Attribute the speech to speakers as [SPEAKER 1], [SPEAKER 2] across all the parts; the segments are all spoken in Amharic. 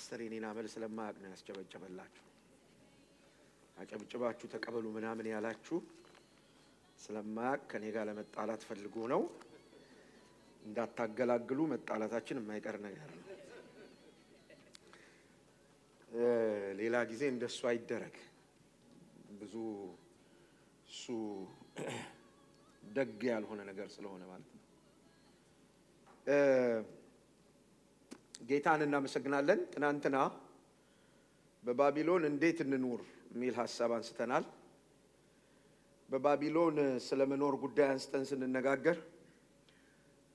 [SPEAKER 1] ፓስተር የኔን አመል ስለማያውቅ ነው ያስጨበጨበላችሁ አጨብጭባችሁ ተቀበሉ ምናምን ያላችሁ ስለማያውቅ ከኔ ጋር ለመጣላት ፈልጎ ነው እንዳታገላግሉ መጣላታችን የማይቀር ነገር ነው ሌላ ጊዜ እንደሱ አይደረግ ብዙ ሱ ደግ ያልሆነ ነገር ስለሆነ ማለት ነው ጌታን እናመሰግናለን ትናንትና በባቢሎን እንዴት እንኑር ሚል ሐሳብ አንስተናል በባቢሎን ስለመኖር ጉዳይ አንስተን ስንነጋገር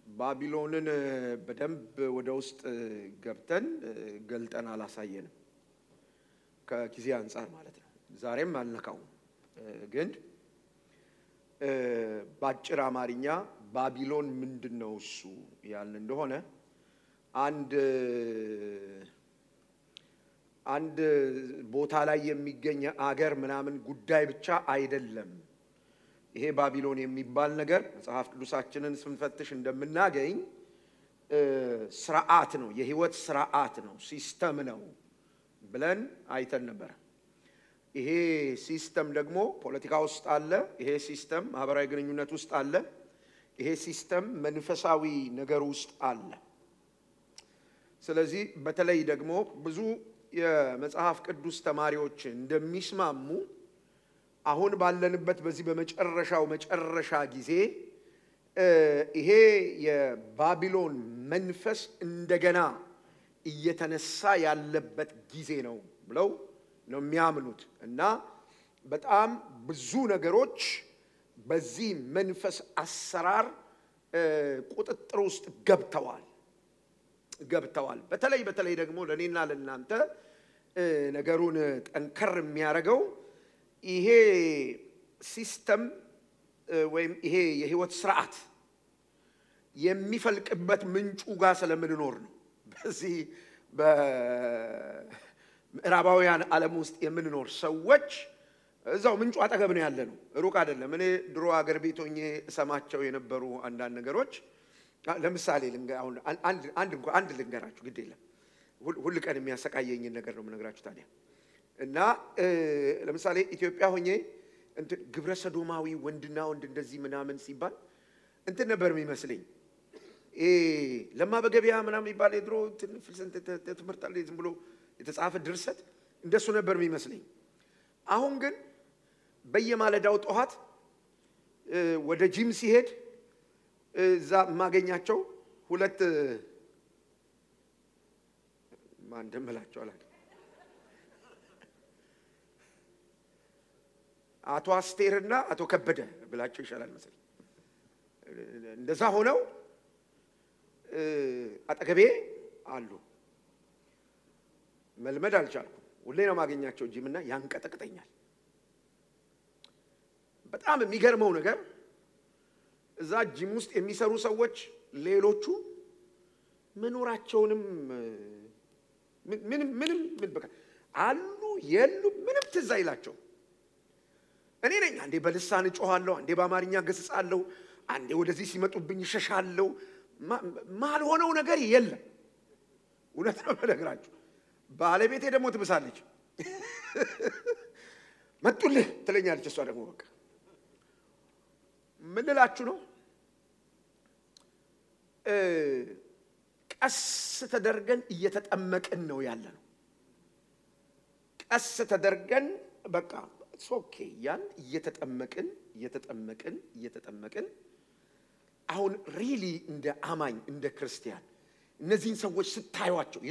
[SPEAKER 1] ባቢሎንን በደንብ ወደ ውስጥ ገብተን ገልጠን አላሳየንም ከጊዜ አንፃር ማለት ነው ዛሬም አልነካው ግን ባጭር አማርኛ ባቢሎን ምንድነው እሱ ያልን እንደሆነ አንድ ቦታ ላይ የሚገኝ አገር ምናምን ጉዳይ ብቻ አይደለም ይሄ ባቢሎን የሚባል ነገር መጽሐፍ ቅዱሳችንን ስንፈትሽ እንደምናገኝ ስርዓት ነው የህይወት ስርዓት ነው ሲስተም ነው ብለን አይተን ነበር ይሄ ሲስተም ደግሞ ፖለቲካ ውስጥ አለ ይሄ ሲስተም ማህበራዊ ግንኙነት ውስጥ አለ ይሄ ሲስተም መንፈሳዊ ነገር ውስጥ አለ ስለዚህ በተለይ ደግሞ ብዙ የመጽሐፍ ቅዱስ ተማሪዎች እንደሚስማሙ አሁን ባለንበት በዚህ በመጨረሻው መጨረሻ ጊዜ ይሄ የባቢሎን መንፈስ እንደገና እየተነሳ ያለበት ጊዜ ነው ብለው ነው የሚያምኑት እና በጣም ብዙ ነገሮች በዚህ መንፈስ አሰራር ቁጥጥር ውስጥ ገብተዋል በተለይ ደግሞ ለኔና ለናንተ ነገሩን ጠንከር የሚያረጋው ይሄ ሲስተም ወይም ይሄ የህይወት ስርዓት የሚፈልቅበት ምንጩ ጋር ስለምንኖር ነው በዚህ በምዕራባውያን ዓለም ውስጥ የምንኖር ሰዎች እዛው ምንጩ አጠገብ ነው ያለነው ሩቅ አይደለም እኔ ድሮ አገር ቤት ሆኜ ሰማቸው የነበሩ አንዳንድ ነገሮች ለምሳሌ አንድ ልንገራችሁ ግድ የለም ሁሉ ቀን የሚያሰቃየኝ ነገር ነው የምነግራችሁ ታዲያ እና ለምሳሌ ኢትዮጵያ ሆኜ ግብረ ሰዶማዊ ወንድና ወንድ እንደዚህ ምናምን ሲባል ነበር የሚመስለኝ ለማበገቢያ ምናምን ይባል የድሮ ትምህርት አለ ዝም ብሎ የተጻፈ ድርሰት እንደሱ ነበር የሚመስለኝ አሁን ግን በየማለዳው ጧት ወደ ጂም ሲሄድ እዛ ማገኛቸው ሁለት ማን ደምላቸው አላውቅም አቶ አስቴርና አቶ ከበደ ብላቸው ይሻላል መሰለኝ እንደዛ ሆነው አጠገቤ አሉ መልመድ አልቻልኩም ሁሌ ነው ማገኛቸው ጂምና ያንቀጠቅጠኛል በጣም የሚገርመው ነገር እዛ ጂም ውስጥ የሚሰሩ ሰዎች ሌሎቹ መኖራቸውንም ምንም በቃ አሉ የሉ ምንም ትዝ አይላቸው እኔ ነኝ አንዴ በልሳን ጮሃለሁ አንዴ በአማርኛ ገስጻለሁ አንዴ ወደዚህ ሲመጡብኝ ሸሻለሁ ማልሆነው ነገር የለም እውነት ነው በነገራችሁ ባለቤቴ ደግሞ ትብሳለች መጡልህ ትለኛለች እሷ ደግሞ በቃ ምን ልላችሁ ነው ቀስ ተደርገን እየተጠመቅን ነው ያለነው ቀስ ተደርገን በቃ ሶኬ ያን እየተጠመቅን አሁን ሪሊ እንደ አማኝ እንደ ክርስቲያን እነዚህን ሰዎች ስታዩዋቸው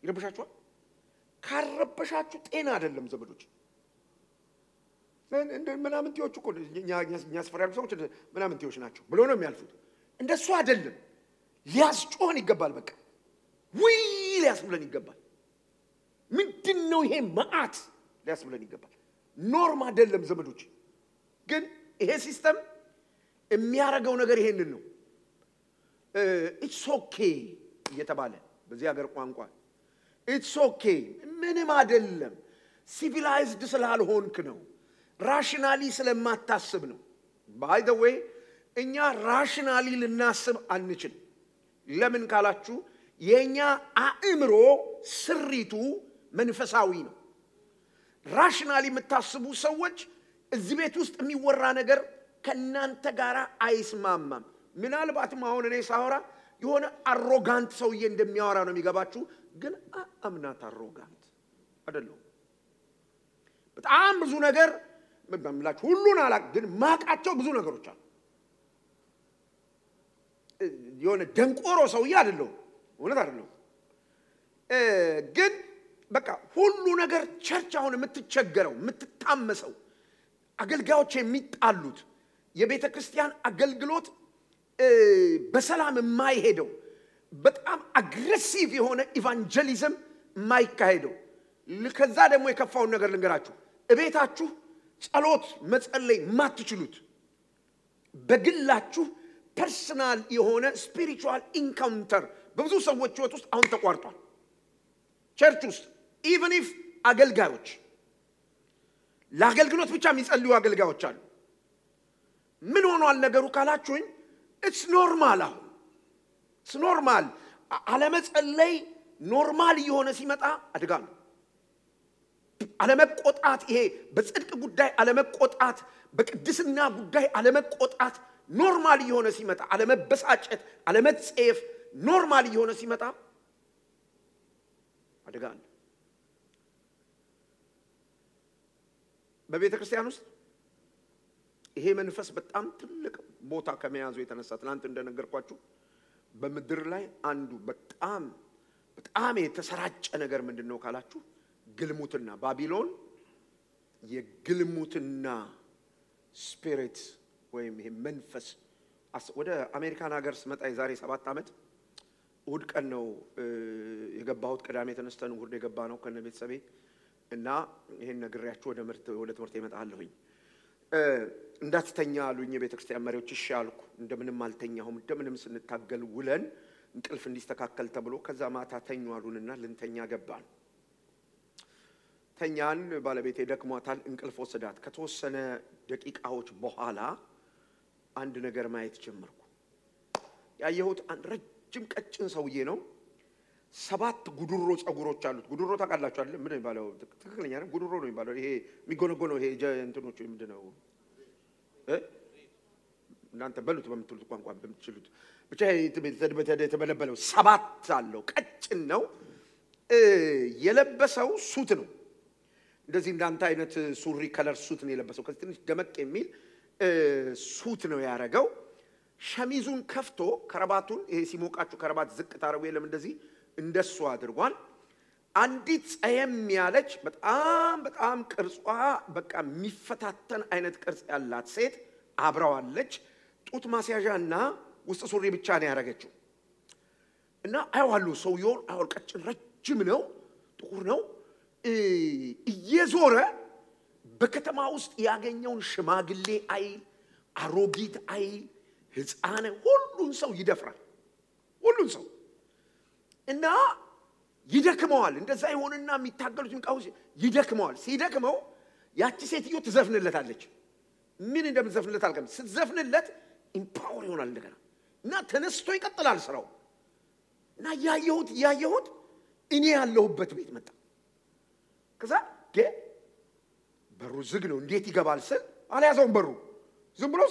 [SPEAKER 1] ይረብሻቸዋል ካረበሻችሁ ጤና አይደለም ዘመዶች ምናምን ቲዮች እኮ ኛስፈራሉ ሰዎች ምናምን ቲዮች ናቸው ብሎ ነው የሚያልፉት እንደሱ አይደለም ሊያስጮህን ይገባል በቃ ወይ ሊያስብለን ይገባል ምንድነው ይሄ መዓት ሊያስብለን ይገባል ኖርማ አይደለም ዘመዶች ግን ይሄ ሲስተም የሚያረጋው ነገር ይሄንን ነው ኢትስ ኦኬ እየተባለ በዚህ ሀገር ቋንቋ ኢትስ ኦኬ ምንም አይደለም ሲቪላይዝድ ስላልሆንክ ነው ራሽናሊ ስለማታስብ ነው ባይ ዘ ዌይ እኛ ራሽናሊ ልናስብ አንችል ለምን ካላችሁ የኛ አእምሮ ስሪቱ መንፈሳዊ ነው ራሽናሊ የምታስቡ ሰዎች እዚህ ቤት ውስጥ የሚወራ ነገር ከናንተ ጋር አይስማማም ምናልባትም አሁን እኔ ሳወራ የሆነ አሮጋንት ሰውዬ እንደሚያወራ ነው የሚገባችሁ ግን አምናት አሮጋንት አይደለም በጣም ብዙ ነገር በምላችሁ ሁሉን አላቅ ግን ማቃቸው ብዙ ነገሮች አሉ የሆነ ደንቆሮ ሰውዬ አይደለም እውነት አይደለም ግን በቃ ሁሉ ነገር ቸርች አሁን የምትቸገረው የምትታመሰው አገልጋዮች የሚጣሉት የቤተ ክርስቲያን አገልግሎት በሰላም የማይሄደው በጣም አግሬሲቭ የሆነ ኢቫንጀሊዝም የማይካሄደው ከዛ ደግሞ የከፋው ነገር ልንገራችሁ እቤታችሁ ጸሎት መጸለይ ማትችሉት በግላችሁ ፐርሰናል የሆነ ስፒሪቹዋል ኢንካውንተር በብዙ ሰዎች ህይወት ውስጥ አሁን ተቋርጧል ቸርች ውስጥ even if አገልጋዮች ለአገልግሎት ብቻ የሚጸልዩ አገልጋዮች አሉ ምን ሆኗል ነገሩ ካላችሁኝ it's normal አሁን it's normal አለመጸለይ ኖርማል የሆነ ሲመጣ አደጋ ነው አለመቆጣት ይሄ በጽድቅ ጉዳይ አለመቆጣት በቅድስና ጉዳይ አለመቆጣት ኖርማል የሆነ ሲመጣ አለመበሳጨት አለመጸየፍ ኖርማል የሆነ ሲመጣ አደጋ ነው በቤተ ክርስቲያን ውስጥ ይሄ መንፈስ በጣም ትልቅ ቦታ ከመያዙ የተነሳ ትናንት እንደነገርኳችሁ በመድር ላይ አንዱ በጣም የተሰራጨ ነገር ምንድነው ካላችሁ ግልሙትና ባቢሎን የግልሙትና ስፒሪት ወይም ይሄ መንፈስ ወደ አሜሪካን ሀገር ስመጣ የዛሬ 7 አመት እሁድ ቀን ነው የገባሁት ቅዳሜ ተነስተን እሁድ የገባ ነው ከነ ቤተሰቤ እና ይሄን ነግሬያችሁ ወደ ትምህርት ይመጣለሁኝ እንዳትተኛ አሉኝ የቤተ ክርስቲያን መሪዎች እሺ አልኩ እንደምንም አልተኛሁም እንደምንም ስንታገል ውለን እንቅልፍ እንዲስተካከል ተብሎ ከዛ ማታ ተኙ አሉንና ልንተኛ ገባን ተኛን ባለቤቴ ደክሟታል እንቅልፍ ወሰዳት ከተወሰነ ደቂቃዎች በኋላ አንድ ነገር ማየት ጀመርኩ ያየሁት አንድ ረጅም ቀጭን ሰውዬ ነው 7 ጉድሮ ጸጉሮች አሉት ጉድሮ ታውቃላችሁ አይደል ምን ይባላል ትክክለኛ ነው ጉድሮ ነው ይባላል ይሄ የሚጎነጎነው ይሄ እንትኖቹ ምንድነው እናንተ በሉት በምትሉት ቋንቋ በምትችሉት ብቻ የተበለበለው 7 አለው ቀጭን ነው የለበሰው ሱት ነው እንደዚህ እንዳንተ አይነት ሱሪ ከለር ሱት ነው የለበሰው ከዚህ ትንሽ ደመቅ የሚል ሱት ነው ያረጋው ሸሚዙን ከፍቶ ከረባቱን ይሄ ሲሞቃችሁ ከረባት ዝቅ ታረው የለም እንደዚህ እንደሱ አድርጓል አንዲት ጸየም ያለች በጣም ቅርጿ በቃ የሚፈታተን አይነት ቅርጽ ያላት ሴት አብራዋለች ጡት ማስያዣና ውስጥ ሱሪ ብቻ ነው ያረጋችው እና አይዋሉ ሰውየው ቀጭን ረጅም ነው ጥቁር ነው እየዞረ በከተማ ውስጥ ያገኘውን ሽማግሌ አይል አሮጊት አይል ህፃን ሁሉን ሰው ይደፍራል ሁሉን ሰው እና ይደክመዋል እንደዛ ይሆንና የሚታገሉትን ቃውስ ይደክመዋል ሲደክመው ያቺ ሴትዮ ትዘፍንለታለች ምን እንደምትዘፍንለት አልከም ስትዘፍንለት ኢምፓወር ይሆናል እንደገና እና ተነስቶ ይቀጥላል ስራው እና ያየሁት እኔ ያለሁበት ቤት መጣ ከዛ በሩ ዝግ ነው እንዴት ይገባል ስል አልያዘውም በሩ ዝም ብሎ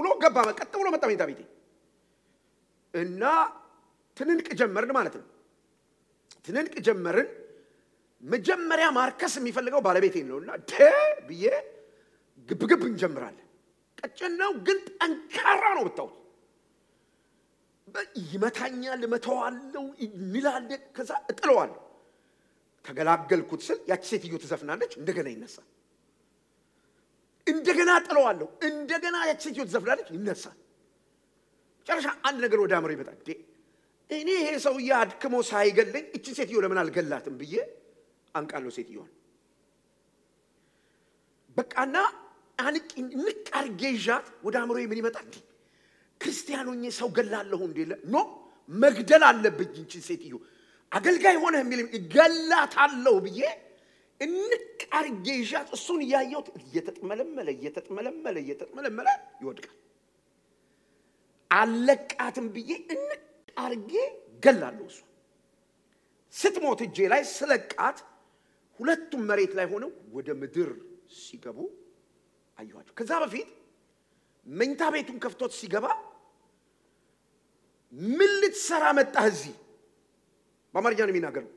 [SPEAKER 1] ብሎ ገባ መቀጥ ብሎ መጣ ቤታ ቤቴ እና ትንንቅ ጀመርን ማለት ነው ትንንቅ ጀመርን መጀመሪያ ማርከስ የሚፈልገው ባለቤቴ ነውና ብዬ ግብግብ እንጀምራለን ቀጭን ነው ግን ጠንካራ ነው ብታው ይመታኛል መተዋለው ይላል ከዛ እጥለዋለሁ ተገላገልኩት ስል ያቺ ሴትዮ ትዘፍናለች እንደገና ይነሳል እንደገና ጥለዋለሁ እንደገና ያቺ ሴትዮ ትዘፍናለች ይነሳል ጨርሻ አንድ ነገር ወደ አምሮ ይመጣል እኔ ይሄ ሰው ያድክሞ ሳይገለኝ እቺ ሴትዮ ለምን አልገላትም ብዬ አንቃለው ሴትዮዋን በቃና አንቂ ንቃርጌጃት ወደ አምሮ ምን ይመጣል ክርስቲያኖኝ ሰው ገላለሁ እንደለ ኖ መግደል አለብኝ እንቺ ሴትዮ አገልጋይ ሆነ የሚል ገላታለሁ ብዬ እንቃርጌጃት እሱን ያየው እየተጥመለመለ ይወድቃል አለቃትም ብዬ እንቃርጌ ገላለሁ እሱ ስትሞት እጄ ላይ ስለቃት ሁለቱም መሬት ላይ ሆነው ወደ ምድር ሲገቡ አዩአቸው ከዛ በፊት መኝታ ቤቱን ከፍቶት ሲገባ ምን ልትሰራ መጣህ እዚህ በአማርኛ ነው የሚናገረው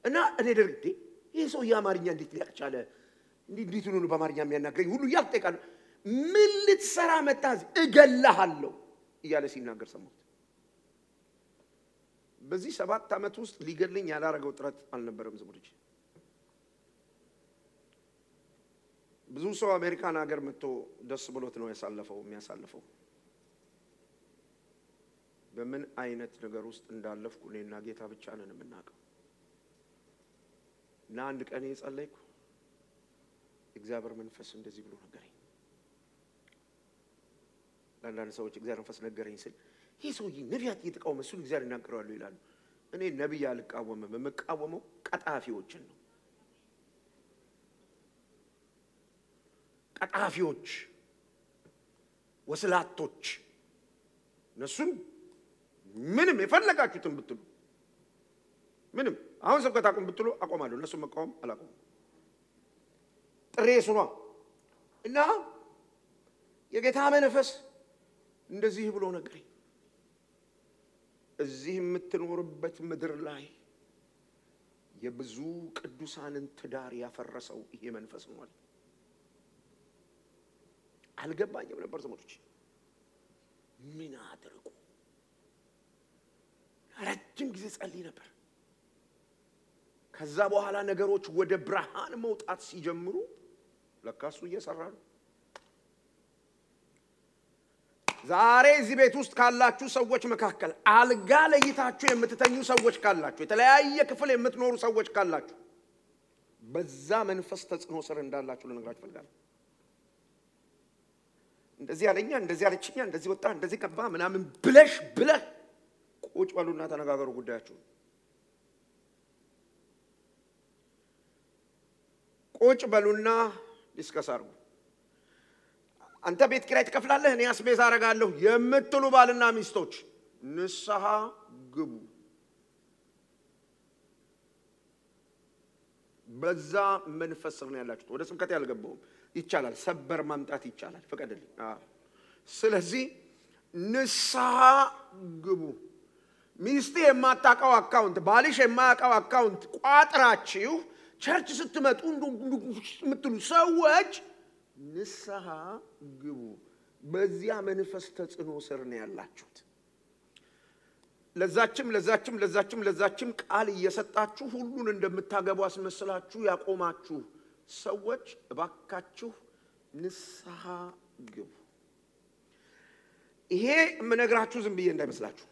[SPEAKER 1] እና እኔ ደርግዴ ይሄ ሰው የአማርኛ እንዴት ሊያቅ ቻለ እንዴት ነው በአማርኛ የሚያናገረኝ ሁሉ ያልጠይቃል ምን ልትሰራ መጣህ እዚህ እገላሃለሁ እያለ ሲናገር ሰማሁት በዚህ 7 ዓመት ውስጥ ሊገለኝ ያላረገው ጥረት አልነበረም ዘመዶች ብዙ ሰው አሜሪካን ሀገር መጥቶ ደስ ብሎት ነው የሚያሳልፈው በምን አይነት ነገር ውስጥ እንዳለፍኩ እኔና ጌታ ብቻ ነን የምናውቀው እና አንድ ቀን የጸለይኩ እግዚአብሔር መንፈስ እንደዚህ ብሎ ነገረኝ ለአንዳንድ ሰዎች እግዚአብሔር መንፈስ ነገረኝ ሲል ይሄ ሰውዬ ነቢያት እየተቃወመ እሱ እግዚአብሔር ይናገራሉ ይላሉ እኔ ነቢይ አልቃወምም የምቃወመው ቀጣፊዎችን ነው ቀጣፊዎች ወስላቶች እነሱም ምንም የፈለጋችሁትን ብትሉ ምንም አሁን ሰብከታቁም ብትሉ አቆማለሁ እነሱ መቃወም አላቆም ጥሬ ሱኗ እና የጌታ መንፈስ እንደዚህ ብሎ ነገረኝ እዚህ የምትኖርበት ምድር ላይ የብዙ ቅዱሳንን ትዳር ያፈረሰው ይሄ መንፈስ ነው አልገባኝም ነበር ዘመዶች ምን አድርጉ ረጅም ጊዜ ጸልይ ነበር ከዛ በኋላ ነገሮች ወደ ብርሃን መውጣት ሲጀምሩ ለካሱ እየሰራ ነው ዛሬ እዚህ ቤት ውስጥ ካላችሁ ሰዎች መካከል አልጋ ለይታችሁ የምትተኙ ሰዎች ካላችሁ የተለያየ ክፍል የምትኖሩ ሰዎች ካላችሁ በዛ መንፈስ ተጽዕኖ ስር እንዳላችሁ ልነግራችሁ ፈልጋለሁ እንደዚህ ያለኛ እንደዚህ ያለችኛ እንደዚህ ወጣ እንደዚህ ከባ ምናምን ብለህ ቁጭ በሉና ተነጋገሩ ጉዳያችሁ ቁጭ በሉና ዲስከስ አድርጉ አንተ ቤት ኪራይ ትከፍላለህ እኔ አስቤዛ አረጋለሁ የምትሉ ባልና ሚስቶች ንስሐ ግቡ በዛ መንፈስ ነው ያላችሁት ወደ ስብከት ያልገባው ይቻላል ሰበር ማምጣት ይቻላል ፈቀደልኝ ስለዚህ ንስሐ ግቡ ሚስቴ የማታውቀው አካውንት ባልሽ የማያውቀው አካውንት ቋጥራችሁ ቸርች ስትመጡ ምትሉ ሰዎች ንስሐ ግቡ በዚያ መንፈስ ተጽዕኖ ስር ነው ያላችሁት ለዛችም ቃል እየሰጣችሁ ሁሉን እንደምታገቡ አስመስላችሁ ያቆማችሁ ሰዎች እባካችሁ ንስሐ ግቡ ይሄ ምነግራችሁ ዝም ብዬ እንዳይመስላችሁ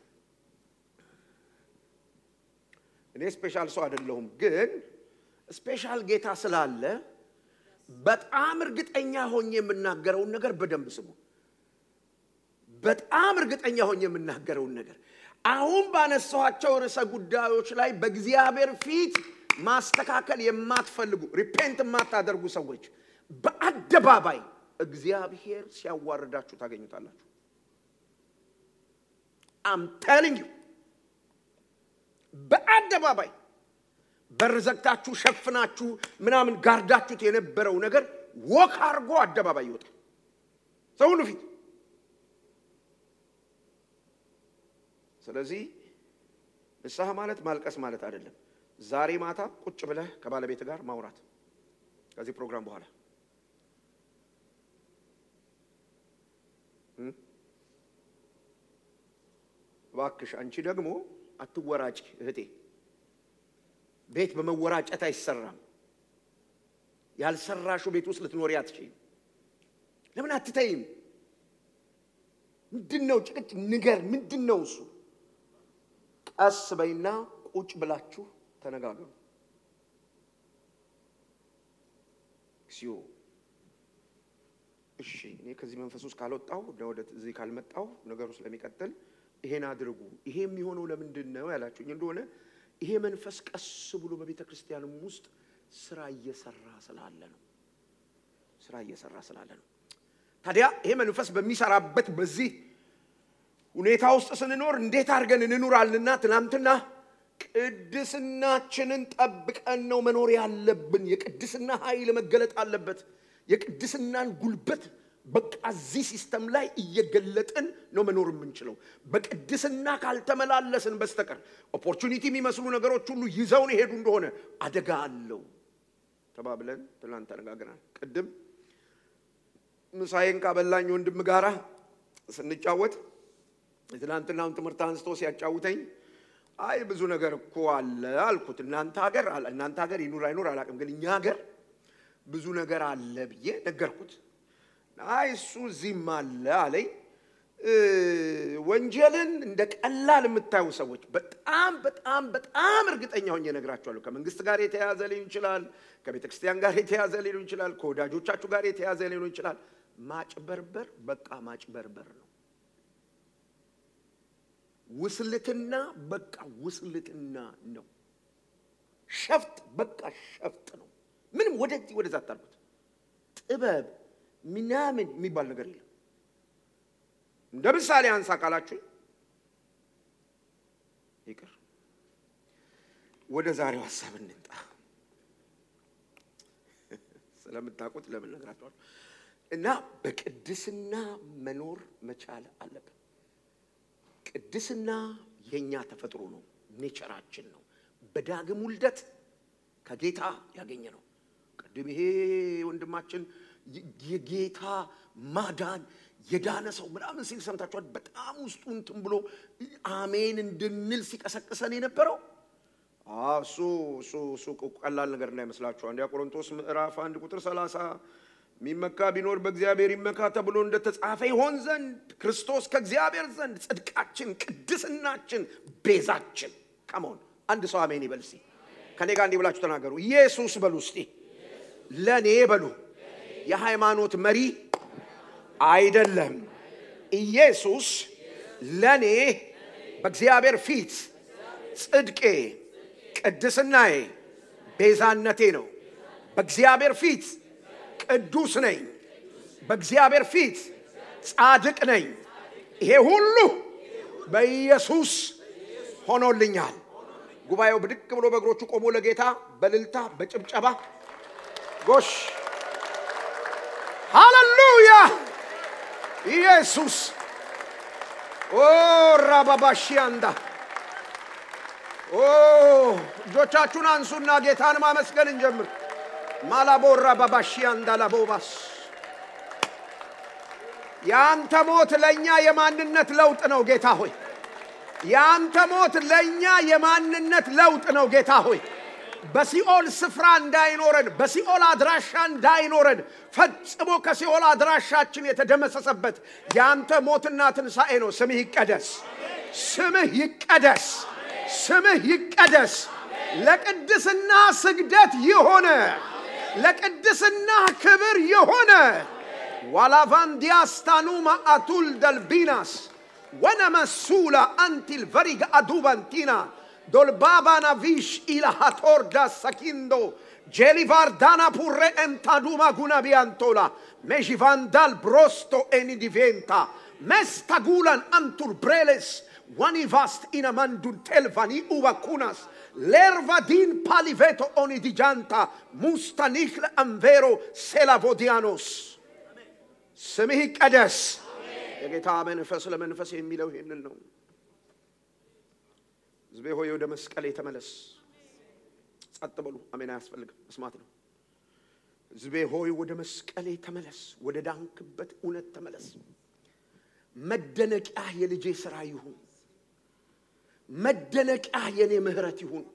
[SPEAKER 1] እኔ ስፔሻል ሰው አይደለሁም ግን ስፔሻል ጌታ ስላለ በጣም እርግጠኛ ሆኜ የምናገረው ነገር በደንብ ስሙ በጣም እርግጠኛ ሆኜ የምናገረው ነገር አሁን ባነሳዋቸው ርዕሰ ጉዳዮች ላይ በእግዚአብሔር ፊት ማስተካከል የማትፈልጉ ሪፔንት የማታደርጉ ሰዎች በአደባባይ እግዚአብሔር ሲያዋርዳችሁ ታገኙታላችሁ I'm telling you በአደባባይ በርዘግታችሁ ሸፍናችሁ ምናምን ጋርዳችሁት የነበረው ነገር ወክ አርጎ አደባባይ ይወጣል ሰው ሁሉ ፊት ስለዚህ ንስሐ ማለት ማልቀስ ማለት አይደለም ዛሬ ማታ ቁጭ ብለህ ከባለቤት ጋር ማውራት ከዚህ ፕሮግራም በኋላ ዋክሽ አንቺ ደግሞ አትወራጭ እህቴ ቤት በመወራጨት አይሰራም ያልሰራሹ ቤት ውስጥ ልትኖሪ አትችይም ለምን አትተይም ምንድነው ጭቅጭ ንገር ምንድነው እሱ ቀስ በይና ቁጭ ብላችሁ ተነጋገሩ ሲዮ እሺ እኔ ከዚህ መንፈስ ውስጥ ካልወጣው ወደ እዚህ ካልመጣው ነገሩ ስለሚቀጥል ይሄን አድርጉ ይሄ የሚሆነው ለምንድነው ያላችሁኝ እንደሆነ ይሄ መንፈስ ቀስ ብሎ በቤተ ክርስቲያንም ውስጥ ስራ እየሰራ ስላለ ነው ታዲያ ይሄ መንፈስ በሚሰራበት በዚህ ሁኔታ ውስጥ ስንኖር እንዴት አድርገን እንኖራልና ትናንትና ቅድስናችንን ጠብቀን ነው መኖር ያለብን። የቅድስና ኃይል መገለጥ አለበት። የቅድስናን ጉልበት በቃ እዚህ ሲስተም ላይ እየገለጥን ነው መኖር የምንችለው። በቅድስና ካልተመላለስን በስተቀር ኦፖርቹኒቲ የሚመስሉ ነገሮች ሁሉ ይዘውን ይሄዱ እንደሆነ አደጋ አለው ተባብለን ትናንት ተነጋግረናል። ቅድም ምሳዬን ካበላኝ ወንድም ጋራ ስንጫወት ትናንትናውን ትምህርት አንስቶ ሲያጫውተኝ አይ ብዙ ነገር እኮ አለ አልኩት። እናንተ ሀገር ይኑር አይኑር አላውቅም፣ ግን እኛ ሀገር ብዙ ነገር አለ ብዬ ነገርኩት። አይ እሱ እዚህም አለ አለኝ። ወንጀልን እንደ ቀላል የምታዩ ሰዎች በጣም በጣም በጣም እርግጠኛ ሆኜ እነግራችኋለሁ። ከመንግስት ጋር የተያዘ ሊሆን ይችላል፣ ከቤተ ክርስቲያን ጋር የተያዘ ሊሆን ይችላል፣ ከወዳጆቻችሁ ጋር የተያዘ ሊሆን ይችላል። ማጭበርበር በቃ ማጭበርበር ነው። ውስልትና በቃ ውስልትና ነው። ሸፍጥ በቃ ሸፍጥ ነው። ምንም ወደዛ አታርጉት። ጥበብ ምናምን የሚባል ነገር የለም። እንደ ምሳሌ አንሳ ካላችሁ ይቅር። ወደ ዛሬው ሐሳብ እንምጣ። ስለምታውቁት ለምን ነግራችኋለሁ። እና በቅድስና መኖር መቻል አለብን። ቅድስና የኛ ተፈጥሮ ነው፣ ኔቸራችን ነው። በዳግም ውልደት ከጌታ ያገኘ ነው። ቅድም ይሄ ወንድማችን የጌታ ማዳን የዳነ ሰው ምናምን ሲል ሰምታችኋል። በጣም ውስጡ እንትን ብሎ አሜን እንድንል ሲቀሰቅሰን የነበረው እሱ ቀላል ነገር እንዳይመስላችሁ። አንደኛ ቆሮንቶስ ምዕራፍ 1 ቁጥር 30 ሚመካ ቢኖር በእግዚአብሔር ይመካ ተብሎ እንደተጻፈ ይሆን ዘንድ ክርስቶስ ከእግዚአብሔር ዘንድ ጽድቃችን፣ ቅድስናችን፣ ቤዛችን ከመሆን አንድ ሰው አሜን ይበል እስቲ። ከኔ ጋር እንዲህ ብላችሁ ተናገሩ። ኢየሱስ በሉ እስቲ። ለኔ በሉ የሃይማኖት መሪ አይደለም። ኢየሱስ ለኔ በእግዚአብሔር ፊት ጽድቄ፣ ቅድስናዬ፣ ቤዛነቴ ነው። በእግዚአብሔር ፊት ቅዱስ ነኝ። በእግዚአብሔር ፊት ጻድቅ ነኝ። ይሄ ሁሉ በኢየሱስ ሆኖልኛል። ጉባኤው ብድቅ ብሎ በእግሮቹ ቆሞ ለጌታ በልልታ በጭብጨባ ጎሽ ሃሌሉያ ኢየሱስ ራባባሺያንዳ እጆቻችሁን አንሱና ጌታን ማመስገን እንጀምር። ማላቦራ ባባሺያንዳ ላቦባስ ያንተ ሞት ለኛ የማንነት ለውጥ ነው ጌታ ሆይ። ያንተ ሞት ለኛ የማንነት ለውጥ ነው ጌታ ሆይ። በሲኦል ስፍራ እንዳይኖረን፣ በሲኦል አድራሻ እንዳይኖረን ፈጽሞ ከሲኦል አድራሻችን የተደመሰሰበት ያንተ ሞትና ትንሣኤ ነው። ስምህ ይቀደስ፣ ስምህ ይቀደስ፣ ስምህ ይቀደስ። ለቅድስና ስግደት ይሆነ፣ ለቅድስና ክብር ይሆነ። ዋላቫንዲያስታኑማ አቱል ደልቢናስ ወነመሱላ አንቲል ቨሪጋ አዱባንቲና dolbabana vish ila hatorda sakindo gelivardana purre entaduma gunabiantola mejivandal brosto eni diventa mestagulan antur breles wanivast inamandun telvani uvakunas lervadin paliveto oni diganta mustanichl anvero selavodianos ስምህ ይቀደስ። የጌታ መንፈስ ለመንፈስ የሚለው ይሄንን ነው። ሕዝቤ ሆይ ወደ መስቀሌ ተመለስ። ጸጥ በሉ። አሜን። አያስፈልግም፣ መስማት ነው። ሕዝቤ ሆይ ወደ መስቀሌ ተመለስ፣ ወደ ዳንክበት እውነት ተመለስ። መደነቂያ የልጄ ሥራ ይሁን፣ መደነቂያ የኔ ምህረት ይሁን፣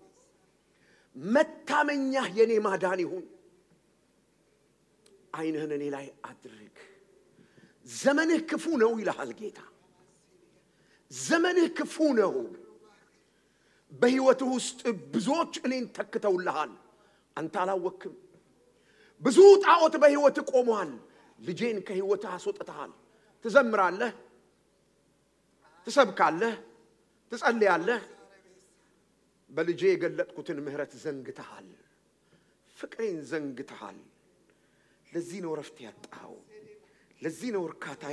[SPEAKER 1] መታመኛ የኔ ማዳን ይሁን። ዓይንህን እኔ ላይ አድርግ። ዘመንህ ክፉ ነው ይልሃል ጌታ። ዘመንህ ክፉ ነው። በህይወትህ ውስጥ ብዙዎች እኔን ተክተውልሃል፣ አንተ አላወክም። ብዙ ጣዖት በህይወትህ ቆመዋል፣ ልጄን ከህይወትህ አስወጥተሃል። ትዘምራለህ፣ ትሰብካለህ፣ ትጸልያለህ። በልጄ የገለጥኩትን ምህረት ዘንግተሃል፣ ፍቅሬን ዘንግተሃል። ለዚህ ነው ረፍት ያጣው፣ ለዚህ ነው እርካታ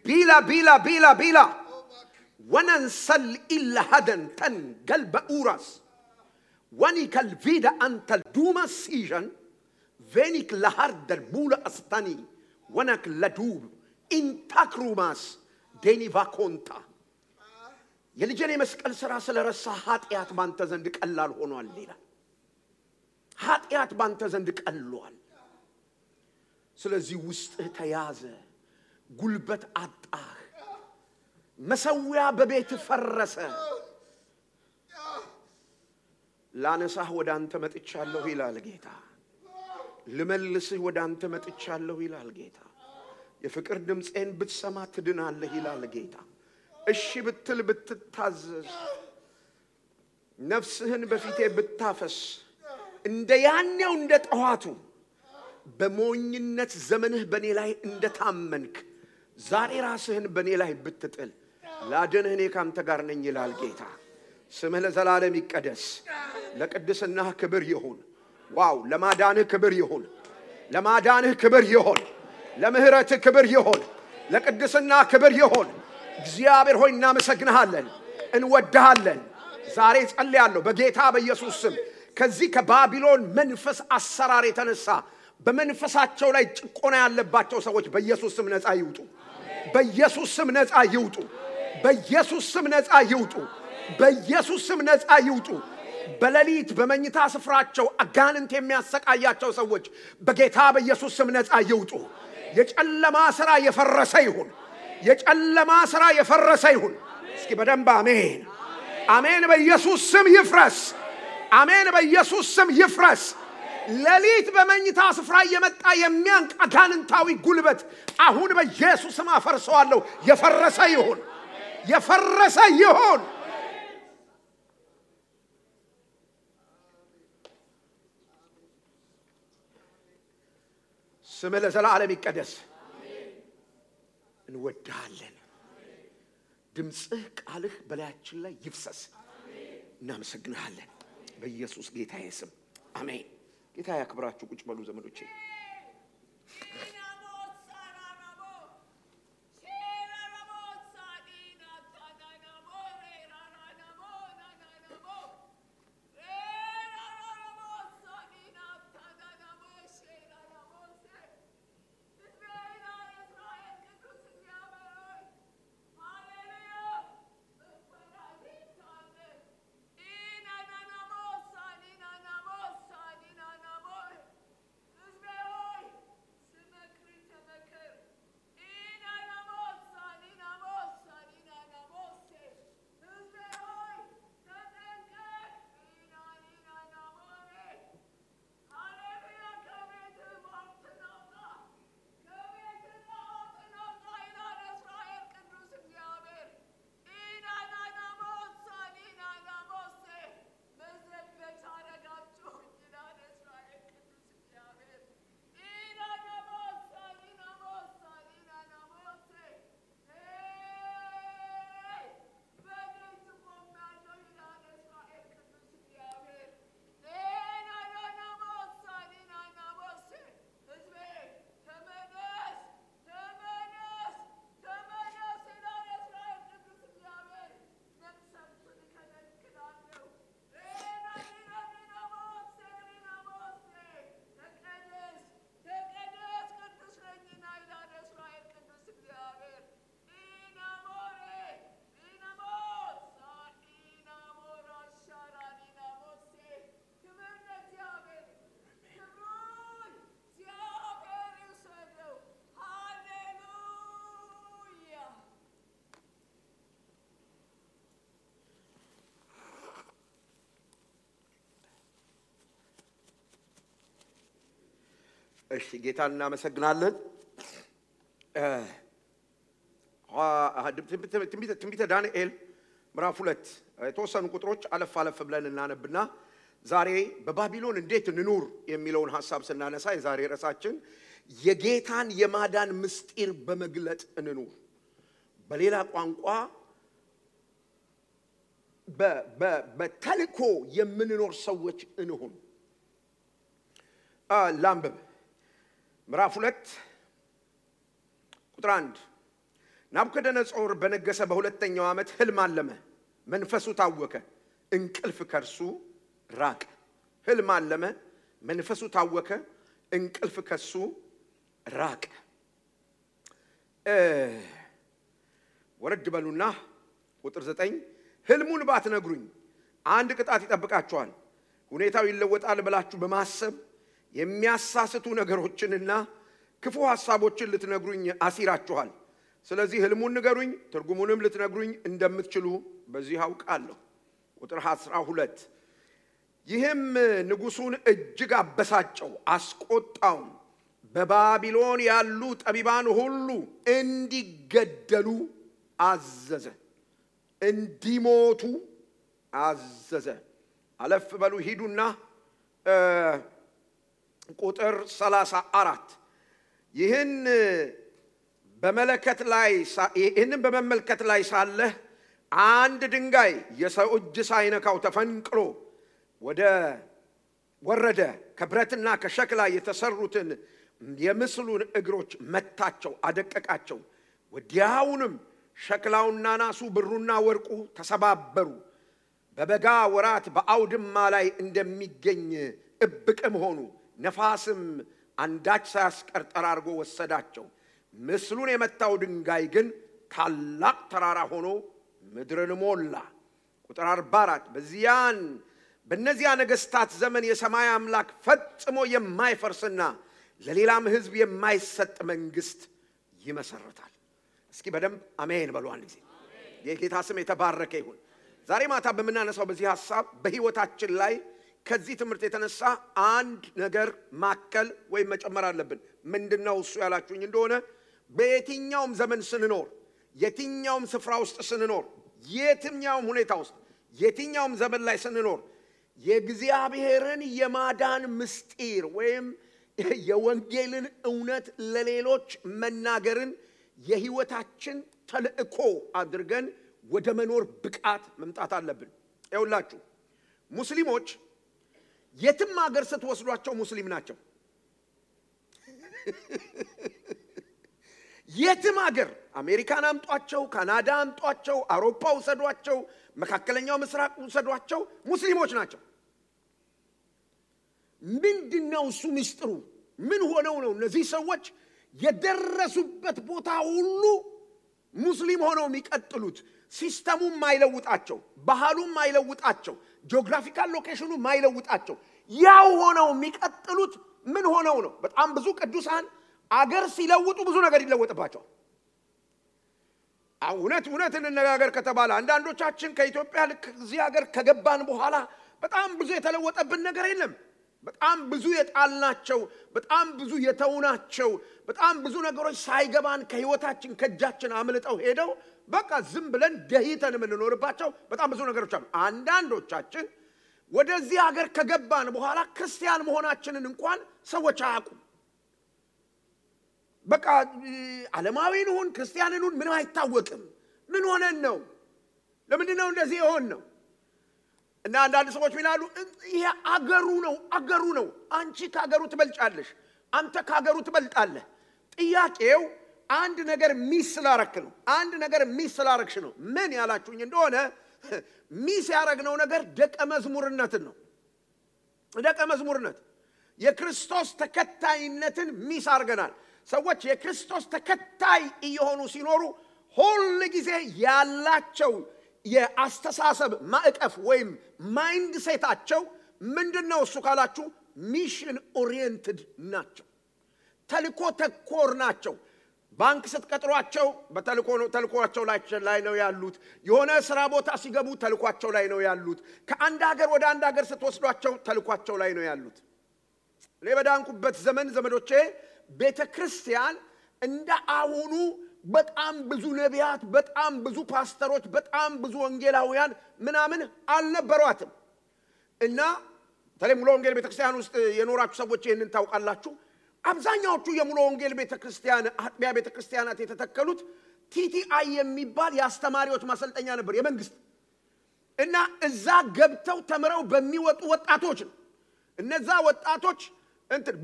[SPEAKER 1] ቢላ وننسل إلا هدن تن قلب أوراس ونيك الفيدا أنت الدوما سيجن فينيك لهرد المولى أستاني ونك لدوب إن تكروماس ديني فاكونتا يلي جاني مسكال سراسل رساحات إيات بانتا زندك اللال هونو الليلة هات إيات بانتا زندك اللوال سلزي وسط تيازة قلبت عطاه مسويا ببيت فرسة لا نساه ودان تمت اتشالله إلى الجيتا لملسه ودان تمت اتشالله إلى الجيتا يفكر دمس إن بتسمع تدنا الله إلى الجيتا الشي بتل بتتعزز نفسهن بفيته بتتافس اندياني وندت أهاتو بمونينت زمنه بني لاي اندت عمنك زاري راسهن بني لاي بتتقل لا جنهني كام تقارنين إلى الجيتا سمه لزلالم يقدس لقدسناه كبر يهون واو لما دانه كبر يهون لما دانه كبر يهون لمهرته كبر يهون لقدسناه كبر يهون እግዚአብሔር ሆይ እናመሰግንሃለን እንወድሃለን ዛሬ ጸልያለሁ በጌታ በኢየሱስ ስም ከዚህ ከባቢሎን መንፈስ አሰራር የተነሳ በመንፈሳቸው ላይ ጭቆና ያለባቸው ሰዎች በኢየሱስ ስም ነፃ ይውጡ በኢየሱስ ስም ነፃ ይውጡ በኢየሱስ ስም ነፃ ይውጡ በኢየሱስ ስም ነፃ ይውጡ በሌሊት በመኝታ ስፍራቸው አጋንንት የሚያሰቃያቸው ሰዎች በጌታ በኢየሱስ ስም ነፃ ይውጡ የጨለማ ሥራ የፈረሰ ይሁን የጨለማ ሥራ የፈረሰ ይሁን እስኪ በደንብ አሜን አሜን በኢየሱስ ስም ይፍረስ አሜን በኢየሱስ ስም ይፍረስ ሌሊት በመኝታ ስፍራ የመጣ የሚያንቅ አጋንንታዊ ጉልበት አሁን በኢየሱስ ስም አፈርሰዋለሁ የፈረሰ ይሁን የፈረሰ ይሁን ስምህ ለዘላለም ይቀደስ እንወድሃለን ድምጽህ ቃልህ በላያችን ላይ ይፍሰስ እናመሰግንሃለን በኢየሱስ ጌታዬ ስም አሜን ጌታ ያክብራችሁ ቁጭ በሉ ዘመዶቼ እሺ ጌታን እናመሰግናለን ትንቢተ ዳንኤል ምዕራፍ 2 የተወሰኑ ቁጥሮች አለፍ አለፍ ብለን እናነብና ዛሬ በባቢሎን እንዴት እንኑር የሚለውን ሐሳብ ስናነሳ የዛሬ ራሳችን የጌታን የማዳን ምስጢር በመግለጥ እንኑር በሌላ ቋንቋ በተልኮ የምንኖር ሰዎች እንሁን ላምበብ ምዕራፍ 2 ቁጥር 1 ናቡከደነጾር በነገሰ በሁለተኛው ዓመት ህልም አለመ መንፈሱ ታወከ እንቅልፍ ከርሱ ራቀ ህልም አለመ መንፈሱ ታወከ እንቅልፍ ከሱ ራቀ ወረድ በሉና ቁጥር 9 ህልሙን ባትነግሩኝ አንድ ቅጣት ይጠብቃችኋል ሁኔታው ይለወጣል ብላችሁ በማሰብ የሚያሳስቱ ነገሮችንና ክፉ ሐሳቦችን ልትነግሩኝ አሲራችኋል ስለዚህ ህልሙን ንገሩኝ ትርጉሙንም ልትነግሩኝ እንደምትችሉ በዚህ አውቃለሁ ቁጥር 12 ይህም ንጉሱን እጅግ አበሳጨው አስቆጣው በባቢሎን ያሉ ጠቢባን ሁሉ እንዲገደሉ አዘዘ እንዲሞቱ አዘዘ አለፍ በሉ ሂዱና ቁጥር 34 ይህን በመመልከት ላይ ሳለ አንድ ድንጋይ የሰው እጅ ሳይነካው ተፈንቅሎ ወረደ ከብረትና ከሸክላ የተሰሩትን የምስሉን እግሮች መታቸው አደቀቃቸው ወዲያውንም ሸክላውና ናሱ ብሩና ወርቁ ተሰባበሩ በበጋ ወራት በአውድማ ላይ እንደሚገኝ እብቅም ሆኑ ነፋስም አንዳች ሳያስቀር ጠራርጎ ወሰዳቸው ምስሉን የመታው ድንጋይ ግን ታላቅ ተራራ ሆኖ ምድርን ሞላ ቁጥር 44 በእነዚያ ነገስታት ዘመን የሰማይ አምላክ ፈጽሞ የማይፈርስና ለሌላም ህዝብ የማይሰጥ መንግስት ይመሰርታል እስኪ በደንብ አሜን በሉ አንድ ጊዜ የጌታ ስም የተባረከ ይሁን ዛሬ ማታ በመናነሳው በዚህ ሐሳብ በህይወታችን ላይ ከዚህ ትምህርት የተነሳ አንድ ነገር ማከል ወይ መጨመር አለብን ምንድነው እሱ ያላችሁኝ እንደሆነ በየትኛውም ዘመን ስንኖር የትኛውም ስፍራ ውስጥ ስንኖር የትኛውም ሁኔታ ውስጥ የትኛውም ዘመን ላይ ስንኖር የእግዚአብሔርን የማዳን ምስጢር ወይም የወንጌልን እውነት ለሌሎች መናገርን የህይወታችን ተልእኮ አድርገን ወደ መኖር ብቃት መምጣት አለብን ይውላችሁ ሙስሊሞች የትም ሀገር ስትወስዷቸው ሙስሊም ናቸው የትም ሀገር አሜሪካን አምጧቸው ካናዳ አምጧቸው አውሮፓ ወሰዷቸው መካከለኛው ምስራቅ ወሰዷቸው ሙስሊሞች ናቸው ምንድነው እሱ ምስጢሩ ምን ሆነው ነው እነዚህ ሰዎች የደረሱበት ቦታ ሁሉ ሙስሊም ሆነው የሚቀጥሉት ሲስተሙም ማይለውጣቸው ባህሉም ማይለውጣቸው ጂኦግራፊካል ሎኬሽኑ ማይለውጣቸው ያው ሆነው የሚቀጥሉት ምን ሆነው ነው በጣም ብዙ ቅዱሳን አገር ሲለውጡ ብዙ ነገር ይለወጥባቸዋል እውነት እንነጋገር ከተባለ አንዳንዶቻችን ከኢትዮጵያ ለዚህ ሀገር ከገባን በኋላ በጣም ብዙ የተለወጠብን ነገር የለም በጣም ብዙ የጣልናቸው በጣም ብዙ የተውናቸው በጣም ብዙ ነገሮች ሳይገባን ከህይወታችን ከጃችን አምልጠው ሄደው በቃ ዝም ብለን ደህይተን የምንኖርባቸው በጣም ብዙ ነገሮች አሉ አንዳንዶቻችን ወደዚህ ሀገር ከገባን በኋላ ክርስቲያን መሆናችንን እንኳን ሰዎች አያውቁም በቃ ዓለማዊን ሆን ክርስቲያንን ሆን ምንም አይታወቅም ምን ሆነን ነው ለምንድነው እንደዚህ የሆን ነው እና አንዳንድ ሰዎች ይላሉ ይሄ አገሩ ነው አንቺ ካገሩ ትበልጫለሽ አንተ ካገሩ ትበልጣለህ ጥያቄው አንድ ነገር ሚስ ስላረክ ነው አንድ ነገር ሚስ ስላረክሽ ነው ምን ያላችሁኝ እንደሆነ ሚስ ያረግነው ነገር ደቀ መዝሙርነት የክርስቶስ ተከታይነትን ሚስ አርገናል ሰዎች የክርስቶስ ተከታይ እየሆኑ ሲኖሩ ሁሉ ጊዜ ያላቸው የአስተሳሰብ ማዕቀፍ ወይም ማይንድ ሴታቸው ምንድነው እሱ ካላችሁ ሚሽን ኦሪየንትድ ናቸው ተልኮ ተኮር ናቸው ባንክ ስትቀጥሯቸው በተልኮአቸው ላይ ነው ያሉት የሆነ ስራ ቦታ ሲገቡ ተልኮአቸው ላይ ነው ያሉት ከአንድ ሀገር ወደ አንድ ሀገር ስትወስዷቸው ተልኮአቸው ላይ ነው ያሉት ለበዳንኩበት ዘመን ዘመዶቼ ቤተክርስቲያን እንደ አሁኑ በጣም ብዙ ነቢያት በጣም ብዙ ፓስተሮች በጣም ብዙ ወንጌላውያን ምናምን አልነበሯትም እና ተለሙሎ ወንጌል ቤተክርስቲያን ውስጥ የኖራችሁ ሰዎች ይሄንን ታውቃላችሁ አብዛኛዎቹ የሙሉ ወንጌል ቤተክርስቲያን አጥቢያ ቤተክርስቲያናት የተተከሉት ቲቲአይ የሚባል ያስተማሪዎች ማሰልጠኛ ነበር የመንግስት እና እዛ ገብተው ተምረው በሚወጡ ወጣቶች ነው እነዛ ወጣቶች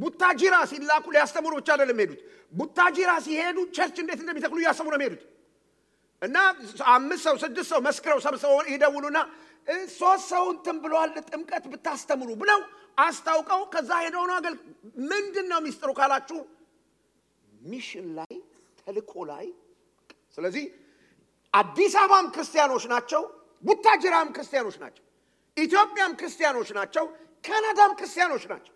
[SPEAKER 1] ቡታጂራ ሲላኩ ሊያስተምሩ ብቻ አይደለም ሄዱት ቡታጂራ ሲሄዱ ቸርች እንዴት እንደሚተክሉ ያሰሙ ነው ሄዱት እና 5 ሰው 6 ሰው መስክረው ሰብስበው ይደውሉና 3 ሰው እንትን ብለዋል ጥምቀት ብታስተምሩ ብለው አስታውቀው ከዛ ሄደው ነው አገል ምንድነው ሚስጥሩ ካላችሁ ሚሽን ላይ ተልኮ ላይ ስለዚህ አዲስ አበባም ክርስቲያኖች ናቸው ቡታጅራም ክርስቲያኖች ናቸው ኢትዮጵያም ክርስቲያኖች ናቸው ካናዳም ክርስቲያኖች ናቸው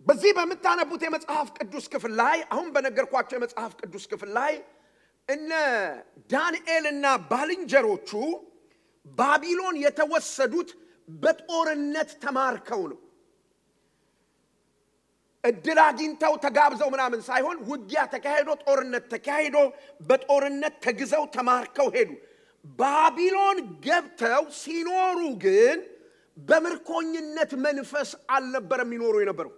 [SPEAKER 1] በዚህ በመታነቡት የመጽሐፍ ቅዱስ ክፍል ላይ አሁን በነገርኳቸው የመጽሐፍ ቅዱስ ክፍል ላይ እነ ዳንኤልና ባልንጀሮቹ ባቢሎን የተወሰዱት በጦርነት ተማርከው ነው እድል አግኝተው ተጋብዘው ምናምን ሳይሆን ውጊያ ተካሄዶ ጦርነት ተካሄዶ በጦርነት ተግዘው ተማርከው ሄዱ ባቢሎን ገብተው ሲኖሩ ግን በምርኮኝነት መንፈስ አልነበረም ይኖሩ የነበረው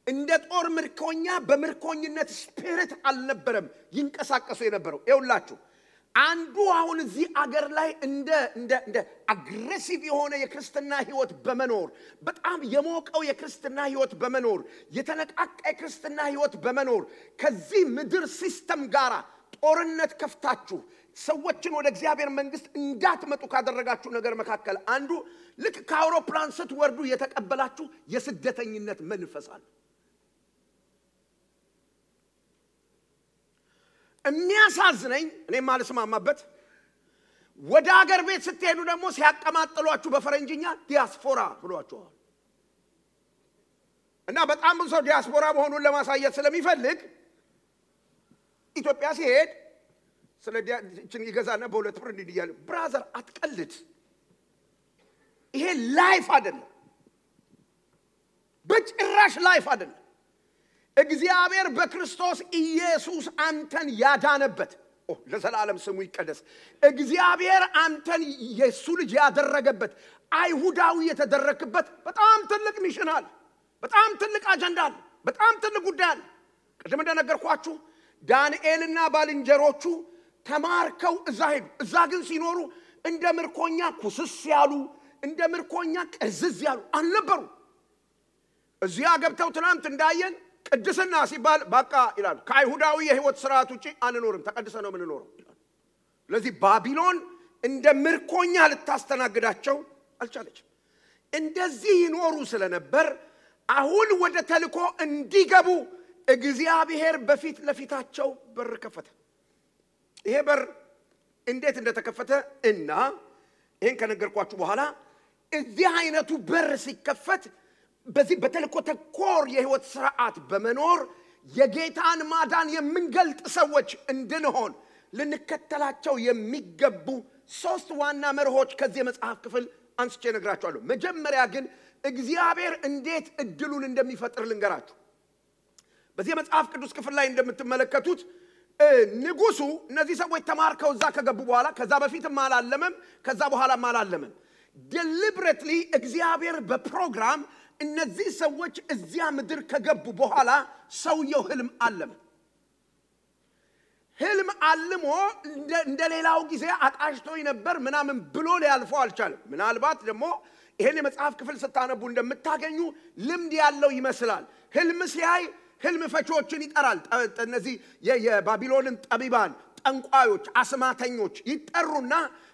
[SPEAKER 1] እንደ ጦር ምርኮኛ በምርኮኝነት ስፒሪት አልነበረም ይንቀሳቀሱ የነበረው ይውላችሁ አንዱ አሁን እዚህ አገር ላይ እንደ አግሬሲቭ የሆነ የክርስትና ህይወት በመኖር በጣም የሞቀው የክርስትና ህይወት በመኖር የተነቃቀ የክርስትና ህይወት በመኖር ከዚህ ምድር ሲስተም ጋራ ጦርነት ከፍታችሁ ሰዎችን ወደ እግዚአብሔር መንግስት እንዳትመጡ ካደረጋችሁ ነገር መካከል አንዱ ልክ ከአውሮፕላን ስትወርዱ የተቀበላችሁ የስደተኝነት መንፈስ አለ የሚያሳዝነኝ እኔ ማልስማማበት ወደ ሀገር ቤት ስትሄዱ ደግሞ ሲያቀማጥሏችሁ በፈረንጅኛ ዲያስፖራ ብሏቸዋል እና በጣም ብዙ ሰው ዲያስፖራ መሆኑን ለማሳየት ስለሚፈልግ ኢትዮጵያ ሲሄድ ስለ ዲያችን ይገዛና በሁለት ብር እንዲያለ ብራዘር አትቀልድ ይሄ ላይፍ አይደለም በጭራሽ ላይፍ አይደለም እግዚአብሔር በክርስቶስ ኢየሱስ አንተን ያዳነበት ለዘላለም ስሙ ይቀደስ እግዚአብሔር አንተን ኢየሱስ ልጅ ያደረገበት አይሁዳዊ የተደረከበት በጣም ትልቅ ሚሽን አለ በጣም ትልቅ አጀንዳ አለ በጣም ትልቅ ጉዳይ አለ ቅድም እንደነገርኳችሁ ዳንኤልና ባልንጀሮቹ ተማርከው እዛ ግን ሲኖሩ እንደ ምርኮኛ ኩስስ ያሉ እንደ ምርኮኛ ቅዝዝ ያሉ አልነበሩ እዚያ ገብተው ትናንት እንዳየን ቅድስና ሲባል በቃ ይላል ከአይሁዳዊ የህይወት ሥርዓት ውጪ አንኖርም ተቀድሰ ነው ምን ኖረው ስለዚህ ባቢሎን እንደ ምርኮኛ ልታስተናግዳቸው አልቻለችም እንደዚህ ይኖሩ ስለነበር አሁን ወደ ተልኮ እንዲገቡ እግዚአብሔር በፊት ለፊታቸው በር ከፈተ ይሄ በር እንዴት እንደተከፈተ እና ይሄን ከነገርኳችሁ በኋላ እዚህ አይነቱ በር ሲከፈት በዚህ በተልኮ ተኮር የህይወት ሥርዓት በመኖር የጌታን ማዳን የምንገልጥ ሰዎች እንድንሆን ልንከተላቸው የሚገቡ 3 ዋና መርሆች ከዚህ መጽሐፍ ክፍል አንስቼ ነግራችኋለሁ መጀመሪያ ግን እግዚአብሔር እንዴት እድሉን እንደሚፈጥር ልንገራችሁ በዚህ መጽሐፍ ቅዱስ ክፍል ላይ እንደምትመለከቱት ንጉሱ እነዚህ ሰዎች ተማርከው እዛ ከገቡ በኋላ ከዛ በፊትም አላለመም ከዛ በኋላም አላለመም deliberately እግዚአብሔር በፕሮግራም እነዚህ ሰዎች እዚያ ምድር ከገቡ በኋላ ሰውየው ህልም አለመ ህልም አልሞ እንደሌላው ጊዜ አቃሽቶኝ ነበር ምናምን ብሎ ሊያልፈው አልቻለም ምናልባት ደግሞ ይሄን የመጽሐፍ ክፍል ስታነቡ እንደምታገኙ ልምድ ያለው ይመስላል ህልም ሲያይ ህልም ፈቾችን ይጠራል እነዚህ የባቢሎንን ጠቢባን ጠንቋዮች አስማተኞች ይጠሩና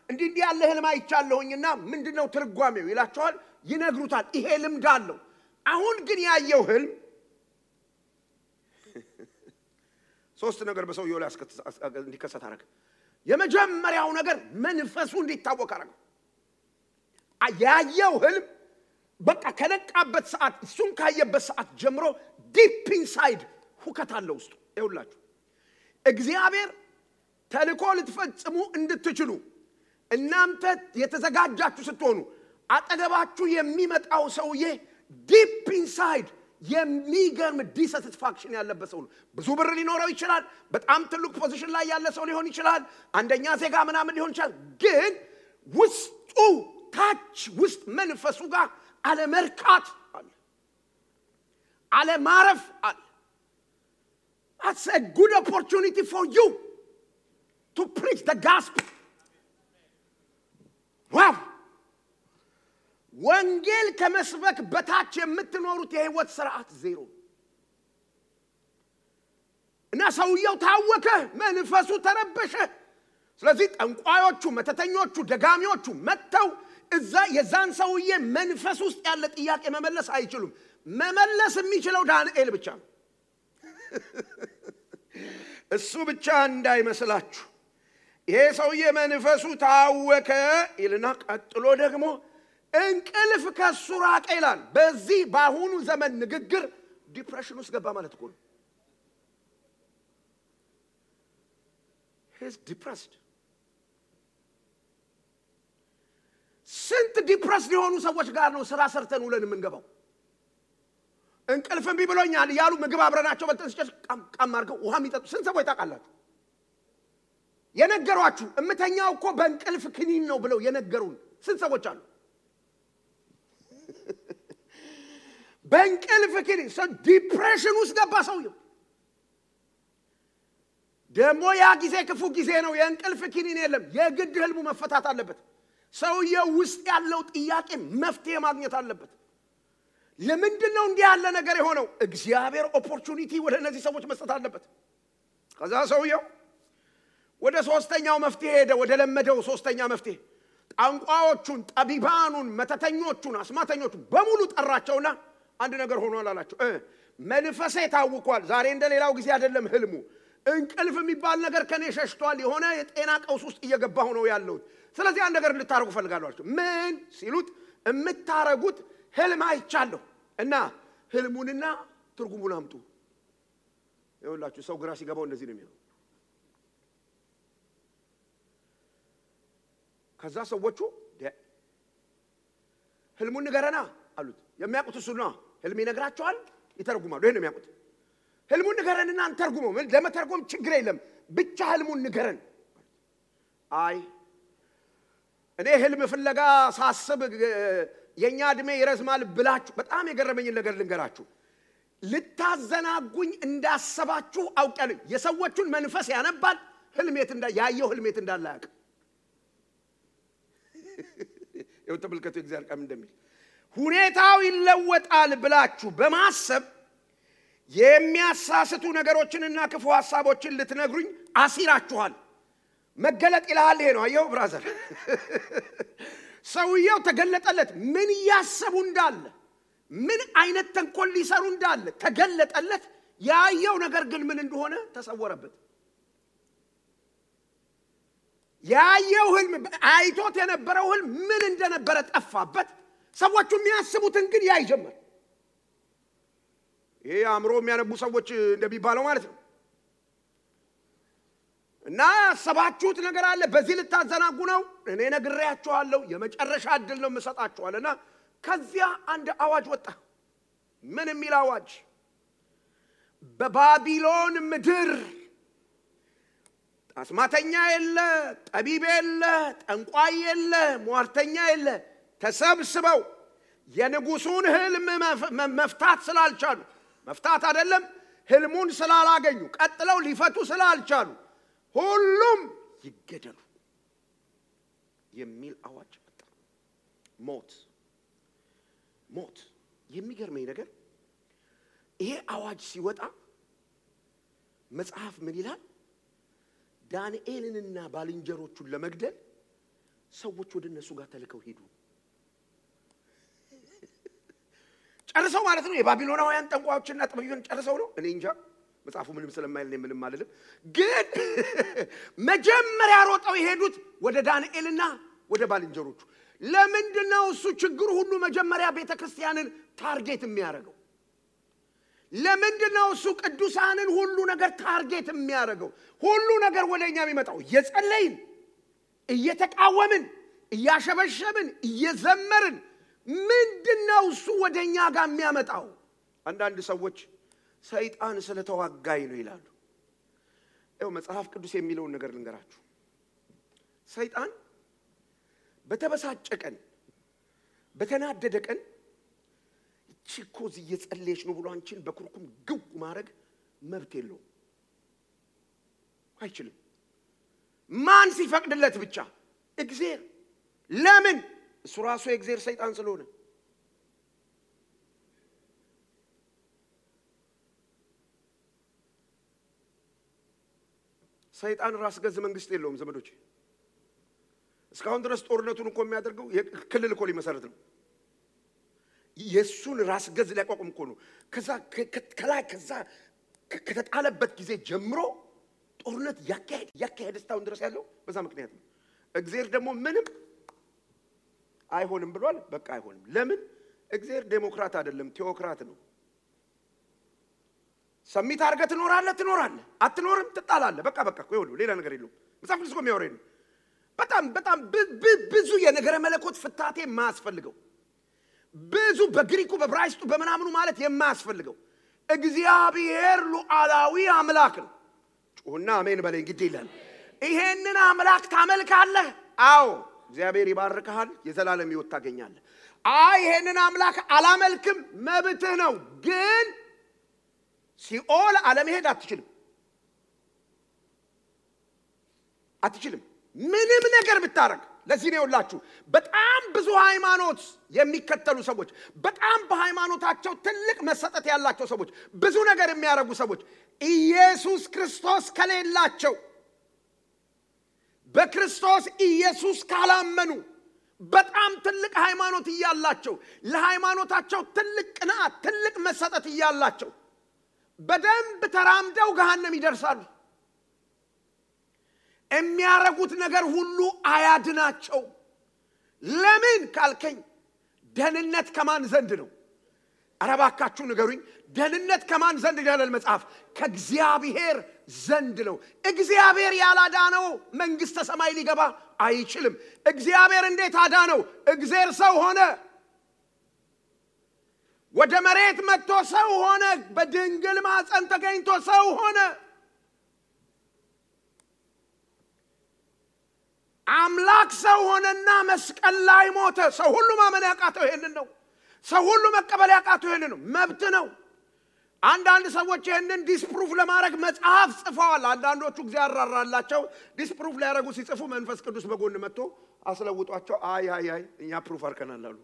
[SPEAKER 1] እንዲህ ያለ ህልም አይቻለሁኝና ምንድነው ትርጓሜው ይላቸዋል ይነግሩታል ይሄ ልምድ አለው አሁን ግን ያየው ህልም 3 ነገር በሰውየው ላይ እንዲከሰት አረገ የመጀመሪያው ነገር መንፈሱ እንዲታወቅ አረገ ያየው ህልም በቃ ከነቃበት ሰዓት እሱን ካየበት ሰዓት ጀምሮ ዲፕ ኢንሳይድ ሁከት አለ ውስጡ ይውላችሁ እግዚአብሔር ተልኮ ልትፈጽሙ እንድትችሉ እናንተ የተዘጋጃችሁ ስትሆኑ አጠገባችሁ የሚመጣው ሰውዬ ዲፕ ኢንሳይድ የሚገርም ዲሳቲስፋክሽን ያለበት ሰው ነው ብዙ ብር ሊኖረው ይችላል በጣም ትልቅ ፖዚሽን ላይ ያለ ሰው ሊሆን ይችላል አንደኛ ዜጋ ምናምን ሊሆን ይችላል ግን ውስጡ ታች ውስጥ መንፈሱ ጋር አለ መርካት አለ ማረፍ አለ That's a good opportunity for you to preach the gospel. Wow! ወንጌል ከመስበክ በታች የምትኖሩት የህይወት ሥርዓት ዜሮ እና ሰውየው ታወከ መንፈሱ ተረበሸ ስለዚህ ጠንቋዮቹ መተተኞቹ ደጋሚዎቹ መተው እዛ የዛን ሰውዬ መንፈስ ውስጥ ያለ ጥያቄ መመለስ አይችሉም መመለስ የሚችለው ዳንኤል ብቻ ነው እሱ ብቻ እንዳይመስላችሁ ይሄ ሰውዬ መንፈሱ ታወከ ይልና ቀጥሎ ደግሞ እንቅልፍ ከሱ ራቀ ይላል በዚህ ባሁኑ ዘመን ንግግር ዲፕሬሽን ውስጥ ገባ ማለት ነው he's depressed ስንት ዲፕረስድ የሆኑ ሰዎች ጋር ነው ስራ ሰርተን ውለን የምንገባው እንቅልፍም ቢብሎኛል ያሉ ምግብ አብረናቸው በልተን ሲጨርስ ቃም አድርገው ውሃ የሚጠጡ ስንት ሰዎች ታውቃላችሁ የነገሯችሁ እምተኛው እኮ በእንቅልፍ ክኒን ነው ብለው የነገሩን ስንት ሰዎች አሉ በእንቅልፍ ክኒን ሰው ዲፕሬሽን ውስጥ ገባ ሰውየው ደሞ ያ ጊዜ ክፉ ጊዜ ነው የእንቅልፍ ክኒን የለም የግድ ህልሙ መፈታት አለበት ሰውየው ውስጥ ያለው ጥያቄ መፍትሄ ማግኘት አለበት ለምንድን ነው እንዲህ ያለ ነገር የሆነው እግዚአብሔር ኦፖርቹኒቲ ወደ እነዚህ ሰዎች መስጠት አለበት ከዛ ሰውየው ወደ ሶስተኛው መፍትሄ ሄደ ወደ ለመደው ሶስተኛ መፍትሄ ጣንቋዎቹን ጠቢባኑን መተተኞቹን አስማተኞቹን በሙሉ ጠራቸውና አንድ ነገር ሆኗል አላቸው መንፈሴ ታውቋል ዛሬ እንደሌላው ጊዜ አይደለም ህልሙ እንቅልፍ የሚባል ነገር ከኔ ሸሽቷል የሆነ የጤና ቀውስ ውስጥ እየገባሁ ነው ያለው ስለዚህ አንድ ነገር ልታረጉ ፈልጋለሁ አላቸው ምን ሲሉት እምታረጉት ህልም አይቻለሁ እና ህልሙንና ትርጉሙን አምጡ ይኸውላችሁ ሰው ግራ ሲገባው እንደዚህ ነው የሚሆነው ከዛ ሰዎቹ ህልሙን ንገረና አሉት የሚያውቁት እሱ ነው ህልም ይነግራቸዋል ይተረጉማሉ ይሄን ነው የሚያውቁት ህልሙን ንገረንና አንተርጉመው ለመተርጎም ችግር የለም ብቻ ህልሙን ንገረን አይ እኔ ህልም ፍለጋ ሳስብ የኛ እድሜ ይረዝማል ብላችሁ በጣም የገረመኝ ነገር ልንገራችሁ ልታዘናጉኝ እንዳሰባችሁ አውቃለሁ የሰዎቹን መንፈስ ያነባል ህልሜት ያየው ህልሜት እንዳላያቅ ይኸው ተመልከቱ እግዚአብሔር ቃል እንደሚል ሁኔታው ይለወጣል ብላችሁ በማሰብ የሚያሳስቱ ነገሮችንና ክፉ ሐሳቦችን ልትነግሩኝ አሲራችኋል መገለጥ ይላል ይሄ ነው አየው ብራዘር ሰውየው ተገለጠለት ምን ያሰቡ እንዳለ ምን አይነት ተንኮል ሊሰሩ እንዳለ ተገለጠለት ያየው ነገር ግን ምን እንደሆነ ተሰወረበት ያየው ህልም አይቶት የነበረው ህልም ምን እንደነበረ ጠፋበት ሰዎቹ የሚያስቡትን ግን ያይ ጀመር ይሄ አምሮ የሚያነቡ ሰዎች እንደሚባለው ማለት ነው እና ሰባችሁት ነገር አለ በዚህ ልታዘናጉ ነው እኔ ነግሬያችኋለሁ የመጨረሻ እድል ነው መሰጣችኋልና ከዚያ አንድ አዋጅ ወጣ ምን የሚል አዋጅ በባቢሎን ምድር አስማተኛ የለ ጠቢብ የለ ጠንቋይ የለ ሟርተኛ የለ ተሰብስበው የንጉሱን ህልም መፍታት ስላልቻሉ መፍታት አይደለም ህልሙን ስላላገኙ ቀጥለው ሊፈቱ ስላልቻሉ ሁሉም ይገደሉ የሚል አዋጅ ወጣ ሞት የሚገርመኝ ነገር ይሄ አዋጅ ሲወጣ መጽሐፍ ምን ይላል ዳንኤልንና ባልንጀሮቹን ለመግደል ሰዎች ወደ እነሱ ጋር ተልከው ሄዱ ጨርሰው ማለት ነው የባቢሎናውያን ጠንቋዮችና ጠቢባን ጨርሰው ነው እኔ እንጃ መጽሐፉ ምንም ስለማይል ነው ምንም ማለት ግን መጀመሪያ ሮጠው የሄዱት ወደ ዳንኤልና ወደ ባልንጀሮቹ ለምንድነው እሱ ችግሩ ሁሉ መጀመሪያ ቤተክርስቲያንን ታርጌት የሚያደርገው ለምንድነው እሱ ቅዱሳንን ሁሉ ነገር ታርጌት የሚያደርገው ሁሉ ነገር ወደኛ የሚመጣው እየጸለይን እየተቃወምን እያሸበሸብን እየዘመርን ምንድነው እሱ ወደኛ ጋር የሚያመጣው አንዳንድ ሰዎች ሰይጣን ስለተዋጋይ ነው ይላሉ ይኸው መጽሐፍ ቅዱስ የሚለው ነገር ልንገራችሁ ሰይጣን በተበሳጨ ቀን በተናደደ ቀን ቺኮዝ እየጸለየች ነው ብሎ አንቺን በኩርኩም ግው ማድረግ መብት የለው አይችልም ማን ሲፈቅድለት ብቻ እግዚአብሔር ለምን እሱ ራሱ የእግዚአብሔር ሰይጣን ስለሆነ ሰይጣን ራስ ገዝ መንግስት የለውም ዘመዶች እስካሁን ድረስ ጦርነቱን እኮ የሚያደርገው ክልል እኮ ሊመሰረት ነው ኢየሱስን ራስ ገዝ ሊያቋቁም እኮ ነው ከዛ ከተጣለበት ጊዜ ጀምሮ ጦርነት ያካሄድ እስካሁን ድረስ ያለው በዛ ምክንያት ነው እግዚአብሔር ደግሞ ምንም አይሆንም ብሏል በቃ አይሆንም ለምን እግዚአብሔር ዴሞክራት አይደለም ቴዎክራት ነው ሰሚት አርገህ ትኖራለህ አትኖርም ትጣላለህ በቃ ቆይ ሌላ ነገር የለውም መጽሐፍ ቅዱስ የሚያወራኝ ነው በጣም ብዙ የነገረ መለኮት ፍታቴ የማያስፈልገው ብዙ በግሪኩ በዕብራይስጡ በመናምኑ ማለት የማያስፈልገው እግዚአብሔር ሉዓላዊ አምላክ ነው ጩሁና አሜን በለኝ ግድ ይላል ይሄንን አምላክ ታመልካለህ አዎ እግዚአብሔር ይባርክሃል የዘላለም ሕይወት ታገኛለህ አይ ይሄንን አምላክ አላመልክም መብትህ ነው ግን ሲኦል አለመሄድ አትችልም ምንም ነገር ብታረግ ለዚህ ነው ያላችሁ በጣም ብዙ ሃይማኖት የሚከተሉ ሰዎች በጣም በሃይማኖታቸው ትልቅ መሰጠት ያላቸው ሰዎች ብዙ ነገር የሚያረጉ ሰዎች ኢየሱስ ክርስቶስ ከሌላቸው በክርስቶስ ኢየሱስ ካላመኑ በጣም ትልቅ ሃይማኖት ይያላቸው ለሃይማኖታቸው ትልቅ ቅናት ትልቅ መሰጠት ይያላቸው በደንብ ተራምደው ገሃነም ይደርሳሉ የሚያረጉት ነገር ሁሉ አያድናቸው ለምን ካልከኝ ደህንነት ከማን ዘንድ ነው አረባካችሁ ንገሩኝ ደህንነት ከማን ዘንድ ይላል መጽሐፍ ከእግዚአብሔር ዘንድ ነው እግዚአብሔር ያላዳነው መንግስተ ሰማይ ሊገባ አይችልም እግዚአብሔር እንዴት አዳነው እግዚአብሔር ሰው ሆነ ወደ መሬት መጥቶ ሰው ሆነ በድንግል ማህፀን ተገኝቶ ሰው ሆነ አምላክ ሰው ሆነና መስቀል ላይ ሞተ ሰው ሁሉ ማመን ያቃተው ይሄንን ነው ሰው ሁሉ መቀበል ያቃተው ይሄንን ነው መብት ነው አንዳንድ ሰዎች ይሄንን ዲስፕሩፍ ለማድረግ መጽሐፍ ጽፈዋል አንዳንዶቹ እግዚአብሔር አራራላቸው ዲስፕሩፍ ሊያደርጉ ሲጽፉ መንፈስ ቅዱስ በጎን መጥቶ አስለውጧቸው አይ እኛ ፕሩፍ አርከናል አሉ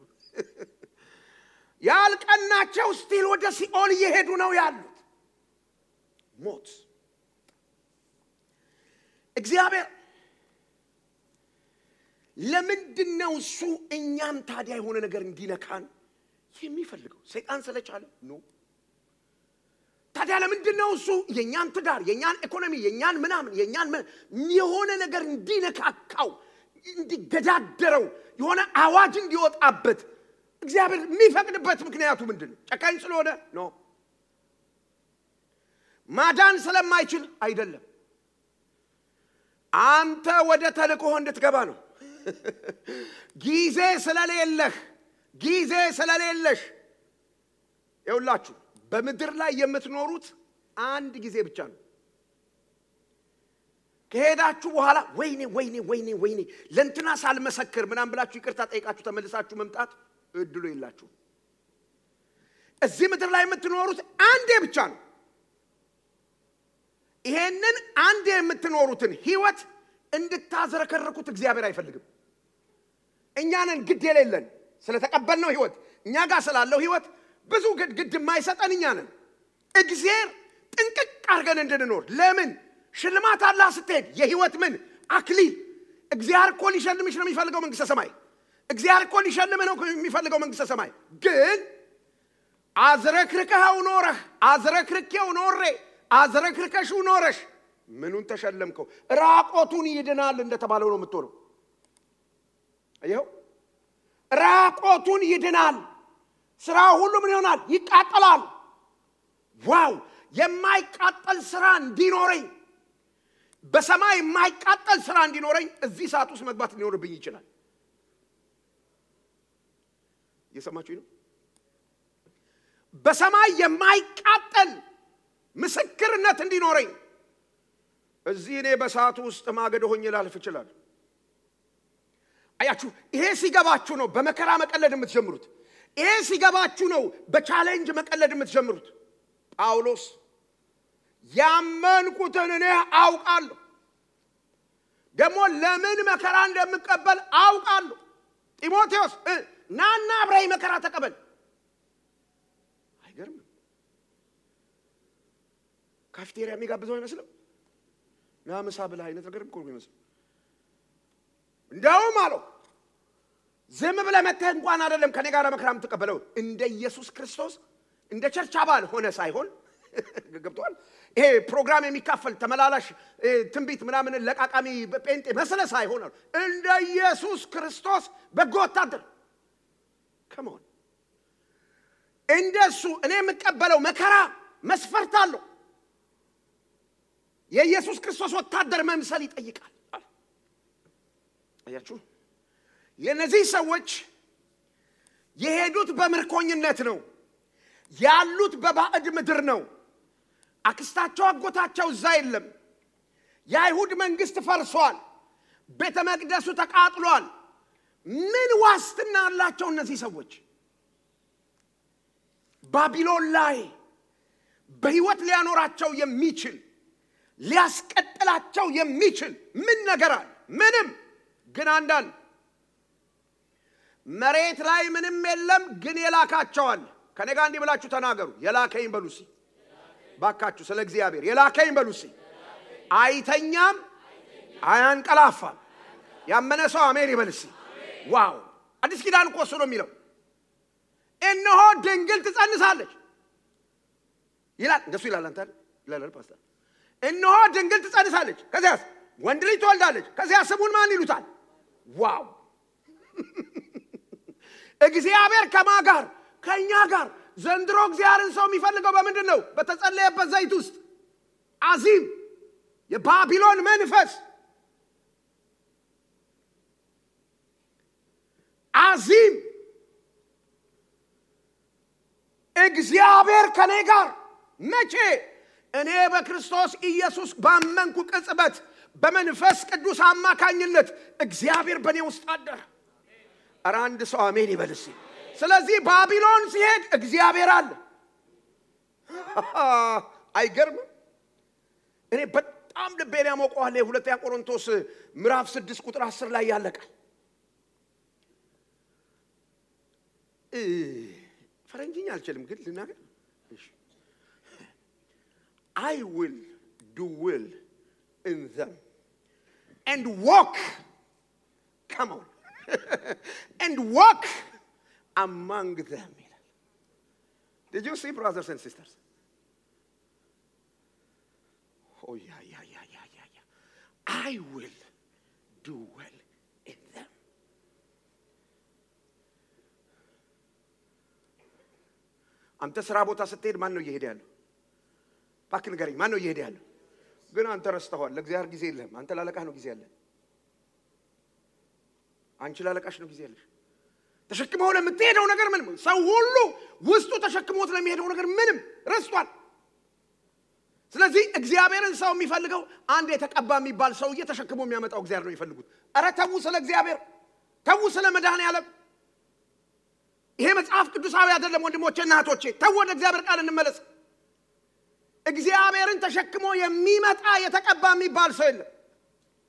[SPEAKER 1] ያልቀናቸው ስቲል ወደ ሲኦል እየሄዱ ነው ያሉት ሞት እግዚአብሔር ለምንድነው እሱ እኛም ታዲያ የሆነ ነገር እንዲነካን የሚፈልገው ሰይጣን ስለቻለ ነው ታዲያ ለምንድነው እሱ የኛን ትዳር የኛን ኢኮኖሚ የኛን ምናምን የኛን የሆነ ነገር እንዲነካካው እንዲገዳደረው የሆነ አዋጅ እንዲወጣበት እግዚአብሔር የሚፈቅድበት ምክንያቱ ምንድነው ጨካኝ ስለሆነ ነው ማዳን ስለማይችል አይደለም አንተ ወደ ተልእኮ እንድትገባ ነው ጊዜ ስለሌለሽ ይውላችሁ በመድር ላይ የምትኖሩት አንድ ጊዜ ብቻ ነው ከሄዳችሁ በኋላ ወይኔ ለንትና ሳልመሰክር ምናም ብላችሁ ይቅርታ ጠይቃችሁ ተመልሳችሁ መምጣት እድሉ ይላችሁ እዚህ ምድር ላይ የምትኖሩት አንዴ ብቻ ነው ይሄንን አንዴ የምትኖሩትን ህይወት እንድታዘረከረኩት እግዚአብሔር አይፈልግም እኛንን ግድ የሌለን ስለተቀበልነው ህይወት እኛ ጋር ስላለው ህይወት ብዙ ግድ የማይሰጠን እኛንን እግዚአብሔር ጥንቅቅ አድርገን እንድንኖር ለምን ሽልማት አላህ ስትሄድ የህይወት ምን አክሊል እግዚአብሔር እኮ ሊሸልምሽ ነው የሚፈልገው መንግስተ ሰማይ እግዚአብሔር እኮ ሊሸልምህ ነው የሚፈልገው መንግስተ ሰማይ ግን አዝረክርከው ኖረህ አዝረክርከው ኖሬ አዝረክርከሽው ኖረሽ ምኑን ተሸለምከው ራቆቱን ይድናል እንደተባለው ነው የምትሆነው አየው ራቆቱን ይድናል ስራ ሁሉ ምን ይሆናል ይቃጠላል ዋው የማይቃጠል ስራ እንዲኖረኝ በሰማይ የማይቃጠል ስራ እንዲኖረኝ እዚህ ሰዓት ውስጥ መግባት ሊኖርብኝ ይችላል የሰማችሁ ነው በሰማይ የማይቃጠል ምስክርነት እንዲኖረኝ እዚህ እኔ በሰዓቱ ውስጥ ማገዶ ሆኜ ላልፍ ይችላል አያችሁ ይሄ ሲገባችሁ ነው በመከራ መቀለድ የምትጀምሩት ይሄ ሲገባችሁ ነው በቻሌንጅ መቀለድ የምትጀምሩት ጳውሎስ ያመንኩትን እኔ አውቃለሁ ደግሞ ለምን መከራ እንደምቀበል አውቃለሁ ጢሞቴዎስ ናና አብራይ መከራ ተቀበል አይገርም ካፍቴሪያ የሚጋብዘው አይመስልም ናምሳ ብላ አይነት ነገር እኮ ነው የሚመስለው እንደውም አለው ዝም ብለህ መተህ እንኳን አይደለም ከኔ ጋር መከራም ተቀበለው እንደ ኢየሱስ ክርስቶስ እንደ ቸርች አባል ሆነ ሳይሆን ገብቷል ይሄ ፕሮግራም የሚካፈል ተመላላሽ ትንቢት ምናምን ለቃቃሚ ጴንጤ መስለ ሳይሆን እንደ ኢየሱስ ክርስቶስ በጎ ወታደር ከመሆን እንደሱ እኔ የምቀበለው መከራ መስፈርት አለው የኢየሱስ ክርስቶስ ወታደር መምሰል ይጠይቃል አያችሁ የነዚህ ሰዎች የሄዱት በመርኮኝነት ነው ያሉት በባዕድ ምድር ነው አክስታቸው አጎታቸው እዛ የለም የአይሁድ መንግስት ፈርሷል ቤተ መቅደሱ ተቃጥሏል ምን ዋስትና አላቸው እነዚህ ሰዎች ባቢሎን ላይ በህይወት ሊያኖራቸው የሚችል ሊያስቀጥላቸው የሚችል ምን ነገር አለ ምንም ግን አንዳንድ መሬት ላይ ምንም የለም ግን የላካቸዋል ከኔ ጋር እንዲህ ብላችሁ ተናገሩ የላከኝ በሉሲ ባካችሁ ስለ እግዚአብሔር የላከኝ በሉሲ አይተኛም አያንቀላፋም ያመነ ሰው አሜን ይበልሲ ዋው አዲስ ኪዳን እኮ እሱ ነው የሚለው እነሆ ድንግል ትጸንሳለች ይላል እንደሱ ይላል አንተ ይላል ፓስተር እነሆ ድንግል ትጸንሳለች ከዚያስ ወንድ ልጅ ትወልዳለች ከዚያ ስሙን ማን ይሉታል ዋው እግዚአብሔር ከማጋር ከኛ ጋር ዘንድሮ እግዚአብሔርን ሰው የሚፈልገው በምንድነው በተጸለየበት ዘይት ውስጥ አዚም የባቢሎን መንፈስ አዚም እግዚአብሔር ከኔ ጋር መቼ እኔ በክርስቶስ ኢየሱስ ባመንኩ ቅጽበት በመንፈስ ቅዱስ አማካኝነት እግዚአብሔር በኔ ውስጥ አደረ አራንድ ሰው አሜን ይበልሲ ስለዚህ ባቢሎን ሲሄድ እግዚአብሔር አለ አይገርም እኔ በጣም ልቤን ያሞቀዋል ሁለተኛ ቆሮንቶስ ምዕራፍ 6 ቁጥር 10 ላይ ያለቃል ፈረንጅኛ አልችልም ግን ልናገር I will do will in them and walk come on and walk among them did you see brothers and sisters oh yeah I will do well in them አንተ ስራ ቦታ ስትሄድ ማን ነው እየሄደ ያለው ባክ ንገረኝ ማን ነው እየሄደ ያለው ግን አንተ ረስተኸዋል ለእግዚአብሔር ጊዜ የለህም አንተ ላለቃህ ነው ጊዜ ያለህ አንቺ ላለቃሽ ነው ጊዜ ያለሽ ተሸክመው ለምትሄደው ነገር ምንም ሰው ሁሉ ውስጡ ተሸክሞት ለሚሄደው ነገር ምንም ረስቷል ስለዚህ እግዚአብሔርን ሰው የሚፈልገው አንድ የተቀባ የሚባል ሰው እየተሸክሞ የሚያመጣው እግዚአብሔር ነው የሚፈልጉት አረ ተው ስለ እግዚአብሔር ተው ስለ መድኃኔዓለም ይሄ መጽሐፍ ቅዱሳዊ አይደለም ወንድሞቼና እህቶቼ ተው ወደ እግዚአብሔር ቃል እንመለስ እግዚአብሔርን ተሸክሞ የሚመጣ የተቀባ የሚባል ሰው የለም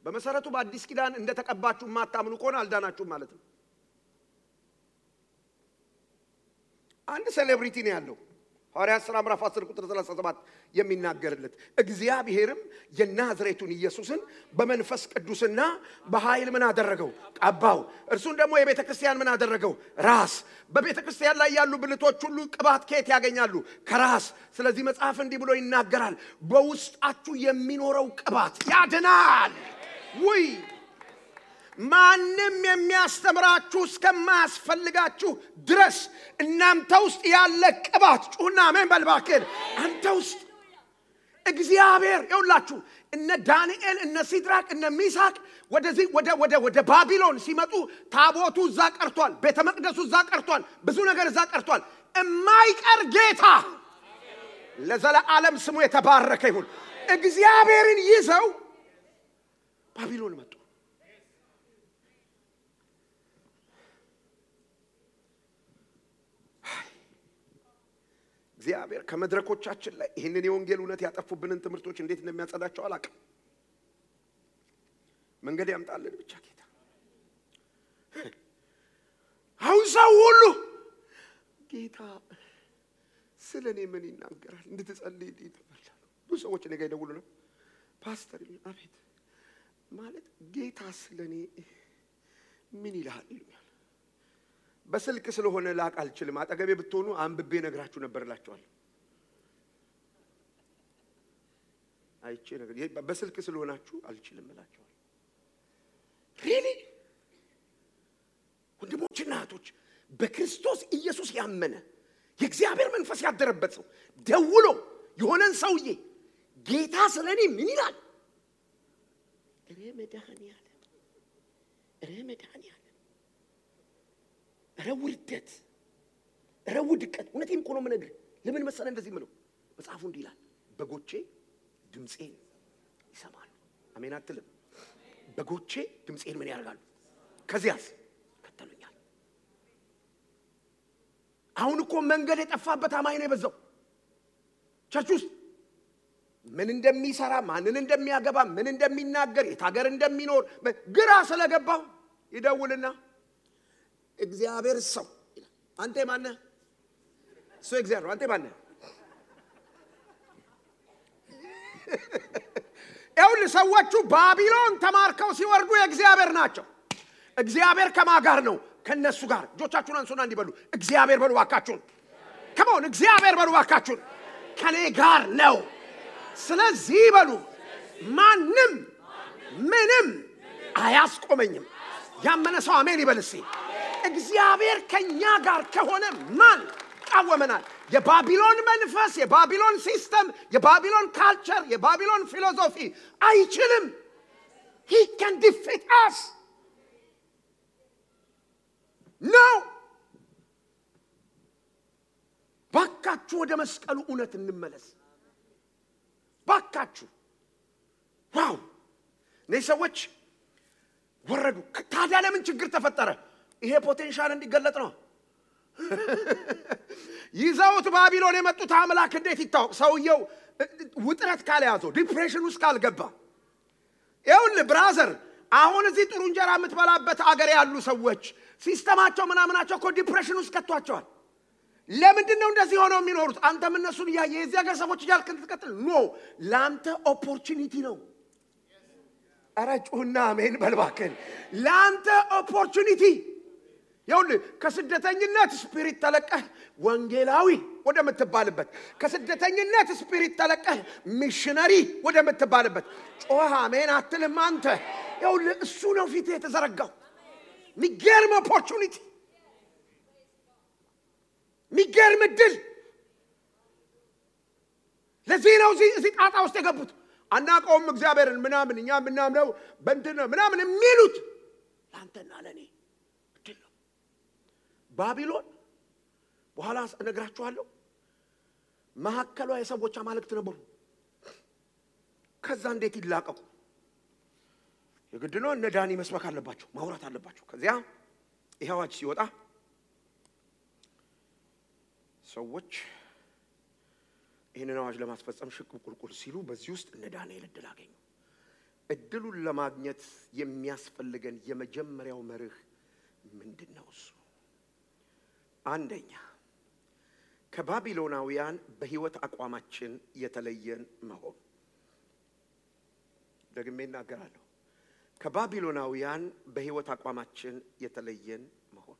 [SPEAKER 1] በመሰረቱ በአዲስ ኪዳን እንደተቀባችሁ ማታምኑ ከሆነ አልዳናችሁ ማለት ነው አንድ ሴሌብሪቲ ነው ያለው ሐዋርያት ሥራ ምዕራፍ 10 ቁጥር 37 የሚናገርለት እግዚአብሔርም የናዝሬቱን ኢየሱስን በመንፈስ ቅዱስና በኃይል ምን አደረገው ቀባው እርሱን ደግሞ የቤተክርስቲያን ምን አደረገው ራስ በቤተክርስቲያን ላይ ያሉ ብልቶች ሁሉ ቅባት ከየት ያገኛሉ ከራስ ስለዚህ መጽሐፍ እንዲህ ብሎ ይናገራል በውስጣችሁ የሚኖረው ቅባት ያድናል ወይ ማንም የሚያስተምራችሁ እስከማያስፈልጋችሁ ድረስ እናንተ ውስጥ ያለ ቅባት ጩና አሜን በልባከን አንተ ውስጥ እግዚአብሔር ይውላችሁ እነ ዳንኤል እነ ሲድራቅ እነ ሚሳቅ ወደ ባቢሎን ሲመጡ ታቦቱ እዛ ቀርቷል ቤተ መቅደሱ እዛ ቀርቷል ብዙ ነገር እዛ ቀርቷል የማይቀር ጌታ ለዘላለም ስሙ የተባረከ ይሁን እግዚአብሔርን ይዘው ባቢሎን መጡ እግዚአብሔር ከመድረኮቻችን ላይ ይሄንን የወንጌል እውነት ያጠፉብንን ትምህርቶች እንዴት እንደሚያጸዳቸው አላውቅም መንገድ ያምጣልን ብቻ ጌታ አሁን ሰው ሁሉ ጌታ ስለኔ ምን ይናገራል እንድትጸልይ ይተባላል ብዙ ሰዎች ነገ ይደውሉና ፓስተር አቤት ማለት ጌታ ስለኔ ምን ይላል ይሉኛል በስልክ ስለሆነ ላቅ አልችልም አጠገቤ ብትሆኑ አንብቤ ነግራችሁ ነበርላችኋል አይቼ ነገር በስልክ ስለሆናችሁ አልችልም እላችኋል really ወንድሞችና እህቶች በክርስቶስ ኢየሱስ ያመነ የእግዚአብሔር መንፈስ ያደረበት ሰው ደውሎ የሆነን ሰውዬ ጌታ ስለኔ ምን ይላል ረመዳን ረውርደት ረውድቀት እውነቴን እኮ ነው የምነግርህ ለምን መሰለ እንደዚህ ምለው መጽሐፉ እንዲህ ይላል በጎቼ ድምጼን ይሰማሉ አሜን አትልም በጎቼ ድምጼን ምን ያደርጋሉ ከዚያስ ከተሉኛል አሁን እኮ መንገድ የጠፋበት አማኝ ነው የበዛው ቸርች ውስጥ ምን እንደሚሰራ ማንን እንደሚያገባ ምን እንደሚናገር የታገር እንደሚኖር ግራ ስለገባው ይደውልና እግዚአብሔር ሰው አንተ ማን ነህ ሰው እግዚአብሔር አንተ ማን ነህ ኤውል ሰዎቹ ባቢሎን ተማርከው ሲወርዱ የእግዚአብሔር ናቸው እግዚአብሔር ከማጋር ነው ከነሱ ጋር ጆቻችሁን አንሱና እንዲበሉ እግዚአብሔር በሉ ዋካችሁን ከመሆን እግዚአብሔር በሉ ዋካችሁን ከኔ ጋር ነው ስለዚህ በሉ ማንም ምንም አያስቆመኝም ያመነ ሰው አሜን ይበልሲ እግዚአብሔር ከኛ ጋር ከሆነ ማን ቃወመናል የባቢሎን መንፈስ የባቢሎን ሲስተም የባቢሎን ካልቸር የባቢሎን ፊሎሶፊ አይችልም he can defeat us no ባካችሁ ወደ መስቀሉ እውነት እንመለስ ባካችሁ ዋው እነዚህ ሰዎች ወረዱ ታዲያ ለምን ችግር ተፈጠረ ይሄ ፖቴንሻል እንዲገለጥ ነው ይዘውት ባቢሎን የመጡት አምላክ እንዴት ይታወቅ ሰውየው ውጥረት ካልያዘው ዲፕሬሽን ውስጥ ካልገባ ይሁን ብራዘር አሁን እዚህ ጥሩ እንጀራ የምትበላበት አገር ያሉ ሰዎች ሲስተማቸው ምናምናቸው እኮ ዲፕሬሽን ውስጥ ከተዋቸዋል ለምንድን ነው እንደዚህ ሆነው የሚኖሩት አንተም እነሱን ያየ የዚህ ሀገር ሰዎች ይያልክ እንትቀጥል ኖ ላንተ ኦፖርቹኒቲ ነው አራጩና አሜን በልባከን ላንተ ኦፖርቹኒቲ ይሁን ከስደተኝነት ስፒሪት ተለቀህ ወንጌላዊ ወደ ምትባልበት ከስደተኝነት ስፒሪት ተለቀህ ሚሽነሪ ወደ ምትባልበት ጮህ አሜን አትልም አንተ ይሁን እሱ ነው ፊት የተዘረጋው ሚገርም ኦፖርቹኒቲ ሚገርም ድል ለዚህ ነው እዚህ ጣጣ ውስጥ የገቡት አናቀውም እግዚአብሔርን ምናምን እኛ ምናምነው በእንትን ምናምን የሚሉት ላንተና ለኔ ድል ነው ባቢሎን በኋላ እነግራችኋለሁ ማሐከሏ የሰዎች አማልክት ነበሩ ከዛ እንዴት ይላቀቁ የግድ ነው እነ ዳኒ መስበክ አለባቸው ማውራት አለባቸው ከዚያ ይሄዋች ሲወጣ ሰዎች ይሄንን አዋጅ ለማስፈጸም ሽቁቁልቁል ሲሉ በዚህ ውስጥ እነ ዳንኤል እድል አገኙ እድሉን ለማግኘት የሚያስፈልገን የመጀመሪያው መርህ ምንድነው እሱ አንደኛ ከባቢሎናውያን በህይወት አቋማችን የተለየን መሆን ደግሜ እናገራለሁ ከባቢሎናውያን በህይወት አቋማችን የተለየን መሆን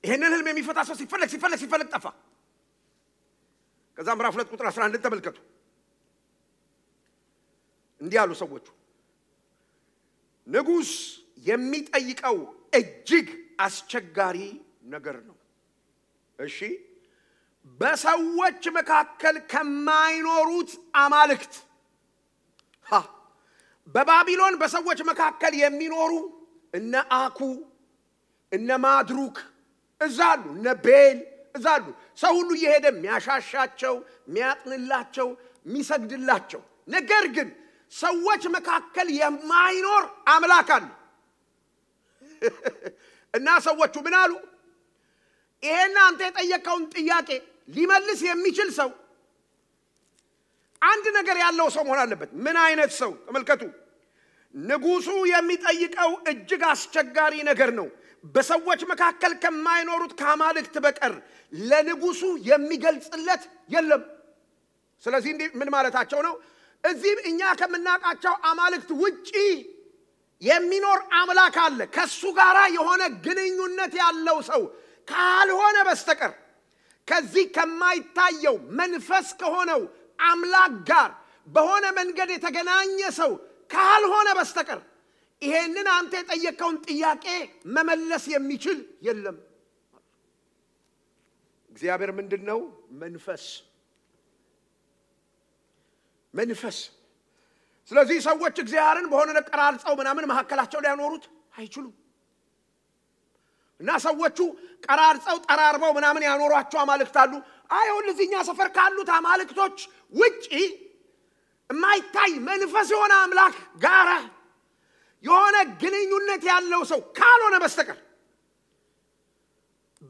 [SPEAKER 1] ይሄንን ህልም የሚፈታ ሰው ሲፈልግ ጠፋ ከዛ ምዕራፍ 2 ቁጥር 11 ተመልከቱ እንዲህ ያሉ ሰዎች ንጉስ የሚጠይቀው እጅግ አስቸጋሪ ነገር ነው እሺ በሰዎች መካከል ከማይኖሩት አማልክት በባቢሎን በሰዎች መካከል የሚኖሩ እነ አኩ እነ ማድሩክ እዛሉ እነ ቤል እዛሉ ሰው ሁሉ እየሄደ የሚያሻሻቸው የሚያጥንላቸው የሚሰግድላቸው ነገር ግን ሰዎች መካከል የማይኖር አምላክ አለ እና ሰዎቹ ምን አሉ ይሄን አንተ የጠየቀውን ጥያቄ ሊመልስ የሚችል ሰው አንድ ነገር ያለው ሰው መሆን አለበት ምን አይነት ሰው ተመልከቱ ንጉሱ የሚጠይቀው እጅግ አስቸጋሪ ነገር ነው በሰዎች መካከል ከማይኖሩት ከአማልክት በቀር ለንጉሱ የሚገልጽለት የለም ስለዚህ ምን ማለታቸው ነው? እዚህ እኛ ከምናቃቸው አማልክት ውጪ የሚኖር አምላክ አለ። ከሱ ጋራ የሆነ ግንኙነት ያለው ሰው ካልሆነ በስተቀር ከዚህ ከማይታየው መንፈስ ከሆነው አምላክ ጋር በሆነ መንገድ የተገናኘ ሰው ካልሆነ በስተቀር ይሄንን አንተ የጠየቀውን ጥያቄ መመለስ የሚችል የለም። እግዚአብሔር ምንድነው? መንፈስ። ስለዚህ ሰዎች እግዚአብሔርን በሆነ ነገር ቀራርጸው ምናምን መሐከላቸው ላይ ያኖሩት አይችሉም። እና ሰዎቹ ቀራርጸው ጠራርበው ምናምን ያኖሯቸው አማልክት አሉ። አይሁን ለዚህኛ ሰፈር ካሉት አማልክቶች ውጪ የማይታይ መንፈስ የሆነ አምላክ ጋራ የሆነ ግንኙነት ያለው ሰው ካልሆነ በስተቀር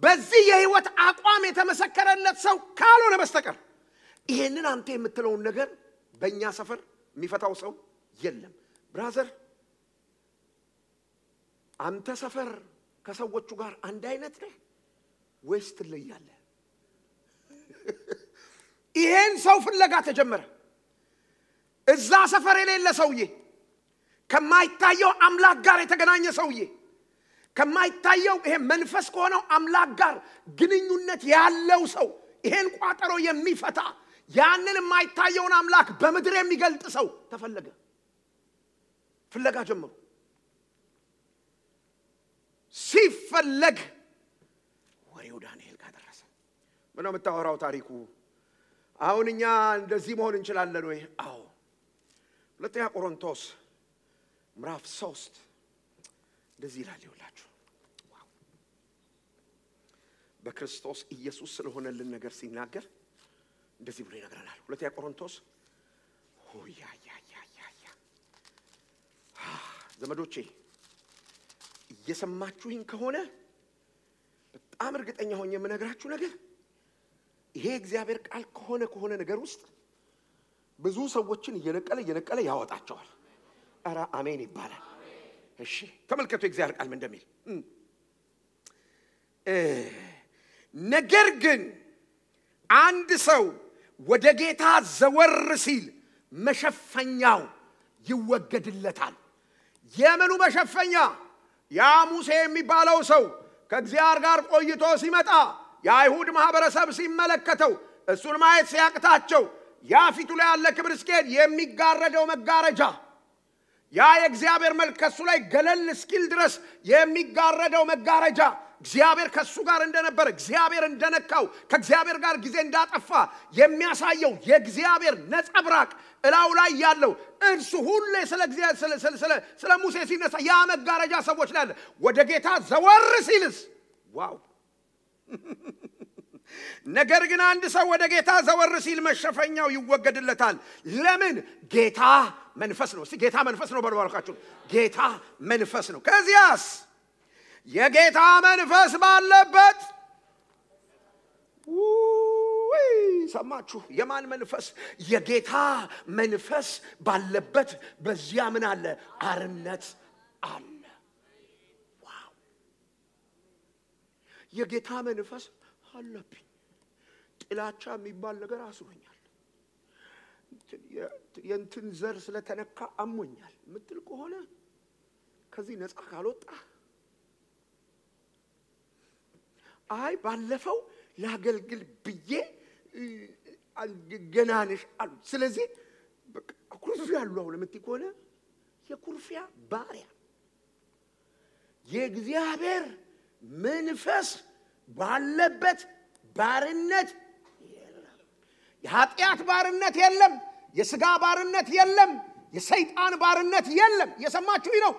[SPEAKER 1] በዚህ የህይወት አቋም የተመሰከረለት ሰው ካልሆነ በስተቀር ይሄንን አንተ የምትለውን ነገር በእኛ ሰፈር የሚፈታው ሰው የለም። ብራዘር አንተ ሰፈር ከሰዎቹ ጋር አንድ አይነት ነህ ወይስ ትለያለህ? ይሄን ሰው ፍለጋ ተጀመረ። እዛ ሰፈር የሌለ ሰውዬ፣ ከማይታየው አምላክ ጋር የተገናኘ ሰውዬ፣ ከማይታየው ይሄ መንፈስ ከሆነው አምላክ ጋር ግንኙነት ያለው ሰው፣ ይሄን ቋጠሮ የሚፈታ ያንን የማይታየውን አምላክ በምድር የሚገልጥ ሰው ተፈለገ። ፍለጋ ጀመሩ። ሲፈለግ ወሬው ዳንኤል ጋር ደረሰ። ምነው የምታወራው ታሪኩ? አሁን እኛ እንደዚህ መሆን እንችላለን ወይ? አዎ። ሁለተኛ ቆሮንቶስ ምዕራፍ 3 እንደዚህ ይላል። ይውላችሁ በክርስቶስ ኢየሱስ ስለሆነልን ነገር ሲናገር እንደዚህ ብሎ ይነግረናል። ሁለተኛ ቆሮንቶስ ዘመዶቼ እየሰማችሁኝ ከሆነ በጣም እርግጠኛ ሆኜ የምነግራችሁ ነገር ይሄ እግዚአብሔር ቃል ከሆነ ነገር ውስጥ ብዙ ሰዎችን እየነቀለ ያወጣቸዋል። አራ አሜን ይባላል። እሺ ተመልከቱ እግዚአብሔር ቃል ምን እንደሚል። ነገር ግን አንድ ሰው ወደ ጌታ ዘወር ሲል መሸፈኛው ይወገድለታል። የምኑ መሸፈኛ? ያ ሙሴ የሚባለው ሰው ከእግዚአብሔር ጋር ቆይቶ ሲመጣ የአይሁድ ማህበረሰብ ሲመለከተው እሱን ማየት ሲያቅታቸው ያ ፊቱ ላይ ያለ ክብር እስኪሄድ የሚጋረደው መጋረጃ፣ ያ የእግዚአብሔር መልክ ከሱ ላይ ገለል እስኪል ድረስ የሚጋረደው መጋረጃ እግዚአብሔር ከሱ ጋር እንደነበረ፣ እግዚአብሔር እንደነካው፣ ከእግዚአብሔር ጋር ጊዜ እንዳጠፋ የሚያሳየው የእግዚአብሔር ነጸብራቅ እላው ላይ ያለው እርሱ ሁሉ ስለ ሙሴ ሲነሳ ያ መጋረጃ ሰዎች ላይ አለ። ወደ ጌታ ዘወር ሲልስ ዋው! ነገር ግን አንድ ሰው ወደ ጌታ ዘወር ሲል መሸፈኛው ይወገድለታል። ለምን? ጌታ መንፈስ ነው። እስቲ ጌታ መንፈስ ነው በልባልካችሁ። ጌታ መንፈስ ነው። ከዚያስ የጌታ መንፈስ ባለበት ሰማችሁ? የማን መንፈስ? የጌታ መንፈስ ባለበት በዚያ ምን አለ? አርነት አለ። ዋው! የጌታ መንፈስ አለብኝ። ጥላቻ የሚባል ነገር አስሮኛል። የእንትን ዘር ስለተነካ አሞኛል ምትል ከሆነ ከዚህ ነፃ ካልወጣ አይ ባለፈው ላገልግል ብዬ ገናነሽ አሉ። ስለዚህ ኩርፊያ አሉ አሁን ምትይ ከሆነ የኩርፊያ ባሪያ የእግዚአብሔር መንፈስ ባለበት ባርነት የለም። የኃጢአት ባርነት የለም። የሥጋ ባርነት የለም። የሰይጣን ባርነት የለም። የሰማችሁኝ ነው?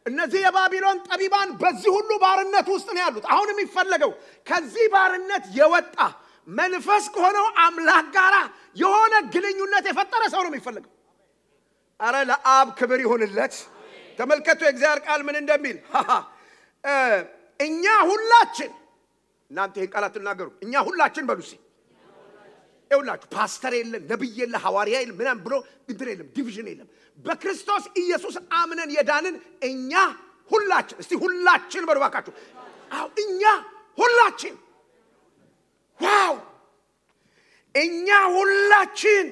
[SPEAKER 1] እነዚህ የባቢሎን ጠቢባን በዚህ ሁሉ ባርነት ውስጥ ነው ያሉት። አሁን የሚፈለገው ከዚህ ባርነት የወጣ መንፈስ ከሆነው አምላክ ጋር የሆነ ግንኙነት የፈጠረ ሰው ነው የሚፈልገው። አረ ለአብ ክብር ይሁንለት። ተመልከቱ የእግዚአብሔር ቃል ምን እንደሚል። እኛ ሁላችን እናንተ ይሄን ቃላት ተናገሩ። እኛ ሁላችን በሉሲ ይውላችሁ ፓስተር የለም፣ ነብይ የለም፣ ሐዋርያ የለም፣ ምንም ብሎ እንትን የለም፣ ዲቪዥን የለም። በክርስቶስ ኢየሱስ አምነን የዳንን እኛ ሁላችን፣ እስቲ ሁላችን በሉ ባካችሁ። አው እኛ ሁላችን ዋው! እኛ ሁላችን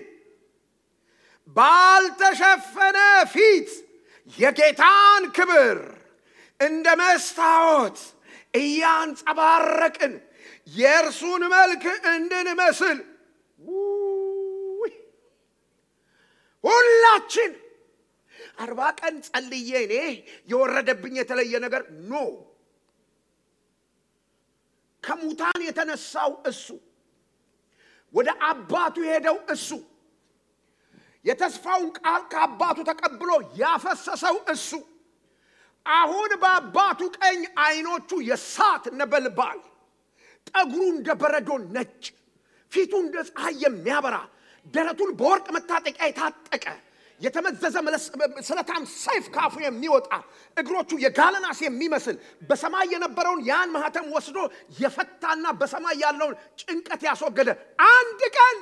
[SPEAKER 1] ባልተሸፈነ ፊት የጌታን ክብር እንደ መስታወት እያንጸባረቅን የእርሱን መልክ እንድንመስል ሁላችን 40 ቀን ጸልዬ እኔ የወረደብኝ የተለየ ነገር ኖ ከሙታን የተነሳው እሱ ወደ አባቱ ሄደው እሱ የተስፋውን ቃል ከአባቱ ተቀብሎ ያፈሰሰው እሱ አሁን በአባቱ ቀኝ አይኖቹ የሳት ነበልባል ጠጉሩ እንደ በረዶ ነጭ ፊቱ እንደ ፀሐይ የሚያበራ ደረቱን በወርቅ መታጠቂያ የታጠቀ የተመዘዘ ስለታም ሰይፍ ካፉ የሚወጣ እግሮቹ የጋለናስ የሚመስል በሰማይ የነበረውን ያን ማህተም ወስዶ የፈታና በሰማይ ያለውን ጭንቀት ያስወገደ አንድ ቀን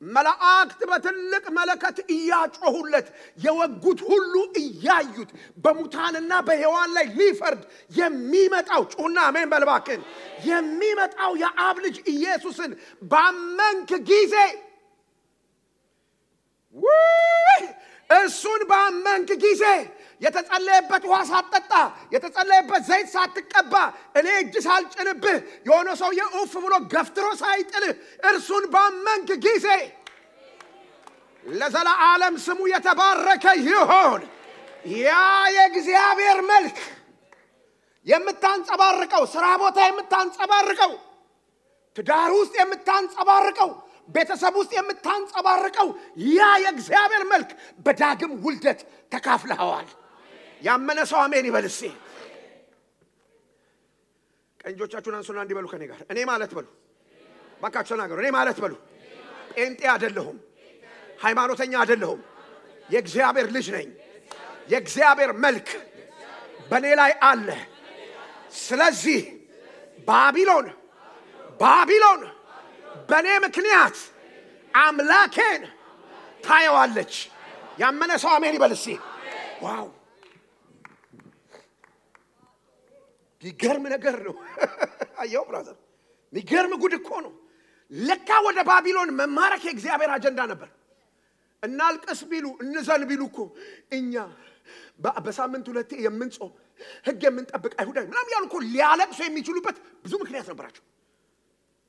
[SPEAKER 1] መላእክት በትልቅ መለከት እያጮሁለት የወጉት ሁሉ እያዩት በሙታንና በሕያዋን ላይ ሊፈርድ የሚመጣው ጩና አሜን በልባክን የሚመጣው የአብ ልጅ ኢየሱስን ባመንክ ጊዜ እሱን ባመንክ ጊዜ የተጸለየበት ውሃ ሳትጠጣ የተጸለየበት ዘይት ሳትቀባ እኔ እጅ ሳልጭንብህ የሆነ ሰው የኡፍ ብሎ ገፍትሮ ሳይጥልህ እርሱን ባመንክ ጊዜ ለዘላለም ስሙ የተባረከ ይሁን ያ የእግዚአብሔር መልክ የምታንጸባርቀው ስራ ቦታ የምታንጸባርቀው ትዳር ውስጥ የምታንጸባርቀው ቤተሰብ ውስጥ የምታንጸባርቀው ያ የእግዚአብሔር መልክ በዳግም ውልደት ተካፍለዋል ያመነ ሰው አሜን ይበልስ ቀንጆቻችሁን አንሱና እንዲበሉ ከኔ ጋር እኔ ማለት በሉ ባካችሁ ተናገሩ እኔ ማለት በሉ ጴንጤ አይደለሁም ሃይማኖተኛ አይደለሁም የእግዚአብሔር ልጅ ነኝ የእግዚአብሔር መልክ በኔ ላይ አለ ስለዚህ ባቢሎን በኔ ምክንያት አምላኬን ታየዋለች ያመነ ሰው አሜን ይበልስ ዋው ይገርም ነገር ነው አየው ብራዘር ይገርም ጉድ እኮ ነው ለካ ወደ ባቢሎን መማረክ የእግዚአብሔር አጀንዳ ነበር እናልቀስ ቢሉ እንዘን ቢሉ እኮ እኛ በሳምንት ሁለቴ የምንጾም ህግ የምንጠብቅ አይሁዳይ ምናምን ያሉ እኮ ሊያለቅሱ የሚችሉበት ብዙ ምክንያት ነበራቸው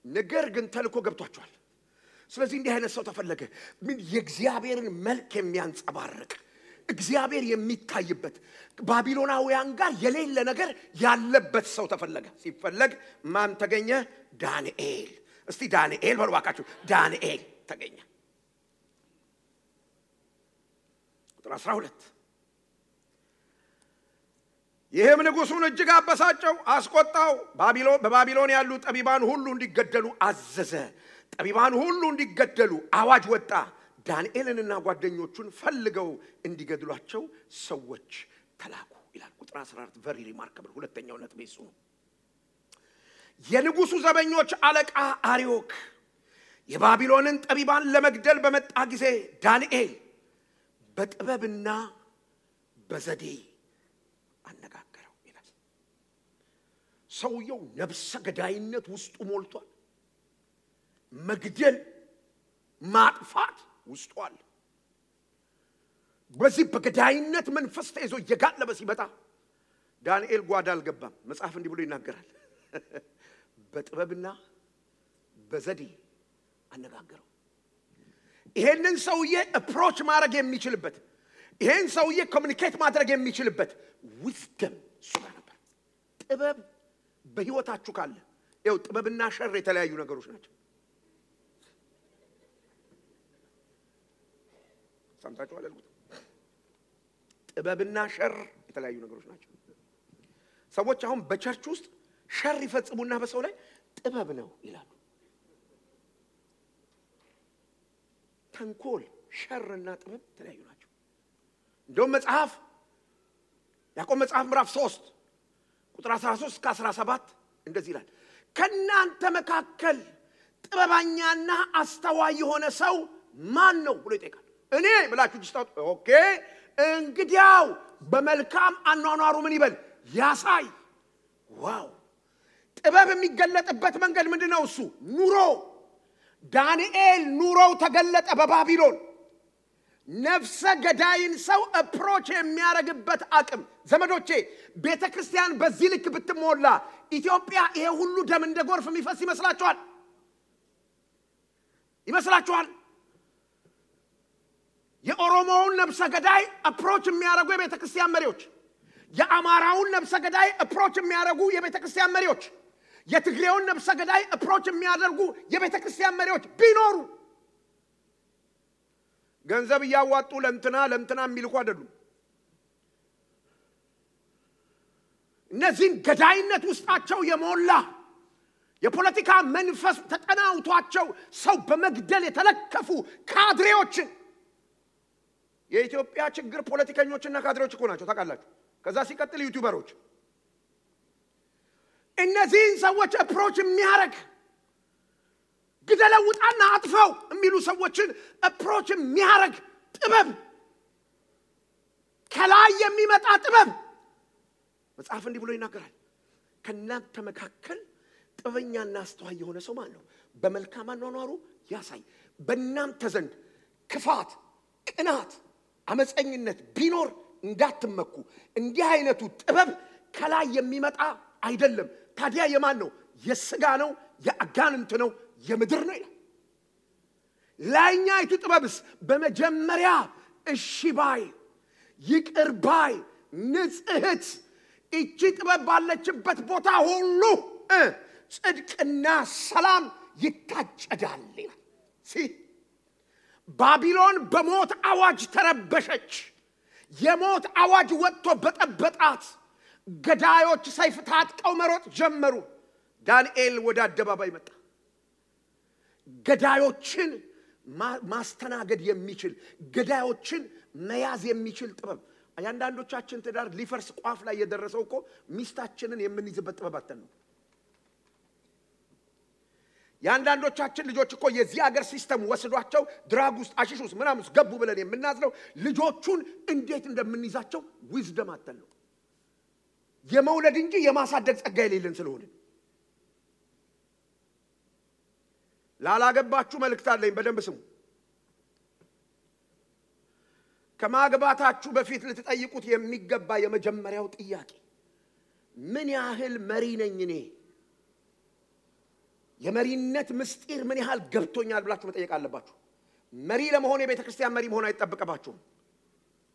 [SPEAKER 1] ነገር ግን ተልኮ ገብቷቸዋል ስለዚህ እንዲህ አይነት ሰው ተፈለገ ምን የእግዚአብሔርን መልክ የሚያንጸባርቅ እግዚአብሔር የሚታይበት ባቢሎናውያን ጋር የሌለ ነገር ያለበት ሰው ተፈለገ ሲፈለግ ማን ተገኘ ዳንኤል እስቲ ዳንኤል በልዋካችሁ ዳንኤል ተገኘ ቁጥር 12 ይህም ንጉሡን እጅግ አበሳጨው አስቆጣው በባቢሎን ያሉ ጠቢባን ሁሉ እንዲገደሉ አዘዘ ጠቢባን ሁሉ እንዲገደሉ አዋጅ ወጣ ዳንኤልንና ጓደኞቹን ፈልገው እንዲገድሏቸው ሰዎች ተላኩ ይላል ቁጥር 14 very remarkable ሁለተኛው ነጥብ እሱ ነው የንጉሡ ዘበኞች አለቃ አርዮክ የባቢሎንን ጠቢባን ለመግደል በመጣ ጊዜ ዳንኤል በጥበብና በዘዴ አነጋገረው ይላል ሰውየው ነፍሰ ገዳይነት ውስጡ ሞልቷል መግደል ማጥፋት ውስጡ አለ በዚህ በገዳይነት መንፈስ ተይዞ የጋለበ ሲመጣ ዳንኤል ጓዳ አልገባም መጽሐፍ እንዲህ ብሎ ይናገራል በጥበብና በዘዴ አነጋገረው ይሄንን ሰውዬ አፕሮች ማድረግ የሚችልበት ይሄን ሰውዬ ኮሙኒኬት ማድረግ የሚችልበት ዊዝደም ሱጋ ነበር ጥበብ በህይወታችሁ ካለ ይኸው ጥበብና ሸር የተለያዩ ነገሮች ናቸው ሰምታችሁ አላልኩት ጥበብና ሸር የተለያዩ ነገሮች ናቸው ሰዎች አሁን በቸርች ውስጥ ሸር ይፈጽሙና በሰው ላይ ጥበብ ነው ይላሉ ተንኮል ሸርና ጥበብ የተለያዩ ናቸው እንደውም መጽሐፍ ያዕቆብ መጽሐፍ ምዕራፍ 3 ቁጥር 13 እስከ 17 እንደዚህ ይላል ከናንተ መካከል ጥበበኛና አስተዋይ የሆነ ሰው ማን ነው ብሎ ይጠይቃል እኔ ብላችሁ ጅስታው ኦኬ እንግዲያው በመልካም አኗኗሩ ምን ይበል ያሳይ ዋው ጥበብ የሚገለጥበት መንገድ ምንድነው እሱ ኑሮ ዳንኤል ኑሮው ተገለጠ በባቢሎን ነፍሰ ገዳይን ሰው አፕሮች የሚያረግበት አቅም ዘመዶቼ ቤተክርስቲያን በዚህ ልክ ብትሞላ ኢትዮጵያ ይሄ ሁሉ ደም እንደ ጎርፍ የሚፈስ ይመስላችኋል የኦሮሞውን ነፍሰ ገዳይ አፕሮች የሚያረጉ የቤተክርስቲያን መሪዎች የአማራውን ነፍሰ ገዳይ አፕሮች የሚያረጉ የቤተክርስቲያን መሪዎች የትግሬውን ነፍሰ ገዳይ አፕሮች የሚያደርጉ የቤተክርስቲያን መሪዎች ቢኖሩ ገንዘብ ያዋጡ ለምትና የሚልኩ አይደሉም እነዚህን ገዳይነት ውስጣቸው የሞላ የፖለቲካ መንፈስ ተጠናውቷቸው ሰው በመግደል የተለከፉ ካድሬዎችን የኢትዮጵያ ችግር ፖለቲከኞችና ካድሬዎች እኮ ናቸው ታውቃላችሁ ከዛ ሲቀጥል ዩቲዩበሮች እነዚህን ሰዎች አፕሮች የሚያረግ ግደለውጣና አጥፈው የሚሉ ሰዎችን አፕሮች የሚያረግ ጥበብ ከላይ የሚመጣ ጥበብ መጽሐፍ እንዲህ ብሎ ይናገራል ከናንተ መካከል ጥበኛና አስተዋይ የሆነ ሰው ማን ነው በመልካም አኗኗሩ ያሳይ በእናንተ ዘንድ ክፋት ቅናት አመፀኝነት ቢኖር እንዳትመኩ እንዲህ አይነቱ ጥበብ ከላይ የሚመጣ አይደለም ታዲያ የማን ነው የሥጋ ነው የአጋንንት ነው የምድር ነው ይላል ላይኛይቱ ጥበብስ በመጀመሪያ እሺ ባይ ይቅር ባይ ንጽሕት እቺ ጥበብ ባለችበት ቦታ ሁሉ ጽድቅና ሰላም ይታጨዳል ይላል ባቢሎን በሞት አዋጅ ተረበሸች የሞት አዋጅ ወጥቶ በጠበጣት ገዳዮች ሰይፍ ታጥቀው መሮጥ ጀመሩ ዳንኤል ወደ አደባባይ መጣ ገዳዮችን ማስተናገድ የሚችል ገዳዮችን መያዝ የሚችል ጥበብ አያንዳንዶቻችን ትዳር ሊፈርስ ቋፍ ላይ የደረሰው እኮ ሚስታችንን የምንይዝበት ጥበብ አጥተን ነው ያንዳንዶቻችን ልጆች እኮ የዚህ ሀገር ሲስተም ወስዷቸው ድራግ ውስጥ አሽሽ ውስጥ ምናምን ገቡ ብለን የምናዝለው ልጆቹን እንዴት እንደምንይዛቸው ዊዝደም አጥተን ነው የመውለድ እንጂ የማሳደግ ጸጋ የሌለን ስለሆነ ላላገባችሁ መልእክት አለኝ በደንብ ስሙ ከማግባታችሁ በፊት ልትጠይቁት የሚገባ የመጀመሪያው ጥያቄ ምን ያህል መሪ ነኝ እኔ የመሪነት ምስጢር ምን ያህል ገብቶኛል ብላችሁ መጠየቅ አለባችሁ መሪ ለመሆን የቤተክርስቲያን መሪ መሆን አይተጠበቀባችሁም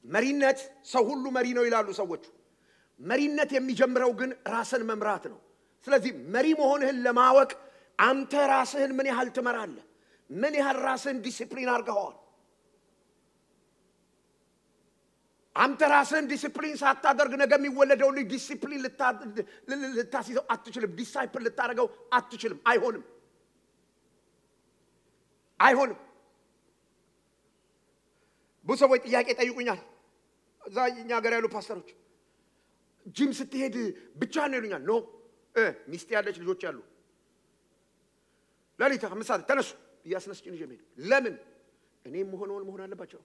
[SPEAKER 1] መሪነት ሰው ሁሉ መሪ ነው ይላሉ ሰዎች መሪነት የሚጀምረው ግን ራስን መምራት ነው ስለዚህ መሪ መሆንህን ለማወቅ አንተ ራስህን ምን ያህል ትመራለህ ምን ያህል ራስህን ዲሲፕሊን አድርገሃል አንተ ራስህን ዲሲፕሊን ሳታደርግ ነገ የሚወለደው ልጅ ዲሲፕሊን ልታስይዘው አትችልም ዲሳይፕል ልታደርገው አትችልም አይሆንም ብዙ ሰዎች ጥያቄ ጠይቁኛል እዛ እኛ ሀገር ያሉ ፓስተሮች ጂም ስትሄድ ብቻ ነው ይሉኛል ኖ ሚስት ያለች ልጆች ያሉ ለሊት 5 ሰዓት ተነሱ ያስነስጭኝ ጀመረ ለምን እኔም መሆን አለባቸው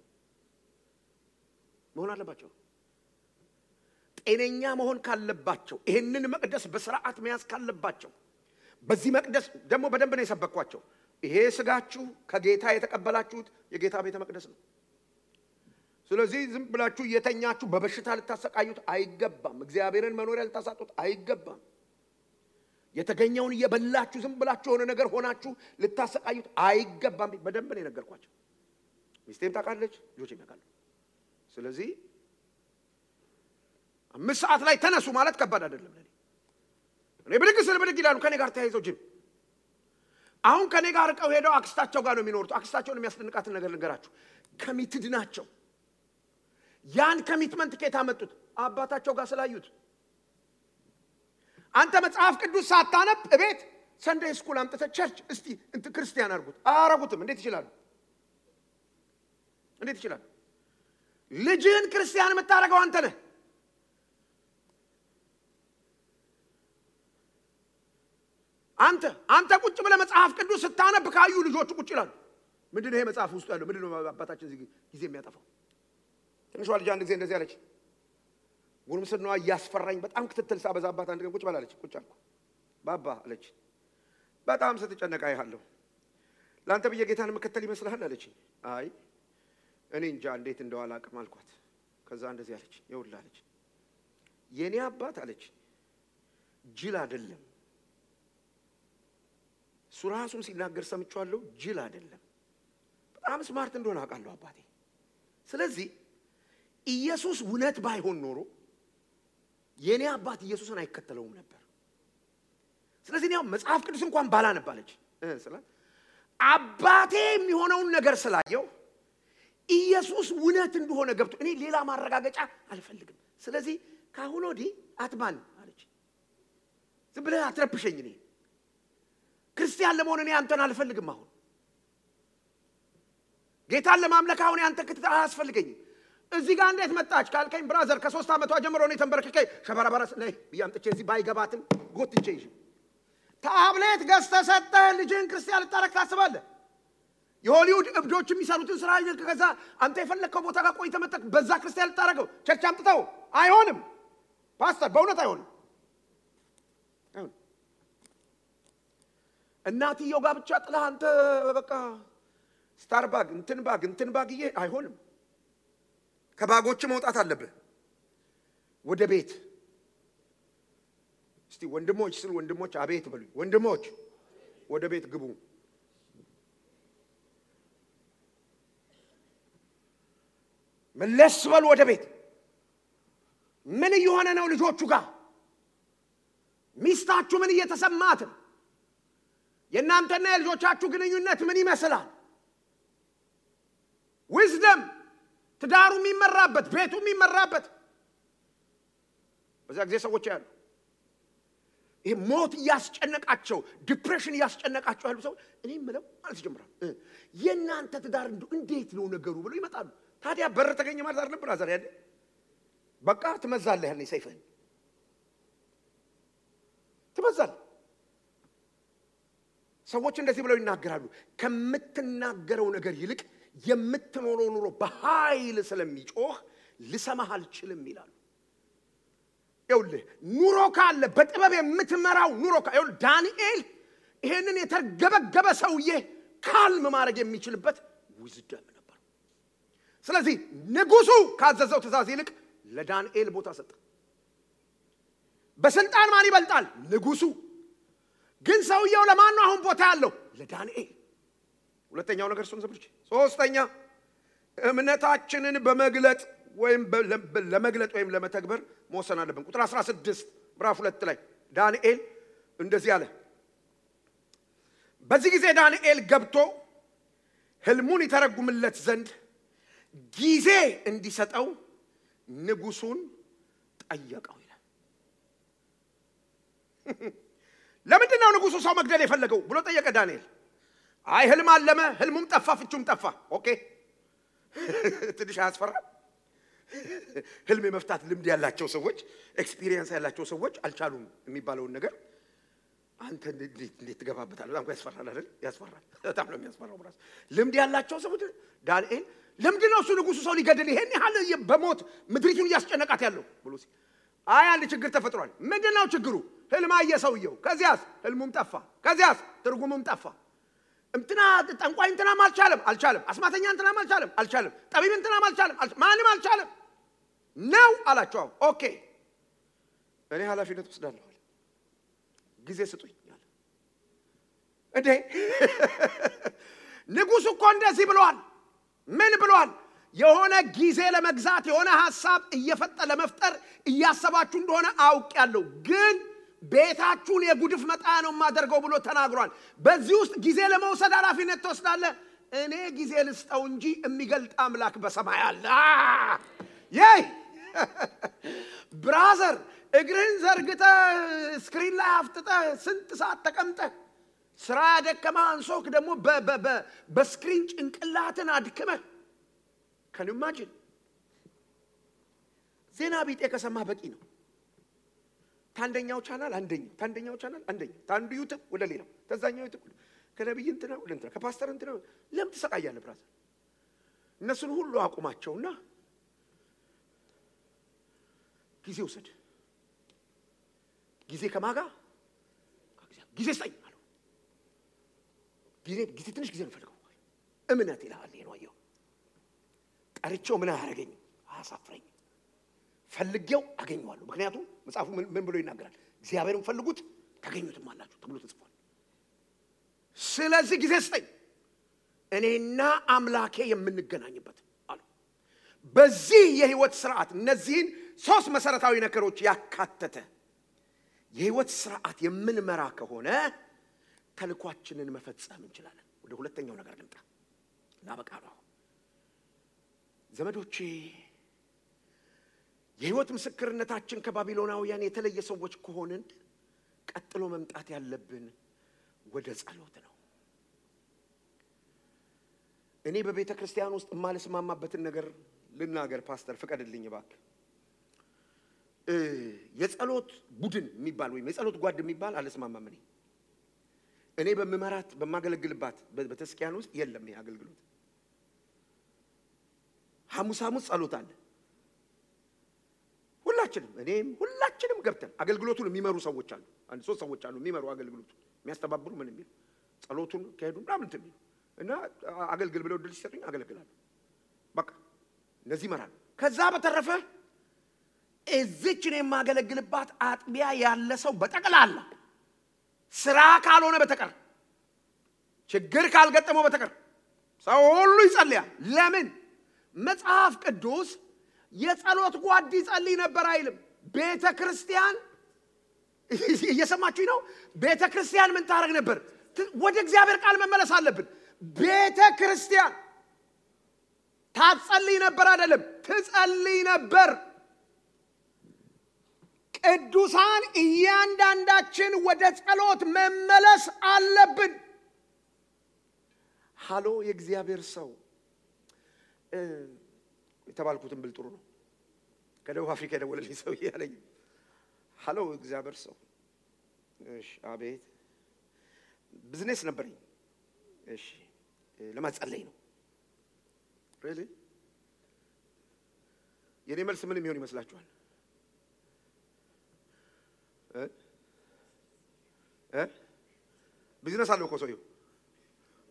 [SPEAKER 1] ጤነኛ መሆን ካለባቸው ይሄንን መቅደስ በስርዓት መያዝ ካለባቸው በዚህ መቅደስ ደግሞ በደንብ ነው የሰበኳቸው ይሄ ስጋችሁ ከጌታ የተቀበላችሁት የጌታ ቤተ መቅደስ ነው ስለዚህ ዝም ብላችሁ የተኛችሁ በበሽታ ልታሰቃዩት አይገባም እግዚአብሔርን መኖሪያ ልታሳጡት አይገባም የተገኘውን እየበላችሁ ዝም ብላችሁ ሆነ ነገር ሆናችሁ ልታሰቃዩት አይገባም በደንብ ነው የነገርኳቸው ሚስቴም ታውቃለች ልጆቼም ያውቃሉ ስለዚህ 5 ሰዓት ላይ ተነሱ ማለት ከባድ አይደለም እኔ ብድግ ይላሉ ከኔ ጋር ተያይዘው ጅም አሁን ከኔ ጋር ቀው ሄደው አክስታቸው ጋር ነው የሚኖሩት አክስታቸውን የሚያስደንቃትን ነገር ልንገራችሁ ኮሚትድ ናቸው ያን ኮሚትመንት ከየት አመጡት አባታቸው ጋር ስላዩት አንተ መጽሐፍ ቅዱስ ሳታነብ እቤት ሰንደይ ስኩል አምጥተ ቸርች እስቲ እንት ክርስቲያን አረጉትም እንዴት ይችላል ልጅህን ክርስቲያን የምታረገው አንተ ነህ አንተ ቁጭ ብለህ መጽሐፍ ቅዱስ ስታነብ ካዩ ልጆቹ ቁጭ ይላሉ ምንድነው ይሄ መጽሐፍ ውስጥ ያለው ምንድነው አባታችን ጊዜ የሚያጠፋው ትንሿ ልጅ አንድ ጊዜ እንደዚህ አለች ጉርምስናዋ ያስፈራኝ በጣም ክትትል ሳበዛባት አንድ ቀን ቁጭ ባላለች ቁጭ አልኩ ባባ አለች በጣም ስትጨነቃ ይሃለሁ ላንተ በየጌታን መከተል ይመስልሃል አለችኝ አይ እኔ እንጃ እንዴት እንደዋላ አቅም አልኳት ከዛ እንደዚህ አለች ይውል አለች የኔ አባት አለች ጅል አይደለም ሱራሱን ሲናገር ሰምቻለሁ ጅል አይደለም በጣም ስማርት እንደሆነ አውቃለሁ አባቴ ስለዚህ ኢየሱስ እውነት ባይሆን ኖሮ የኔ አባት ኢየሱስን አይከተለውም ነበር ስለዚህ ነው መጽሐፍ ቅዱስ እንኳን ባላነባለች ስለዚህ አባቴ የሚሆነውን ነገር ስላየው ኢየሱስ እውነት እንደሆነ ገብቶ እኔ ሌላ ማረጋገጫ አልፈልግም ስለዚህ ካሁን ወዲህ አትማን አለች ዝም ብለህ አትረብሸኝ እኔ ክርስቲያን ለመሆን እኔ አንተን አልፈልግም አሁን ጌታን ለማምለክ አሁን አንተ ክትታ አያስፈልገኝም እዚህ ጋር እንዴት መጣች ካልከኝ ብራዘር ከ3 አመቷ ጀምሮ ነው ተንበርክከ ሸበራባራስ ላይ ያምጥቼ እዚህ ባይገባትም ጎትቼ ይዤ ታብሌት ገዝተሰጠ ልጅን ክርስቲያን ልታረክ ታስባለህ የሆሊውድ እብዶች የሚሰሩትን ስራ ከዛ አንተ የፈለከው ቦታ ጋር ቆይተህ መጣክ በዛ ክርስቲያን ልታረገው ቸርች አምጥተው አይሆንም ፓስተር በእውነት አይሆንም እናትየው ጋር ብቻ ጥለህ አንተ በቃ ስታርባግ እንትን ባግዬ አይሆንም ከባጎች መውጣት አለብህ ወደ ቤት እስቲ ወንድሞች ስለ ወንድሞች አቤት በሉ ወንድሞች ወደ ቤት ግቡ መለስ በሉ ወደ ቤት ምን ይሆነ ነው ልጆቹ ጋር ሚስታችሁ ምን እየተሰማት የናንተና የልጆቻችሁ ግንኙነት ምን ይመስላል wisdom ትዳሩ የሚመራበት ቤቱ የሚመራበት በዛ ጊዜ ሰዎች ያሉ ይሄ ሞት ያስጨነቃቸው ዲፕሬሽን ያስጨነቃቸው ያሉ ሰው እኔ ምለው ማለት ጀምራል የናንተ ትዳር እንዴት ነው ነገሩ ብለው ይመጣሉ ታዲያ በር ተገኘ ማለት አይደለም ብራዘር ያለ በቃ ትመዛለህ ያኔ ሰይፈን ትመዛለህ ሰዎች እንደዚህ ብለው ይናገራሉ ከምትናገረው ነገር ይልቅ የምትኖረው ኑሮ በኃይል ስለሚጮህ ልሰማህ አልችልም ይላሉ ይኸውልህ ኑሮ ካለ በጥበብ የምትመራው ኑሮ ይኸውልህ ዳንኤል ይሄንን የተርገበገበ ሰውዬ ካልም ማድረግ የሚችልበት ዊዝደም ነበር ስለዚህ ንጉሱ ካዘዘው ትእዛዝ ይልቅ ለዳንኤል ቦታ ሰጠ በስልጣን ማን ይበልጣል ንጉሱ ግን ሰውየው ለማን ነው አሁን ቦታ ያለው ለዳንኤል ሁለተኛው ነገር እሱን ዘብርች ሶስተኛ እምነታችንን በመግለጥ ወይም ለመግለጥ ወይም ለመተግበር መወሰን አለብን ቁጥር 16 ምዕራፍ 2 ላይ ዳንኤል እንደዚህ አለ በዚህ ጊዜ ዳንኤል ገብቶ ህልሙን ይተረጉምለት ዘንድ ጊዜ እንዲሰጠው ንጉሱን ጠየቀው ይላል ለምንድን ነው ንጉሱ ሰው መግደል የፈለገው ብሎ ጠየቀ ዳንኤል አይ ህልም አለመ ህልሙም ጠፋ ፍቹም ጠፋ ኦኬ ትንሽ አስፈራ ህልም የመፍታት ልምድ ያላቸው ሰዎች ኤክስፒሪየንስ ያላቸው ሰዎች አልቻሉም የሚባለውን ነገር አንተ እንዴት ትገባበታለህ በጣም ያስፈራል አይደል ያስፈራል በጣም ነው የሚያስፈራው ብራስ ልምድ ያላቸው ሰዎች ዳንኤል ለምንድን ነው እሱ ንጉሱ ሰው ሊገድል ይሄን ያህል በሞት ምድሪቱን ያስጨነቃት ያለው ብሎ ሲል አይ አንድ ችግር ተፈጥሯል ምንድነው ችግሩ ህልም አየ ሰውየው ከዚያስ ህልሙም ጠፋ ከዚያስ ትርጉሙም ጠፋ እንትና ጠንቋይ እንትና አልቻለም አስማተኛ እንትና አልቻለም ጠቢብ እንትና ማንም አልቻለም ነው አላቸው ኦኬ እኔ ኃላፊነት ወስዳለሁ ጊዜ ስጡኝ አለ እንዴ ንጉሱ እኮ እንደዚህ ብሏል ምን ብሏል የሆነ ጊዜ ለመግዛት የሆነ ሐሳብ ለመፍጠር እያሰባችሁ እንደሆነ አውቃለሁ ግን ቤታችሁን የጉድፍ መጣያ ነው ማደርገው ብሎ ተናግሯል በዚህ ውስጥ ጊዜ ለመውሰድ ኃላፊነት ተወስዳለህ እኔ ጊዜ ልስጠው እንጂ የሚገልጥ አምላክ በሰማይ አለ ይይ ብራዘር እግርህን ዘርግተ ስክሪን ላይ አፍጥጠ ስንት ሰዓት ተቀምጠ ስራ ያደከማ አንሶክ ደግሞ በስክሪን ጭንቅላትን አድክመ can you imagine ዜና ቢጤ ከሰማ በቂ ነው ታንደኛው ቻናል አንደኛው ቻናል ታንዱ ዩቲዩብ ወደ ሌላው ተዛኛው ዩቲዩብ ከነብይ እንትና ወደ እንትና ከፓስተር እንትና ለምን ተሰቃያለህ ብራዘር እነሱን ሁሉ አቁማቸውና ጊዜ ወሰድ ጊዜ ከማጋ ጊዜ ስጠኝ አለው ጊዜ ትንሽ ጊዜ ነው ፈልገው እምነት ይላል ነው አየው ጠርቼው ምን አያረገኝ አሳፍረኝ ፈልጌው አገኘዋለሁ ምክንያቱም መጽሐፉ ምን ብሎ ይናገራል እግዚአብሔርን ፈልጉት ታገኙትም አላችሁ ተብሎ ተጽፏል ስለዚህ ጊዜ ስጠኝ እኔና አምላኬ የምንገናኝበት አሉ በዚህ የህይወት ሥርዓት እነዚህን ሶስት መሰረታዊ ነገሮች ያካተተ የህይወት ሥርዓት የምንመራ ከሆነ ተልኳችንን መፈጸም እንችላለን ወደ ሁለተኛው ነገር ልምጣ ላበቃለሁ ዘመዶቼ የህይወት ምስክርነታችን ከባቢሎናውያን የተለየ ሰዎች ከሆነን ቀጥሎ መምጣት ያለብን ወደ ጸሎት ነው እኔ በቤተ ክርስቲያን ውስጥ ማለስማማበትን ነገር ልናገር ፓስተር ፍቀድልኝ እባክህ የጸሎት ቡድን የሚባል ወይ የጸሎት ጓድ የሚባል አለስማማም እኔ በመመራት በማገለግልባት በተስኪያን ውስጥ የለም ይሄ አገልግሎት ሐሙስ ጸሎት አለ ሁላችንም ገብተን አገልግሎቱን የሚመሩ ሰዎች አሉ አንድ ሶስት ሰዎች አሉ የሚመሩ አገልግሎቱን የሚያስተባብሩ ምን የሚሉ ጸሎቱን ከሄዱ ምናምን እንትን እና አገልግል ብለው ድል ሲሰጡኝ አገልግላለሁ በቃ እነዚህ ይመራሉ ከዛ በተረፈ እዚችን የማገለግልባት አጥቢያ ያለ ሰው በጠቅላላ ስራ ካልሆነ በተቀር ችግር ካልገጠመው በተቀር ሰው ሁሉ ይጸልያል ለምን መጽሐፍ ቅዱስ የጸሎት ጓድ ይጸልይ ነበር አይልም ቤተክርስቲያን እየሰማችሁ ነው ቤተክርስቲያን ምን ታረግ ነበር ወደ እግዚአብሔር ቃል መመለስ አለብን ቤተክርስቲያን ታጸልይ ነበር አይደለም ትጸልይ ነበር ቅዱሳን እያንዳንዳችን ወደ ጸሎት መመለስ አለብን ሃሎ የእግዚአብሔር ሰው የተባልኩትን ብል ጥሩ ነው ከደቡብ አፍሪካ ደወለልኝ ሰው ያለኝ ሃሎ እግዚአብሔር ሰው እሺ አቤት ቢዝነስ ነበርኝ እሺ ለማጸለይ ነው really የኔ መልስ ምን የሚሆን ይመስላችኋል ቢዝነስ አለው እኮ ሰውየው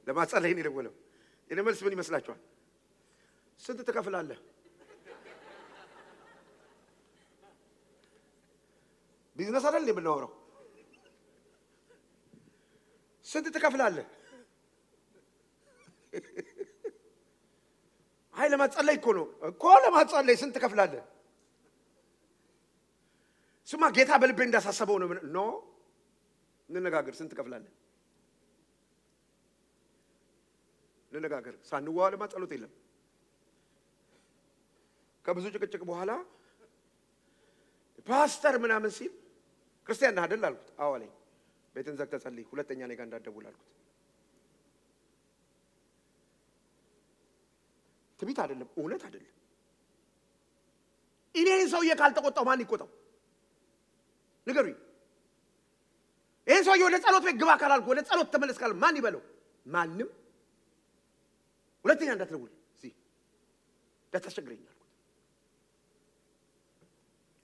[SPEAKER 1] ለማጸለይ ነው የደወለው የኔ መልስ ምን ይመስላችኋል ስንት ትከፍላለህ ቢዝነስ አይደል የምናወራው ስንት ትከፍላለህ አይ ለማጸለይ እኮ ለማጸለይ ስንት ትከፍላለህ ስማ ጌታ በልቤ እንዳሳሰበው ነው እንነጋገር ስንት ትከፍላለህ እንነጋገር ሳንዋል ማጸሎት የለም ከብዙ ጭቅጭቅ በኋላ ፓስተር ምናምን ሲል ክርስቲያን ነህ አይደል አልኩት አዎ አለኝ ቤትን ዘግተህ ጸልይ ሁለተኛ እኔ ጋር እንዳትደውል አልኩት ትቢት አይደለም እውነት አይደለም እኔን ሰውዬ ካልተቆጣው ማን ይቆጣው ንገሩኝ ይሄን ሰውዬ ወደ ጸሎት ቤት ግባ ካላልኩ ወደ ጸሎት ተመለስ ካል ማን ይበለው ማንም ሁለተኛ እንዳትደውል እዚህ እንዳታስቸግረኝ አልኩት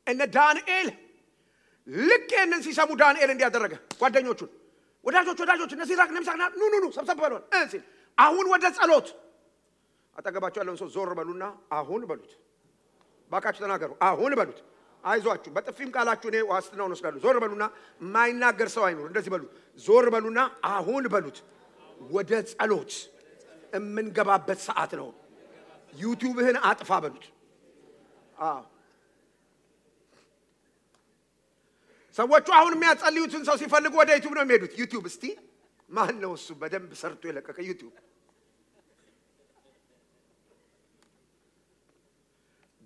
[SPEAKER 1] እነ ዳንኤል ልክ እነን ሲሰሙ ዳንኤል እንዲያደረገ ጓደኞቹን ወዳጆች እነዚህ ራቅ ነምሳና ኑ ሰብሰብ በሉን እንሲል አሁን ወደ ጸሎት አጠገባቸው ያለውን ሰው ዞር በሉና አሁን በሉት ባካችሁ ተናገሩ አሁን በሉት አይዟችሁ በጥፊም ቃላችሁ ነው ዋስትናውን ወስዳሉ ዞር በሉና ማይናገር ሰው አይኖር እንደዚህ በሉ ዞር በሉና አሁን በሉት ወደ ጸሎት እምንገባበት ሰዓት ነው ዩቲዩብህን አጥፋ በሉት ሰዎቹ አሁን የሚያጸልዩትን ሰው ሲፈልጉ ወደ ዩቲዩብ ነው የሚሄዱት ዩቲዩብ እስቲ ማን ነው እሱ በደንብ ሰርቶ የለቀቀ ዩቲዩብ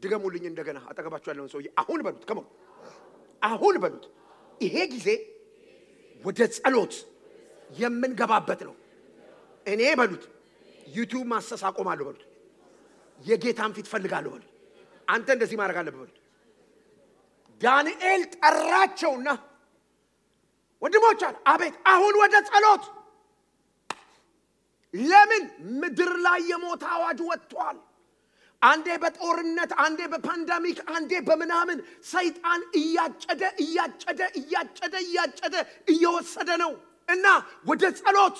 [SPEAKER 1] ድገሙልኝ እንደገና አጠገባችሁ ያለውን ሰው አሁን በሉት ከመው አሁን በሉት ይሄ ጊዜ ወደ ጸሎት የምንገባበት ነው እኔ በሉት ዩቲዩብ ማሰስ አቆማለሁ በሉት የጌታን ፊት ፈልጋለሁ በሉት አንተ እንደዚህ ማድረግ አለብህ በሉት ዳንኤል ጠራቸውና ወንድሞች አቤት አሁን ወደ ጸሎት ለምን ምድር ላይ የሞት አዋጅ ወጥቷል አንዴ በጦርነት አንዴ በፓንደሚክ አንዴ በመናምን ሰይጣን እያጨደ እየወሰደ ነው እና ወደ ጸሎት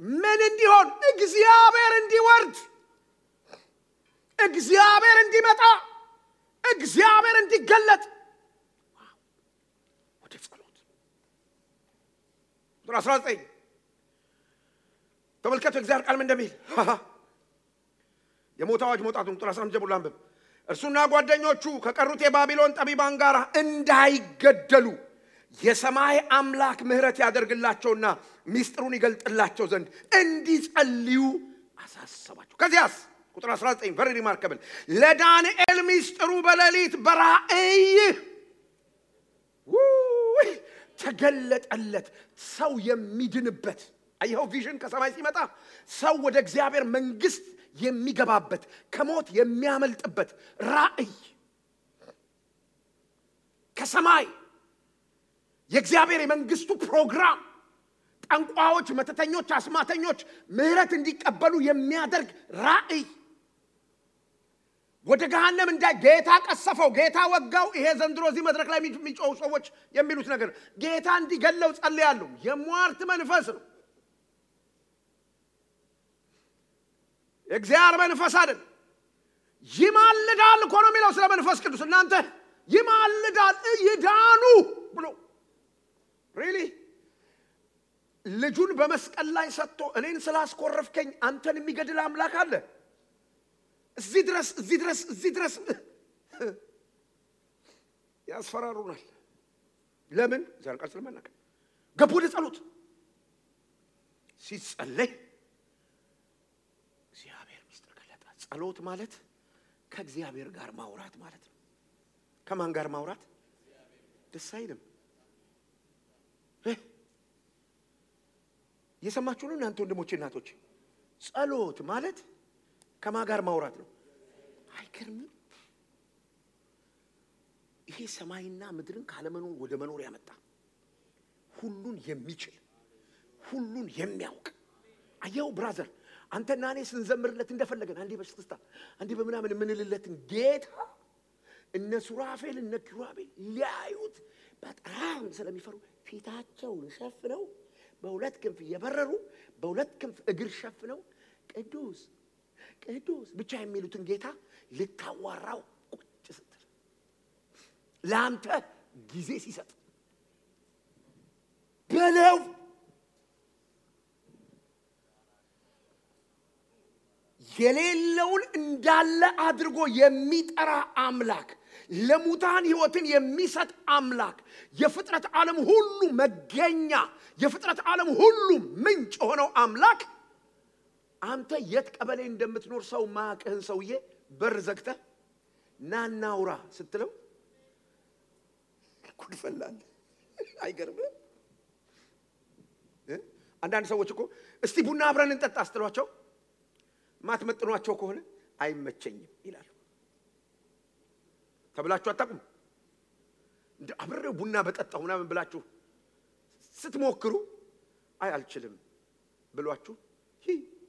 [SPEAKER 1] ምን እንዲሆን? እግዚአብሔር እንዲወርድ፣ እግዚአብሔር እንዲመጣ፣ እግዚአብሔር እንዲገለጥ ወደ ጸሎት። ቁጥር 19 ተመልከቱ እግዚአብሔር ቃል ምን እንደሚል። የሞት አዋጅ መውጣቱን ቁጥር 15 ጀምሮ አንብብ። እርሱና ጓደኞቹ ከቀሩት የባቢሎን ጠቢባን ጋር እንዳይገደሉ የሰማይ አምላክ ምህረት ያደርግላቸውና ሚስጥሩን ይገልጥላቸው ዘንድ እንዲጸልዩ አሳሰባቸው። ከዚያስ ቁጥር 19 very remarkable ለዳንኤል ሚስጥሩ በሌሊት በራእይ ተገለጠለት። ሰው የሚድንበት አይው ቪዥን ከሰማይ ሲመጣ ሰው ወደ እግዚአብሔር መንግስት የሚገባበት ከሞት የሚያመልጥበት ራእይ ከሰማይ የእግዚአብሔር የመንግስቱ ፕሮግራም ጠንቋዮች፣ መተተኞች፣ አስማተኞች ምህረት እንዲቀበሉ የሚያደርግ ራእይ ወደ ገሃነም እንዳይ ጌታ ቀሰፈው፣ ጌታ ወጋው። ይሄ ዘንድሮ እዚህ መድረክ ላይ የሚጮሁ ሰዎች የሚሉት ነገር ጌታ እንዲገለው ጸልያለሁ። የሟርት መንፈስ ነው። እግዚአብሔር መንፈስ አይደል። ይማልዳል እኮ ነው የሚለው ስለ መንፈስ ቅዱስ። እናንተ ይማልዳል ይዳኑ ብሎ really ልጁን በመስቀል ላይ ሰጥቶ እኔን ስላስቆረፍከኝ አንተን የሚገድል አምላክ አለ? እዚህ ድረስ ያስፈራሩናል። ለምን? ዛሬ ቃል ስለማናውቅ ገቡ ወደ ጸሎት። ሲጸለይ እግዚአብሔር ሚስጥር ገለጠ። ጸሎት ማለት ከእግዚአብሔር ጋር ማውራት ማለት ነው። ከማን ጋር ማውራት? ደስ አይልም? የሰማችሁ ነው እናንተ ወንድሞቼ እናቶቼ? ጸሎት ማለት ከማን ጋር ማውራት ነው? አይገርምም? ይሄ ሰማይና ምድርን ካለመኖር ወደ መኖር ያመጣ ሁሉን የሚችል ሁሉን የሚያውቅ አየው ብራዘር፣ አንተና እኔ ስንዘምርለት እንደፈለገን አንዴ በሽክስታ አንዴ በመናምን ምንልለትን ጌታ እነ ሱራፌል እነ ኪሩቤል ሊያዩት በጣም ስለሚፈሩ ፊታቸውን ሸፍነው በሁለት ክንፍ የበረሩ በሁለት ክንፍ እግር ሸፍነው ቅዱስ ቅዱስ ብቻ የሚሉትን ጌታ ልታዋራው ቁጭ ስትል ላንተ ጊዜ ሲሰጥ በለው የሌለውን እንዳለ አድርጎ የሚጠራ አምላክ፣ ለሙታን ሕይወትን የሚሰጥ አምላክ፣ የፍጥረት ዓለም ሁሉ መገኛ፣ የፍጥረት ዓለም ሁሉ ምንጭ ሆነው አምላክ አንተ የት ቀበሌ እንደምትኖር ሰው ማቀህን ሰውዬ በር ዘግተህ ናናውራ ስትለው ኩድፈላል። አይገርምም? አንዳንድ ሰዎች እኮ እስቲ ቡና አብረን እንጠጣ አስተሏቸው ማትመጥኗቸው ከሆነ አይመቸኝም ይላሉ። ተብላችሁ አታቁም? እንደ አብረው ቡና በጠጣውና ምን ብላችሁ ስትሞክሩ አይ አልችልም ብሏችሁ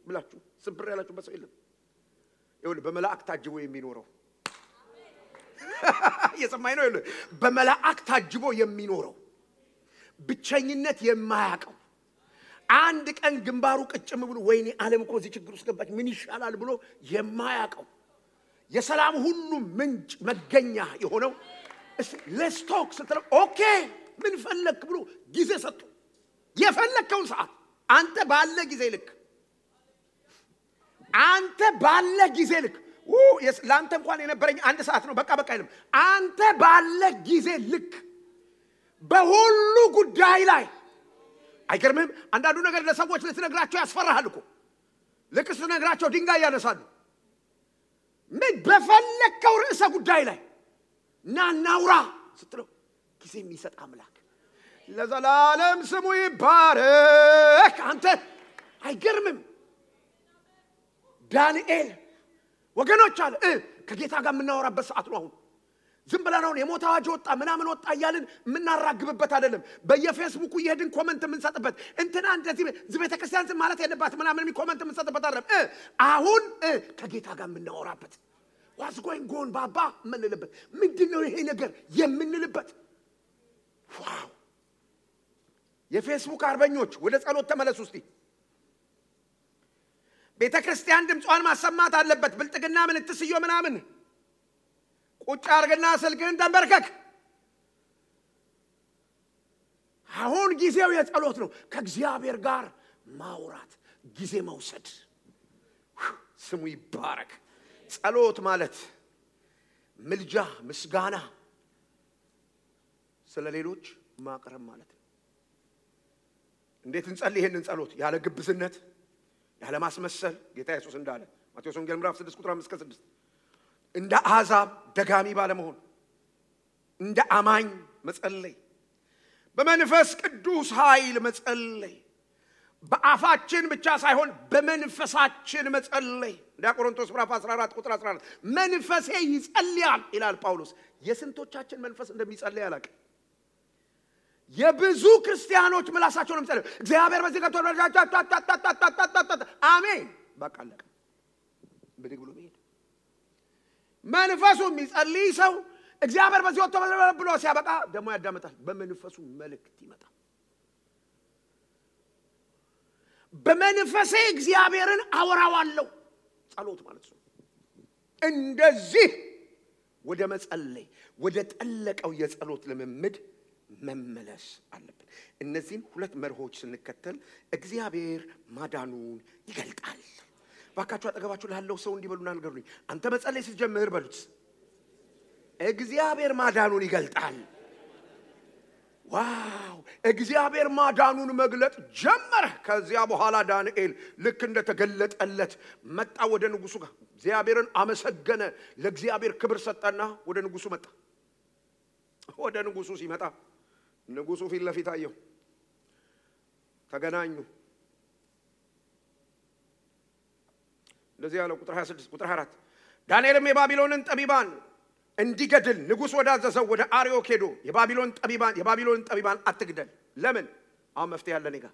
[SPEAKER 1] ብላችሁ ስብር ያላችሁ በሰው የለም። ይሁን በመላእክት ታጅቦ የሚኖረው የሰማይ ነው። ይሁን በመላእክት ታጅቦ የሚኖረው ብቸኝነት የማያቀው አንድ ቀን ግንባሩ ቅጭም ብሎ ወይኔ ዓለም እኮ እዚህ ችግር ውስጥ ገባች ምን ይሻላል ብሎ የማያቀው የሰላም ሁሉ ምንጭ መገኛ የሆነው let's talk ስትለው ኦኬ ምን ፈለክ ብሎ ጊዜ ሰጡ። የፈለከውን ሰዓት አንተ ባለ ጊዜ ልክ አንተ ባለ ጊዜ ልክ ላንተ እንኳን የነበረኝ አንድ ሰዓት ነው በቃ አይልም። አንተ ባለ ጊዜ ልክ በሁሉ ጉዳይ ላይ አይገርምም? አንዳንዱ ነገር ለሰዎች ልትነግራቸው ያስፈራሃል እኮ። ልክ ስትነግራቸው ድንጋይ ያነሳሉ። ምን በፈለከው ርዕሰ ጉዳይ ላይ ናናውራ ስትለው ጊዜ የሚሰጥ አምላክ ለዘላለም ስሙ ይባረክ። አንተ አይገርምም? ዳንኤል ወገኖች አለ ከጌታ ጋር የምናወራበት ሰዓት ነው አሁን። ዝም ብለን አሁን የሞት አዋጅ ወጣ ምናምን ወጣ እያልን የምናራግብበት አይደለም። በየፌስቡኩ ይሄድን ኮሜንት የምንሰጥበት እንትና እንደዚህ ዝቤተ ክርስቲያን ዝም ማለት የለባት ምናምን ኮሜንት የምንሰጥበት አይደለም። አሁን ከጌታ ጋር የምናወራበት what's going on ባባ የምንልበት ምንድነው ይሄ ነገር የምንልበት። ዋው! የፌስቡክ አርበኞች ወደ ጸሎት ተመለሱ እስቲ። ቤተ ክርስቲያን ድምጿን ማሰማት አለበት። ብልጥግና ምን ትስዮ ምናምን ቁጭ አርግና ስልክህን ተንበርከክ። አሁን ጊዜው የጸሎት ነው። ከእግዚአብሔር ጋር ማውራት፣ ጊዜ መውሰድ። ስሙ ይባረክ። ጸሎት ማለት ምልጃ፣ ምስጋና፣ ስለሌሎች ማቅረብ ማለት ነው። እንዴት እንጸልይ ይሄንን ጸሎት? ያለ ግብዝነት፣ ያለ ማስመሰል። ጌታ ኢየሱስ እንዳለ ማቴዎስ ወንጌል ምዕራፍ 6 ቁጥር 5-6 እንደ አሕዛብ ደጋሚ ባለመሆን እንደ አማኝ መጸለይ፣ በመንፈስ ቅዱስ ኃይል መጸለይ፣ በአፋችን ብቻ ሳይሆን በመንፈሳችን መጸለይ። እንደ ቆሮንቶስ ምዕራፍ 14 ቁጥር 14 መንፈሴ ይጸልያል ይላል ጳውሎስ። የስንቶቻችን መንፈስ እንደሚጸልይ አላውቅም። የብዙ ክርስቲያኖች ምላሳቸው ነው የሚጸልዩ። እግዚአብሔር በዚህ ገብቶ አሜን በቃ አለቀ። ብድግ ብሎ መሄድ። መንፈሱ የሚጸልይ ሰው እግዚአብሔር በዚህ ወጥቶ ብሎ ሲያበቃ ደግሞ ያዳምጣል። በመንፈሱ መልእክት ይመጣል። በመንፈሴ እግዚአብሔርን አወራዋለሁ። ጸሎት ማለት ነው። እንደዚህ ወደ መጸለይ፣ ወደ ጠለቀው የጸሎት ልምምድ መመለስ አለብን። እነዚህን ሁለት መርሆች ስንከተል እግዚአብሔር ማዳኑን ይገልጣል። ባካችሁ አጠገባችሁ ላለው ሰው እንዲበሉና ንገሩኝ። አንተ መጸለይ ስትጀምር በሉት እግዚአብሔር ማዳኑን ይገልጣል። ዋው! እግዚአብሔር ማዳኑን መግለጥ ጀመረ። ከዚያ በኋላ ዳንኤል ልክ እንደተገለጠለት መጣ ወደ ንጉሱ ጋር። እግዚአብሔርን አመሰገነ፣ ለእግዚአብሔር ክብር ሰጠና ወደ ንጉሱ መጣ። ወደ ንጉሱ ሲመጣ ንጉሱ ፊት ለፊት አየው። ተገናኙ። እንደዚህ ያለው ቁጥር 26 ቁጥር 24 ዳንኤልም የባቢሎንን ጠቢባን እንዲገድል ንጉስ ወዳዘዘው ወደ አርዮክ ሄዶ የባቢሎን ጠቢባን አትግደል። ለምን? አሁን መፍትሄ ያለ እኔ ጋር።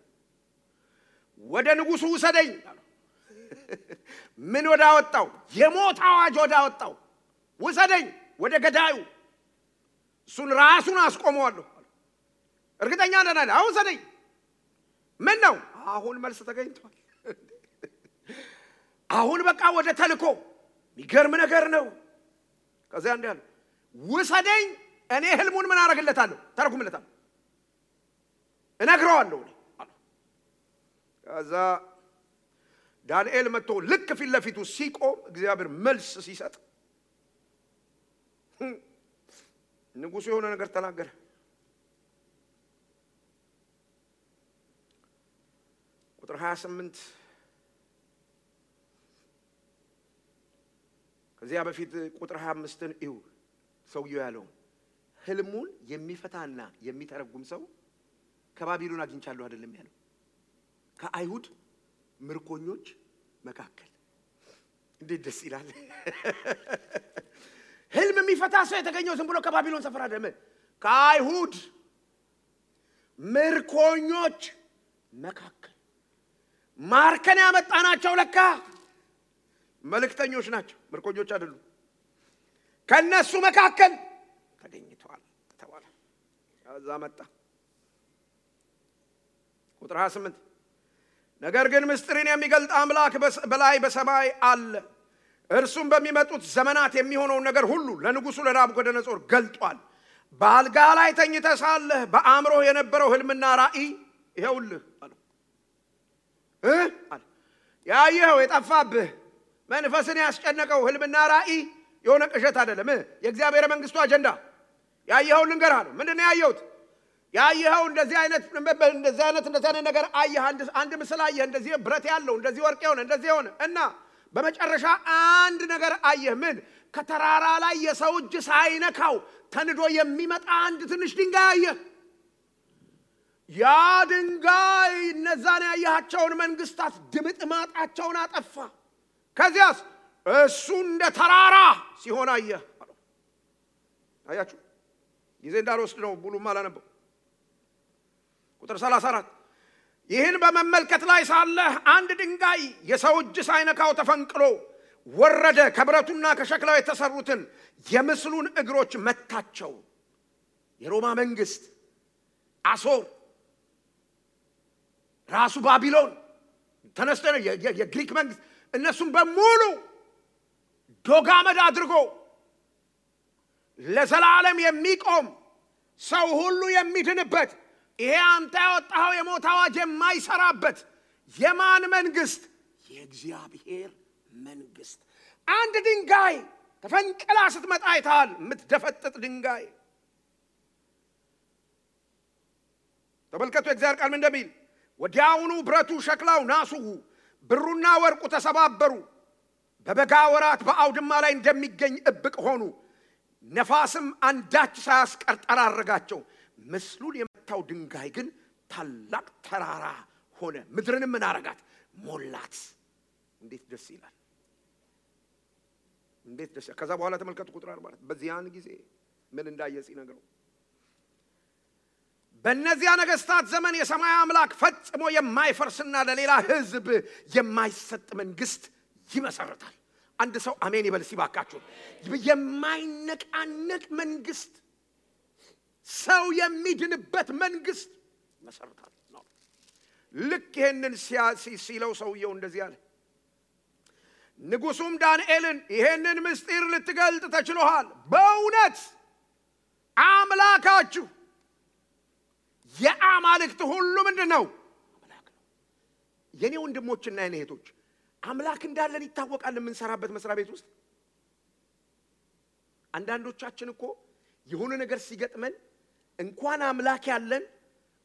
[SPEAKER 1] ወደ ንጉሱ ውሰደኝ አለው። ምን ወዳወጣው? የሞት አዋጅ ወዳወጣው ውሰደኝ፣ ወደ ገዳዩ። እሱን ራሱን አስቆመዋለሁ። እርግጠኛ ነኝ። አሁን ውሰደኝ። ምን ነው? አሁን መልስ ተገኝቷል። አሁን በቃ ወደ ተልኮ። የሚገርም ነገር ነው። ከዚያ እንዲህ አለ፣ ውሰደኝ፣ እኔ ህልሙን ምን አደርግለታለሁ? ተረጉምለታለሁ፣ እነግረዋለሁ አለ። ከዛ ዳንኤል መጥቶ ልክ ፊት ለፊቱ ሲቆም እግዚአብሔር መልስ ሲሰጥ ንጉሱ የሆነ ነገር ተናገረ። ቁጥር 28 ከዚያ በፊት ቁጥር 25ን እዩ። ሰውየው ያለው ህልሙን የሚፈታና የሚተረጉም ሰው ከባቢሎን አግኝቻለሁ አይደለም ያለው፣ ከአይሁድ ምርኮኞች መካከል። እንዴት ደስ ይላል! ህልም የሚፈታ ሰው የተገኘው ዝም ብሎ ከባቢሎን ሰፈር አይደለም፣ ከአይሁድ ምርኮኞች መካከል። ማርከን ያመጣናቸው ለካ መልእክተኞች ናቸው፣ ምርኮኞች አይደሉም። ከነሱ መካከል ተገኝተዋል ተባለ። ከዛ መጣ ቁጥር 28 ነገር ግን ምስጢርን የሚገልጥ አምላክ በላይ በሰማይ አለ፣ እርሱም በሚመጡት ዘመናት የሚሆነውን ነገር ሁሉ ለንጉሱ ለናቡከደነጾር ገልጧል። በአልጋ ላይ ተኝተህ ሳለህ በአእምሮ የነበረው ህልምና ራእይ ይኸውልህ አለ። ያየኸው የጠፋብህ መንፈስን ያስጨነቀው ህልምና ራእይ የሆነ ቅዠት አይደለም፣ የእግዚአብሔር መንግስቱ አጀንዳ። ያየኸው ልንገርህ አለ። ምንድነው ያየሁት? ያየኸው እንደዚህ አይነት ነገር አየህ። አንድ ምስል አየህ፣ እንደዚህ ብረት ያለው፣ እንደዚህ ወርቅ የሆነ፣ እንደዚህ የሆነ እና በመጨረሻ አንድ ነገር አየህ። ምን? ከተራራ ላይ የሰው እጅ ሳይነካው ተንዶ የሚመጣ አንድ ትንሽ ድንጋይ አየህ። ያ ድንጋይ እነዛን ያያቸውን መንግስታት ድምጥማጣቸውን አጠፋ። ከዚያስ እሱ እንደ ተራራ ሲሆን አየህ። አያችሁ? ጊዜ እንዳልወስድ ነው፣ ሙሉም አላነበው። ቁጥር 34 ይህን በመመልከት ላይ ሳለህ አንድ ድንጋይ የሰው እጅ ሳይነካው ተፈንቅሎ ወረደ፣ ከብረቱና ከሸክላው የተሰሩትን የምስሉን እግሮች መታቸው። የሮማ መንግስት አሶር ራሱ ባቢሎን ተነስቶ የግሪክ መንግስት እነሱም በሙሉ ዶጋመድ አድርጎ ለዘላለም የሚቆም ሰው ሁሉ የሚድንበት ይሄ አንተ ያወጣው የሞት አዋጅ የማይሰራበት የማን መንግስት? የእግዚአብሔር መንግስት። አንድ ድንጋይ ተፈንቅላ ስትመጣ አይተሃል? የምትደፈጥጥ ድንጋይ። ተመልከቱ የእግዚአብሔር ቃል ምን እንደሚል፣ ወዲያውኑ ብረቱ፣ ሸክላው፣ ናሱ፣ ብሩና ወርቁ ተሰባበሩ፣ በበጋ ወራት በአውድማ ላይ እንደሚገኝ እብቅ ሆኑ፣ ነፋስም አንዳች ሳያስቀር ጠራረጋቸው። ምስሉን የመታው ድንጋይ ግን ታላቅ ተራራ ሆነ፣ ምድርንም ምን አረጋት? ሞላት። እንዴት ደስ ይላል! እንዴት ደስ! ከዛ በኋላ ተመልከቱ ቁጥር 40 በዚያን ጊዜ ምን እንዳየጽ ይነግረው። በእነዚያ ነገስታት ዘመን የሰማይ አምላክ ፈጽሞ የማይፈርስና ለሌላ ህዝብ የማይሰጥ መንግስት ይመሰርታል። አንድ ሰው አሜን ይበል ሲባካችሁ። የማይነቃነቅ መንግስት፣ ሰው የሚድንበት መንግስት ይመሰርታል ነው። ልክ ይሄንን ሲለው ሰውየው እንደዚህ አለ። ንጉሱም ዳንኤልን ይሄንን ምስጢር ልትገልጥ ተችሎሃል። በእውነት አምላካችሁ የአማልክት ሁሉ ምንድነው? አምላክ ነው። የኔ ወንድሞችና የኔ እህቶች አምላክ እንዳለን ይታወቃል። የምንሰራበት መስሪያ ቤት ውስጥ አንዳንዶቻችን እኮ የሆነ ነገር ሲገጥመን እንኳን አምላክ ያለን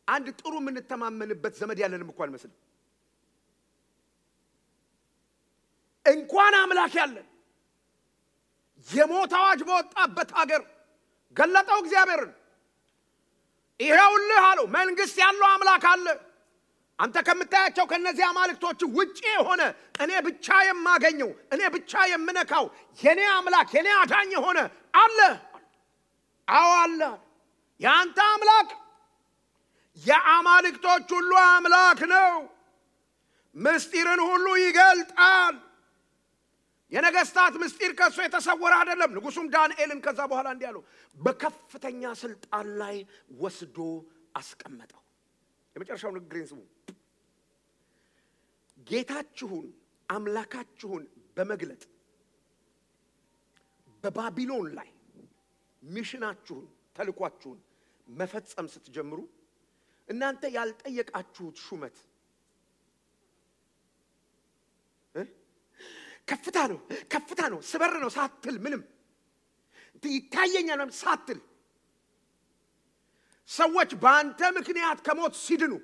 [SPEAKER 1] አንድ ጥሩ የምንተማመንበት ዘመድ ያለንም እንኳን መስል እንኳን አምላክ ያለን የሞት አዋጅ በወጣበት ሀገር ገለጠው እግዚአብሔርን። ይሄውልህ አለው መንግስት ያለው አምላክ አለ። አንተ ከምታያቸው ከነዚህ አማልክቶች ውጪ ሆነ እኔ ብቻ የማገኘው እኔ ብቻ የምነካው የኔ አምላክ የኔ አዳኝ ሆነ አለ። አዎ አለ። ያንተ አምላክ የአማልክቶች ሁሉ አምላክ ነው። ምስጢርን ሁሉ ይገልጣል። የነገስታት ምስጢር ከሱ የተሰወረ አይደለም። ንጉሱም ዳንኤልን ከዛ በኋላ እንዲህ አለው፣ በከፍተኛ ስልጣን ላይ ወስዶ አስቀመጠው። የመጨረሻው ንግግሬን ስሙ። ጌታችሁን አምላካችሁን በመግለጥ በባቢሎን ላይ ሚሽናችሁን ተልኳችሁን መፈጸም ስትጀምሩ እናንተ ያልጠየቃችሁት ሹመት ከፍታ ነው ስበር ነው ሳትል ምንም ይታየኛል ሳትል ሰዎች በአንተ ምክንያት ከሞት ሲድኑ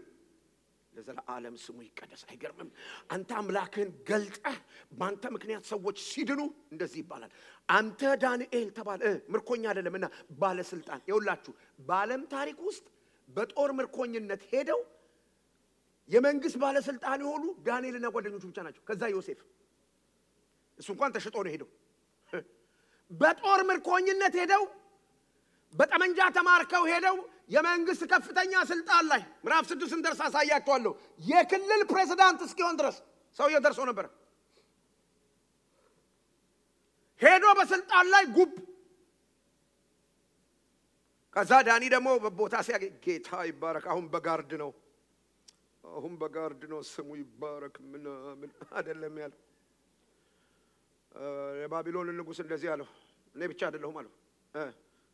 [SPEAKER 1] ለዘላለም ስሙ ይቀደስ። አይገርምም? አንተ አምላክህን ገልጠህ በአንተ ምክንያት ሰዎች ሲድኑ እንደዚህ ይባላል። አንተ ዳንኤል ተባለ ምርኮኛ አይደለምና ባለስልጣን። ይውላችሁ በዓለም ታሪክ ውስጥ በጦር ምርኮኝነት ሄደው የመንግስት ባለስልጣን የሆኑ ዳንኤልና ጓደኞቹ ብቻ ናቸው። ከዛ ዮሴፍ እሱ እንኳን ተሽጦ ነው ሄደው። በጦር ምርኮኝነት ሄደው በጠመንጃ ተማርከው ሄደው የመንግስት ከፍተኛ ስልጣን ላይ ምዕራፍ 6 እንደርሳ ሳያያቸዋለሁ የክልል ፕሬዝዳንት እስኪሆን ድረስ ሰውየው ደርሶ ነበር። ሄዶ በስልጣን ላይ ጉብ። ከዛ ዳኒ ደግሞ በቦታ ሲያገኝ ጌታ ይባረክ አሁን በጋርድ ነው ስሙ ይባረክ ምን አይደለም ያለው። የባቢሎን ንጉስ እንደዚህ አለው፣ እኔ ብቻ አይደለሁም አለው።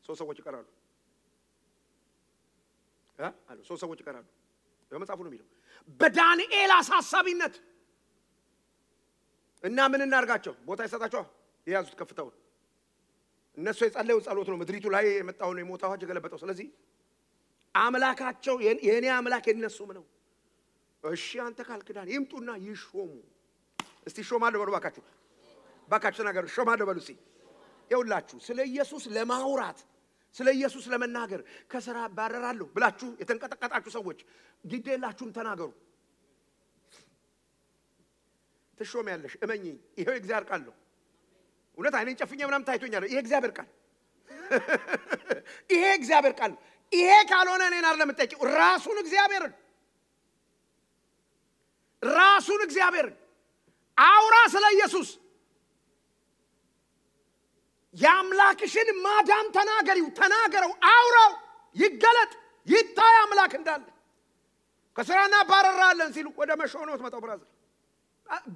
[SPEAKER 1] ሶስት ሰዎች ይቀራሉ አለው። ሶስት ሰዎች ይቀራሉ። በመጽሐፉ ነው የሚለው። በዳንኤል አሳሳቢነት እና ምን እናርጋቸው? ቦታ ይሰጣቸው የያዙት ከፍተው እነሱ የጸለዩ ጸሎት ነው ምድሪቱ ላይ የመጣው ነው የሞት አዋጅ የገለበጠው። ስለዚህ አምላካቸው የኔ አምላክ የነሱም ነው። እሺ አንተ ካልክዳን ይምጡና ይሾሙ። እስቲ ሾማለሁ በሉ ባካችሁ ነገር ሾማለሁ በሉ። እስቲ ይውላችሁ ስለ ኢየሱስ ለማውራት ስለ ኢየሱስ ለመናገር ከሥራ ባረራለሁ ብላችሁ የተንቀጠቀጣችሁ ሰዎች ግዴላችሁም ተናገሩ። ትሾሚያለሽ እመኚኝ። ይሄው እግዚአብሔር ቃል ነው። እውነት አይኔን ጨፍኜ ምናምን ታይቶኛል። ይሄ እግዚአብሔር ቃል ይሄ እግዚአብሔር ቃል። ይሄ ካልሆነ እኔን አይደለም የምትጠይቂው ራሱን እግዚአብሔርን አውራ ስለ ኢየሱስ። የአምላክሽን ማዳን ተናገረው፣ አውራው፣ ይገለጥ፣ ይታይ አምላክ እንዳለ። ከሥራና ባረራለን ሲሉ ወደ መሾህ ነው የምትመጣው። ብራዘር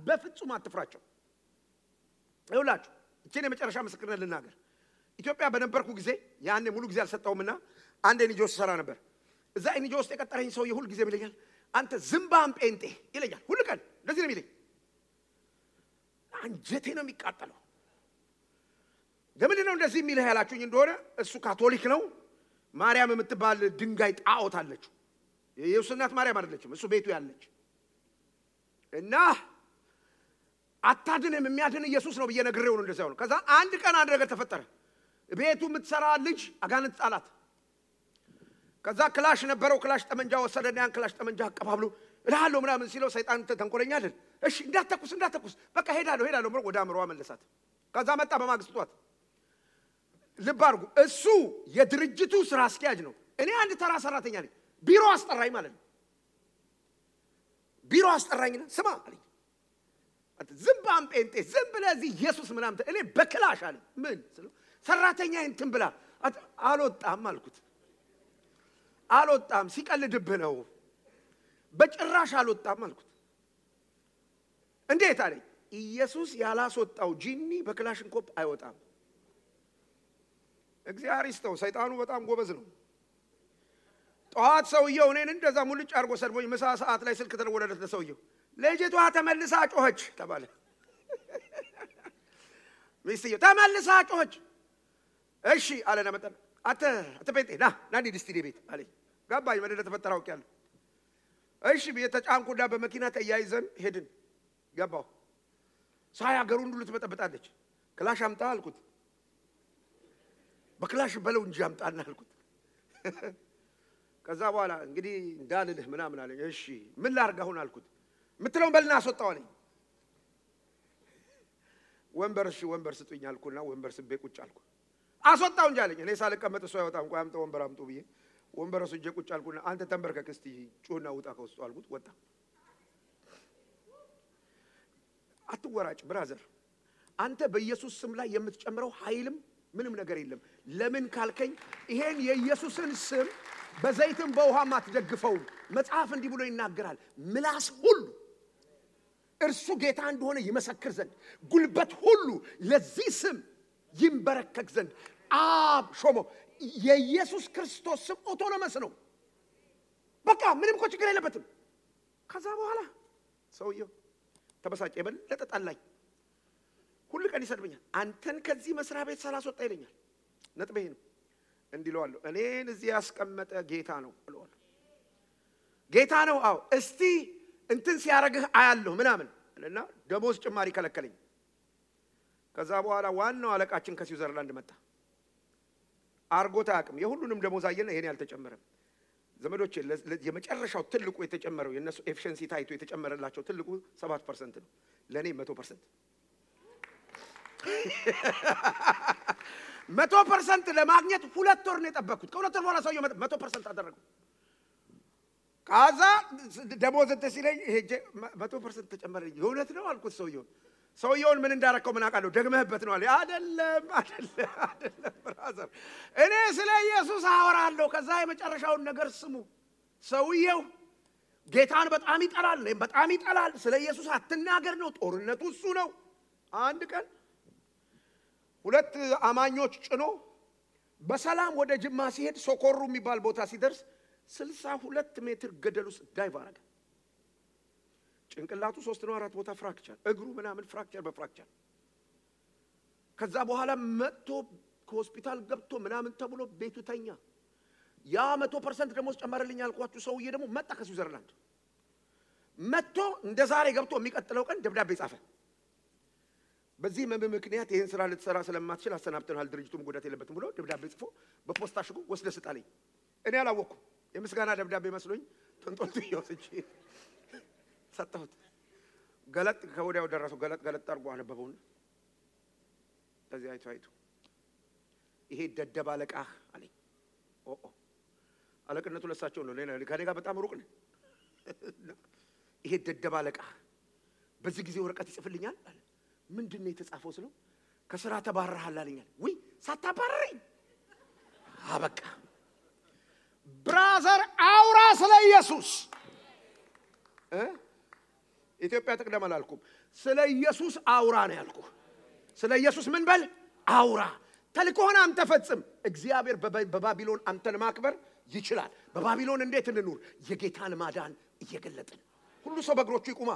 [SPEAKER 1] በፍጹም አትፍራቸው። ይኸውላችሁ እቺን የመጨረሻ ምስክርነት ልናገር። ኢትዮጵያ በነበርኩ ጊዜ ያኔ ሙሉ ጊዜ አልሰጣውምና አንድ ኤንጂኦ ሰራ ነበር። እዛ ኤንጂኦ ውስጥ የቀጠረኝ ሰው የሁሉ ጊዜ ይለኛል አንተ ዝምባም ጴንጤ ይለኛል። ሁሉ ቀን እንደዚህ ነው የሚለኝ። አንጀቴ ነው የሚቃጠለው። ለምንድን ነው እንደዚህ የሚልህ ያላችሁኝ እንደሆነ እሱ ካቶሊክ ነው። ማርያም የምትባል ድንጋይ ጣዖት አለች። የኢየሱስ እናት ማርያም አይደለችም፣ እሱ ቤቱ ያለች እና አታድንም የሚያድን ኢየሱስ ነው ብዬ ነግሬው ነው እንደዚህ ያለው። ከዛ አንድ ቀን አንድ ነገር ተፈጠረ። ቤቱ የምትሰራ ልጅ አጋንንት ጣላት። ከዛ ክላሽ ነበረው። ክላሽ ጠመንጃ ወሰደና ያን ክላሽ ጠመንጃ አቀባብሎ እልሃለሁ ምናምን ሲለው ሰይጣን ተንኮለኛ አይደል? እሺ እንዳትተኩስ በቃ ሄዳለሁ ብሎ ወደ አምሮዋ መለሳት። ከዛ መጣ በማግስቱ ጧት። ልብ አድርጉ፣ እሱ የድርጅቱ ስራ አስኪያጅ ነው። እኔ አንድ ተራ ሰራተኛ ነኝ። ቢሮ አስጠራኝ ማለት ነው። ቢሮ አስጠራኝና ስማ አለኝ ዝምባም ጴንጤ ዝም ብለህ እዚህ ኢየሱስ ምናምን እኔ በክላሽ አለኝ። ምን ስለው ሰራተኛዬን እንትን ብላ አልወጣም አልኩት። አልወጣም ሲቀልድብህ ነው። በጭራሽ አልወጣም አልኩት። እንዴት አለኝ። ኢየሱስ ያላስወጣው ጂኒ በክላሽንኮፕ አይወጣም። እግዚአብሔር ይስጠው፣ ሰይጣኑ በጣም ጎበዝ ነው። ጠዋት ሰውየው እኔን እንደዛ ሙልጭ አድርጎ ሰድቦኝ ምሳ ሰዓት ላይ ስልክ ተደወለለት ለሰውየው። ልጅቷ ተመልሳ ጮኸች ተባለ። ሚስትየው ተመልሳ ጮኸች። እሺ አለና መጣና አተ ጴንጤ ና እንሂድ እስቲ ቤት አለኝ። ገባኝ ምን እንደተፈጠረ አውቄያለሁ። እሺ ቤት ተጫንኩና በመኪና ተያይዘን ሄድን። ገባሁ። ሳይ አገሩን ሁሉ ትበጠብጣለች። ክላሽ አምጣ አልኩት። በክላሽ በለው እንጂ አምጣና አልኩት። ከዛ በኋላ እንግዲህ እንዳልልህ ምናምን አለኝ። እሺ ምን ላድርግ አሁን አልኩት። ምትለውን በልና አስወጣው አለኝ። ወንበር ስጡኝ አልኩና ወንበር ስቤ ቁጭ አልኩ። አስወጣው እንጂ አለኝ። እኔ ሳልቀመጥ እሱ አይወጣም። ቆይ አምጣ ወንበር አምጡ ብዬ ወንበር ወስጄ ቁጭ አልኩና አንተ ተንበርከክ እስቲ ጩህና ውጣ ከውስጡ አልኩት። ወጣ። አትወራጭ ብራዘር፣ አንተ በኢየሱስ ስም ላይ የምትጨምረው ኃይልም ምንም ነገር የለም። ለምን ካልከኝ ይሄን የኢየሱስን ስም በዘይትም በውሃም አትደግፈው። መጽሐፍ እንዲህ ብሎ ይናገራል፣ ምላስ ሁሉ እርሱ ጌታ እንደሆነ ይመሰክር ዘንድ ጉልበት ሁሉ ለዚህ ስም ይንበረከክ ዘንድ አብ ሾሞ። የኢየሱስ ክርስቶስ ስም ኦቶኖመስ ነው። በቃ ምንም እኮ ችግር የለበትም። ከዛ በኋላ ሰውየው ተበሳጨ፣ የበለጠ ጠላኝ። ሁሉ ቀን ይሰድበኛል። አንተን ከዚህ መስሪያ ቤት ሳላስወጣ ይለኛል። ነጥቤ ነው እንዲለዋለሁ። እኔን እዚህ ያስቀመጠ ጌታ ነው እለዋለሁ። ጌታ ነው አዎ። እስቲ እንትን ሲያረግህ አያለሁ ምናምን እና ደሞዝ ጭማሪ ከለከለኝ። ከዛ በኋላ ዋናው አለቃችን ከስዊዘርላንድ መጣ። አርጎታ አቅም የሁሉንም ደሞዝ አየና ይሄን ያልተጨመረ ዘመዶቼ የመጨረሻው ትልቁ የተጨመረው የነሱ ኤፊሺየንሲ ታይቶ የተጨመረላቸው ትልቁ 7% ነው። ለኔ 100%። 100% ለማግኘት 2 ወር ነው የጠበቅኩት። ከ2 ወር በኋላ ሰውየው 100% አደረገው። ካዛ ደሞዝ ተሲለኝ ሄጄ 100% ተጨመረልኝ። የእውነት ነው አልኩት ሰውየውን ምን እንዳረከው ምን አውቃለሁ። ደግመህበት ነው አለ። አይደለም ብራዘር፣ እኔ ስለ ኢየሱስ አወራለሁ። ከዛ የመጨረሻውን ነገር ስሙ። ሰውየው ጌታን በጣም ይጠላል፣ በጣም ይጠላል። ስለ ኢየሱስ አትናገር ነው ጦርነቱ እሱ ነው። አንድ ቀን 2 አማኞች ጭኖ በሰላም ወደ ጅማ ሲሄድ ሶኮሩ የሚባል ቦታ ሲደርስ 62 ሜትር ገደል ውስጥ ዳይቭ አረገ። ጭንቅላቱ 3 ነው 4 ቦታ ፍራክቸር፣ እግሩ ምናምን ፍራክቸር በፍራክቸር። ከዛ በኋላ መጥቶ ከሆስፒታል ገብቶ ምናምን ተብሎ ቤቱ ተኛ። ያ 100% ደሞዝ ጨመረልኝ ያልኳችሁ ሰውዬ ደግሞ መጣ ከስዊዘርላንድ። መጥቶ እንደዛሬ ገብቶ የሚቀጥለው ቀን ደብዳቤ ጻፈ። በዚህ ምክንያት ይሄን ስራ ልትሰራ ስለማትችል አሰናብተናል፣ ድርጅቱም ጉዳት የለበትም ብሎ ደብዳቤ ጽፎ በፖስታ ሽጉ ወስደህ ስጣለኝ። እኔ አላወኩም። የምስጋና ደብዳቤ መስሎኝ ተንጦልቶ ይወስጂ ሰጠሁት። ገለጥ ከወዲያው ደረሰው። ገለጥ አድርጎ አነበበውና ከዚህ አይቶ ይሄ ደደብ አለቃህ አለኝ። አለቅነቱ ለሳቸው ነው፣ ከኔ ጋር በጣም ሩቅ ነው። ይሄ ደደብ አለቃህ በዚህ ጊዜ ወረቀት ይጽፍልኛል አለ። ምንድነው የተጻፈው ስለው ከስራ ተባረሃል አለኛል። ወይ ሳታባረረኝ አበቃ። ብራዘር አውራ ስለ ኢየሱስ ኢትዮጵያ ተቀደም አላልኩም ስለ ኢየሱስ አውራ ነው ያልኩህ ስለ ኢየሱስ ምን በል አውራ ተልኮና አንተ ፈጽም እግዚአብሔር በባቢሎን አንተን ማክበር ይችላል በባቢሎን እንዴት እንኑር የጌታን ማዳን እየገለጥን ሁሉ ሰው በእግሮቹ ይቁማ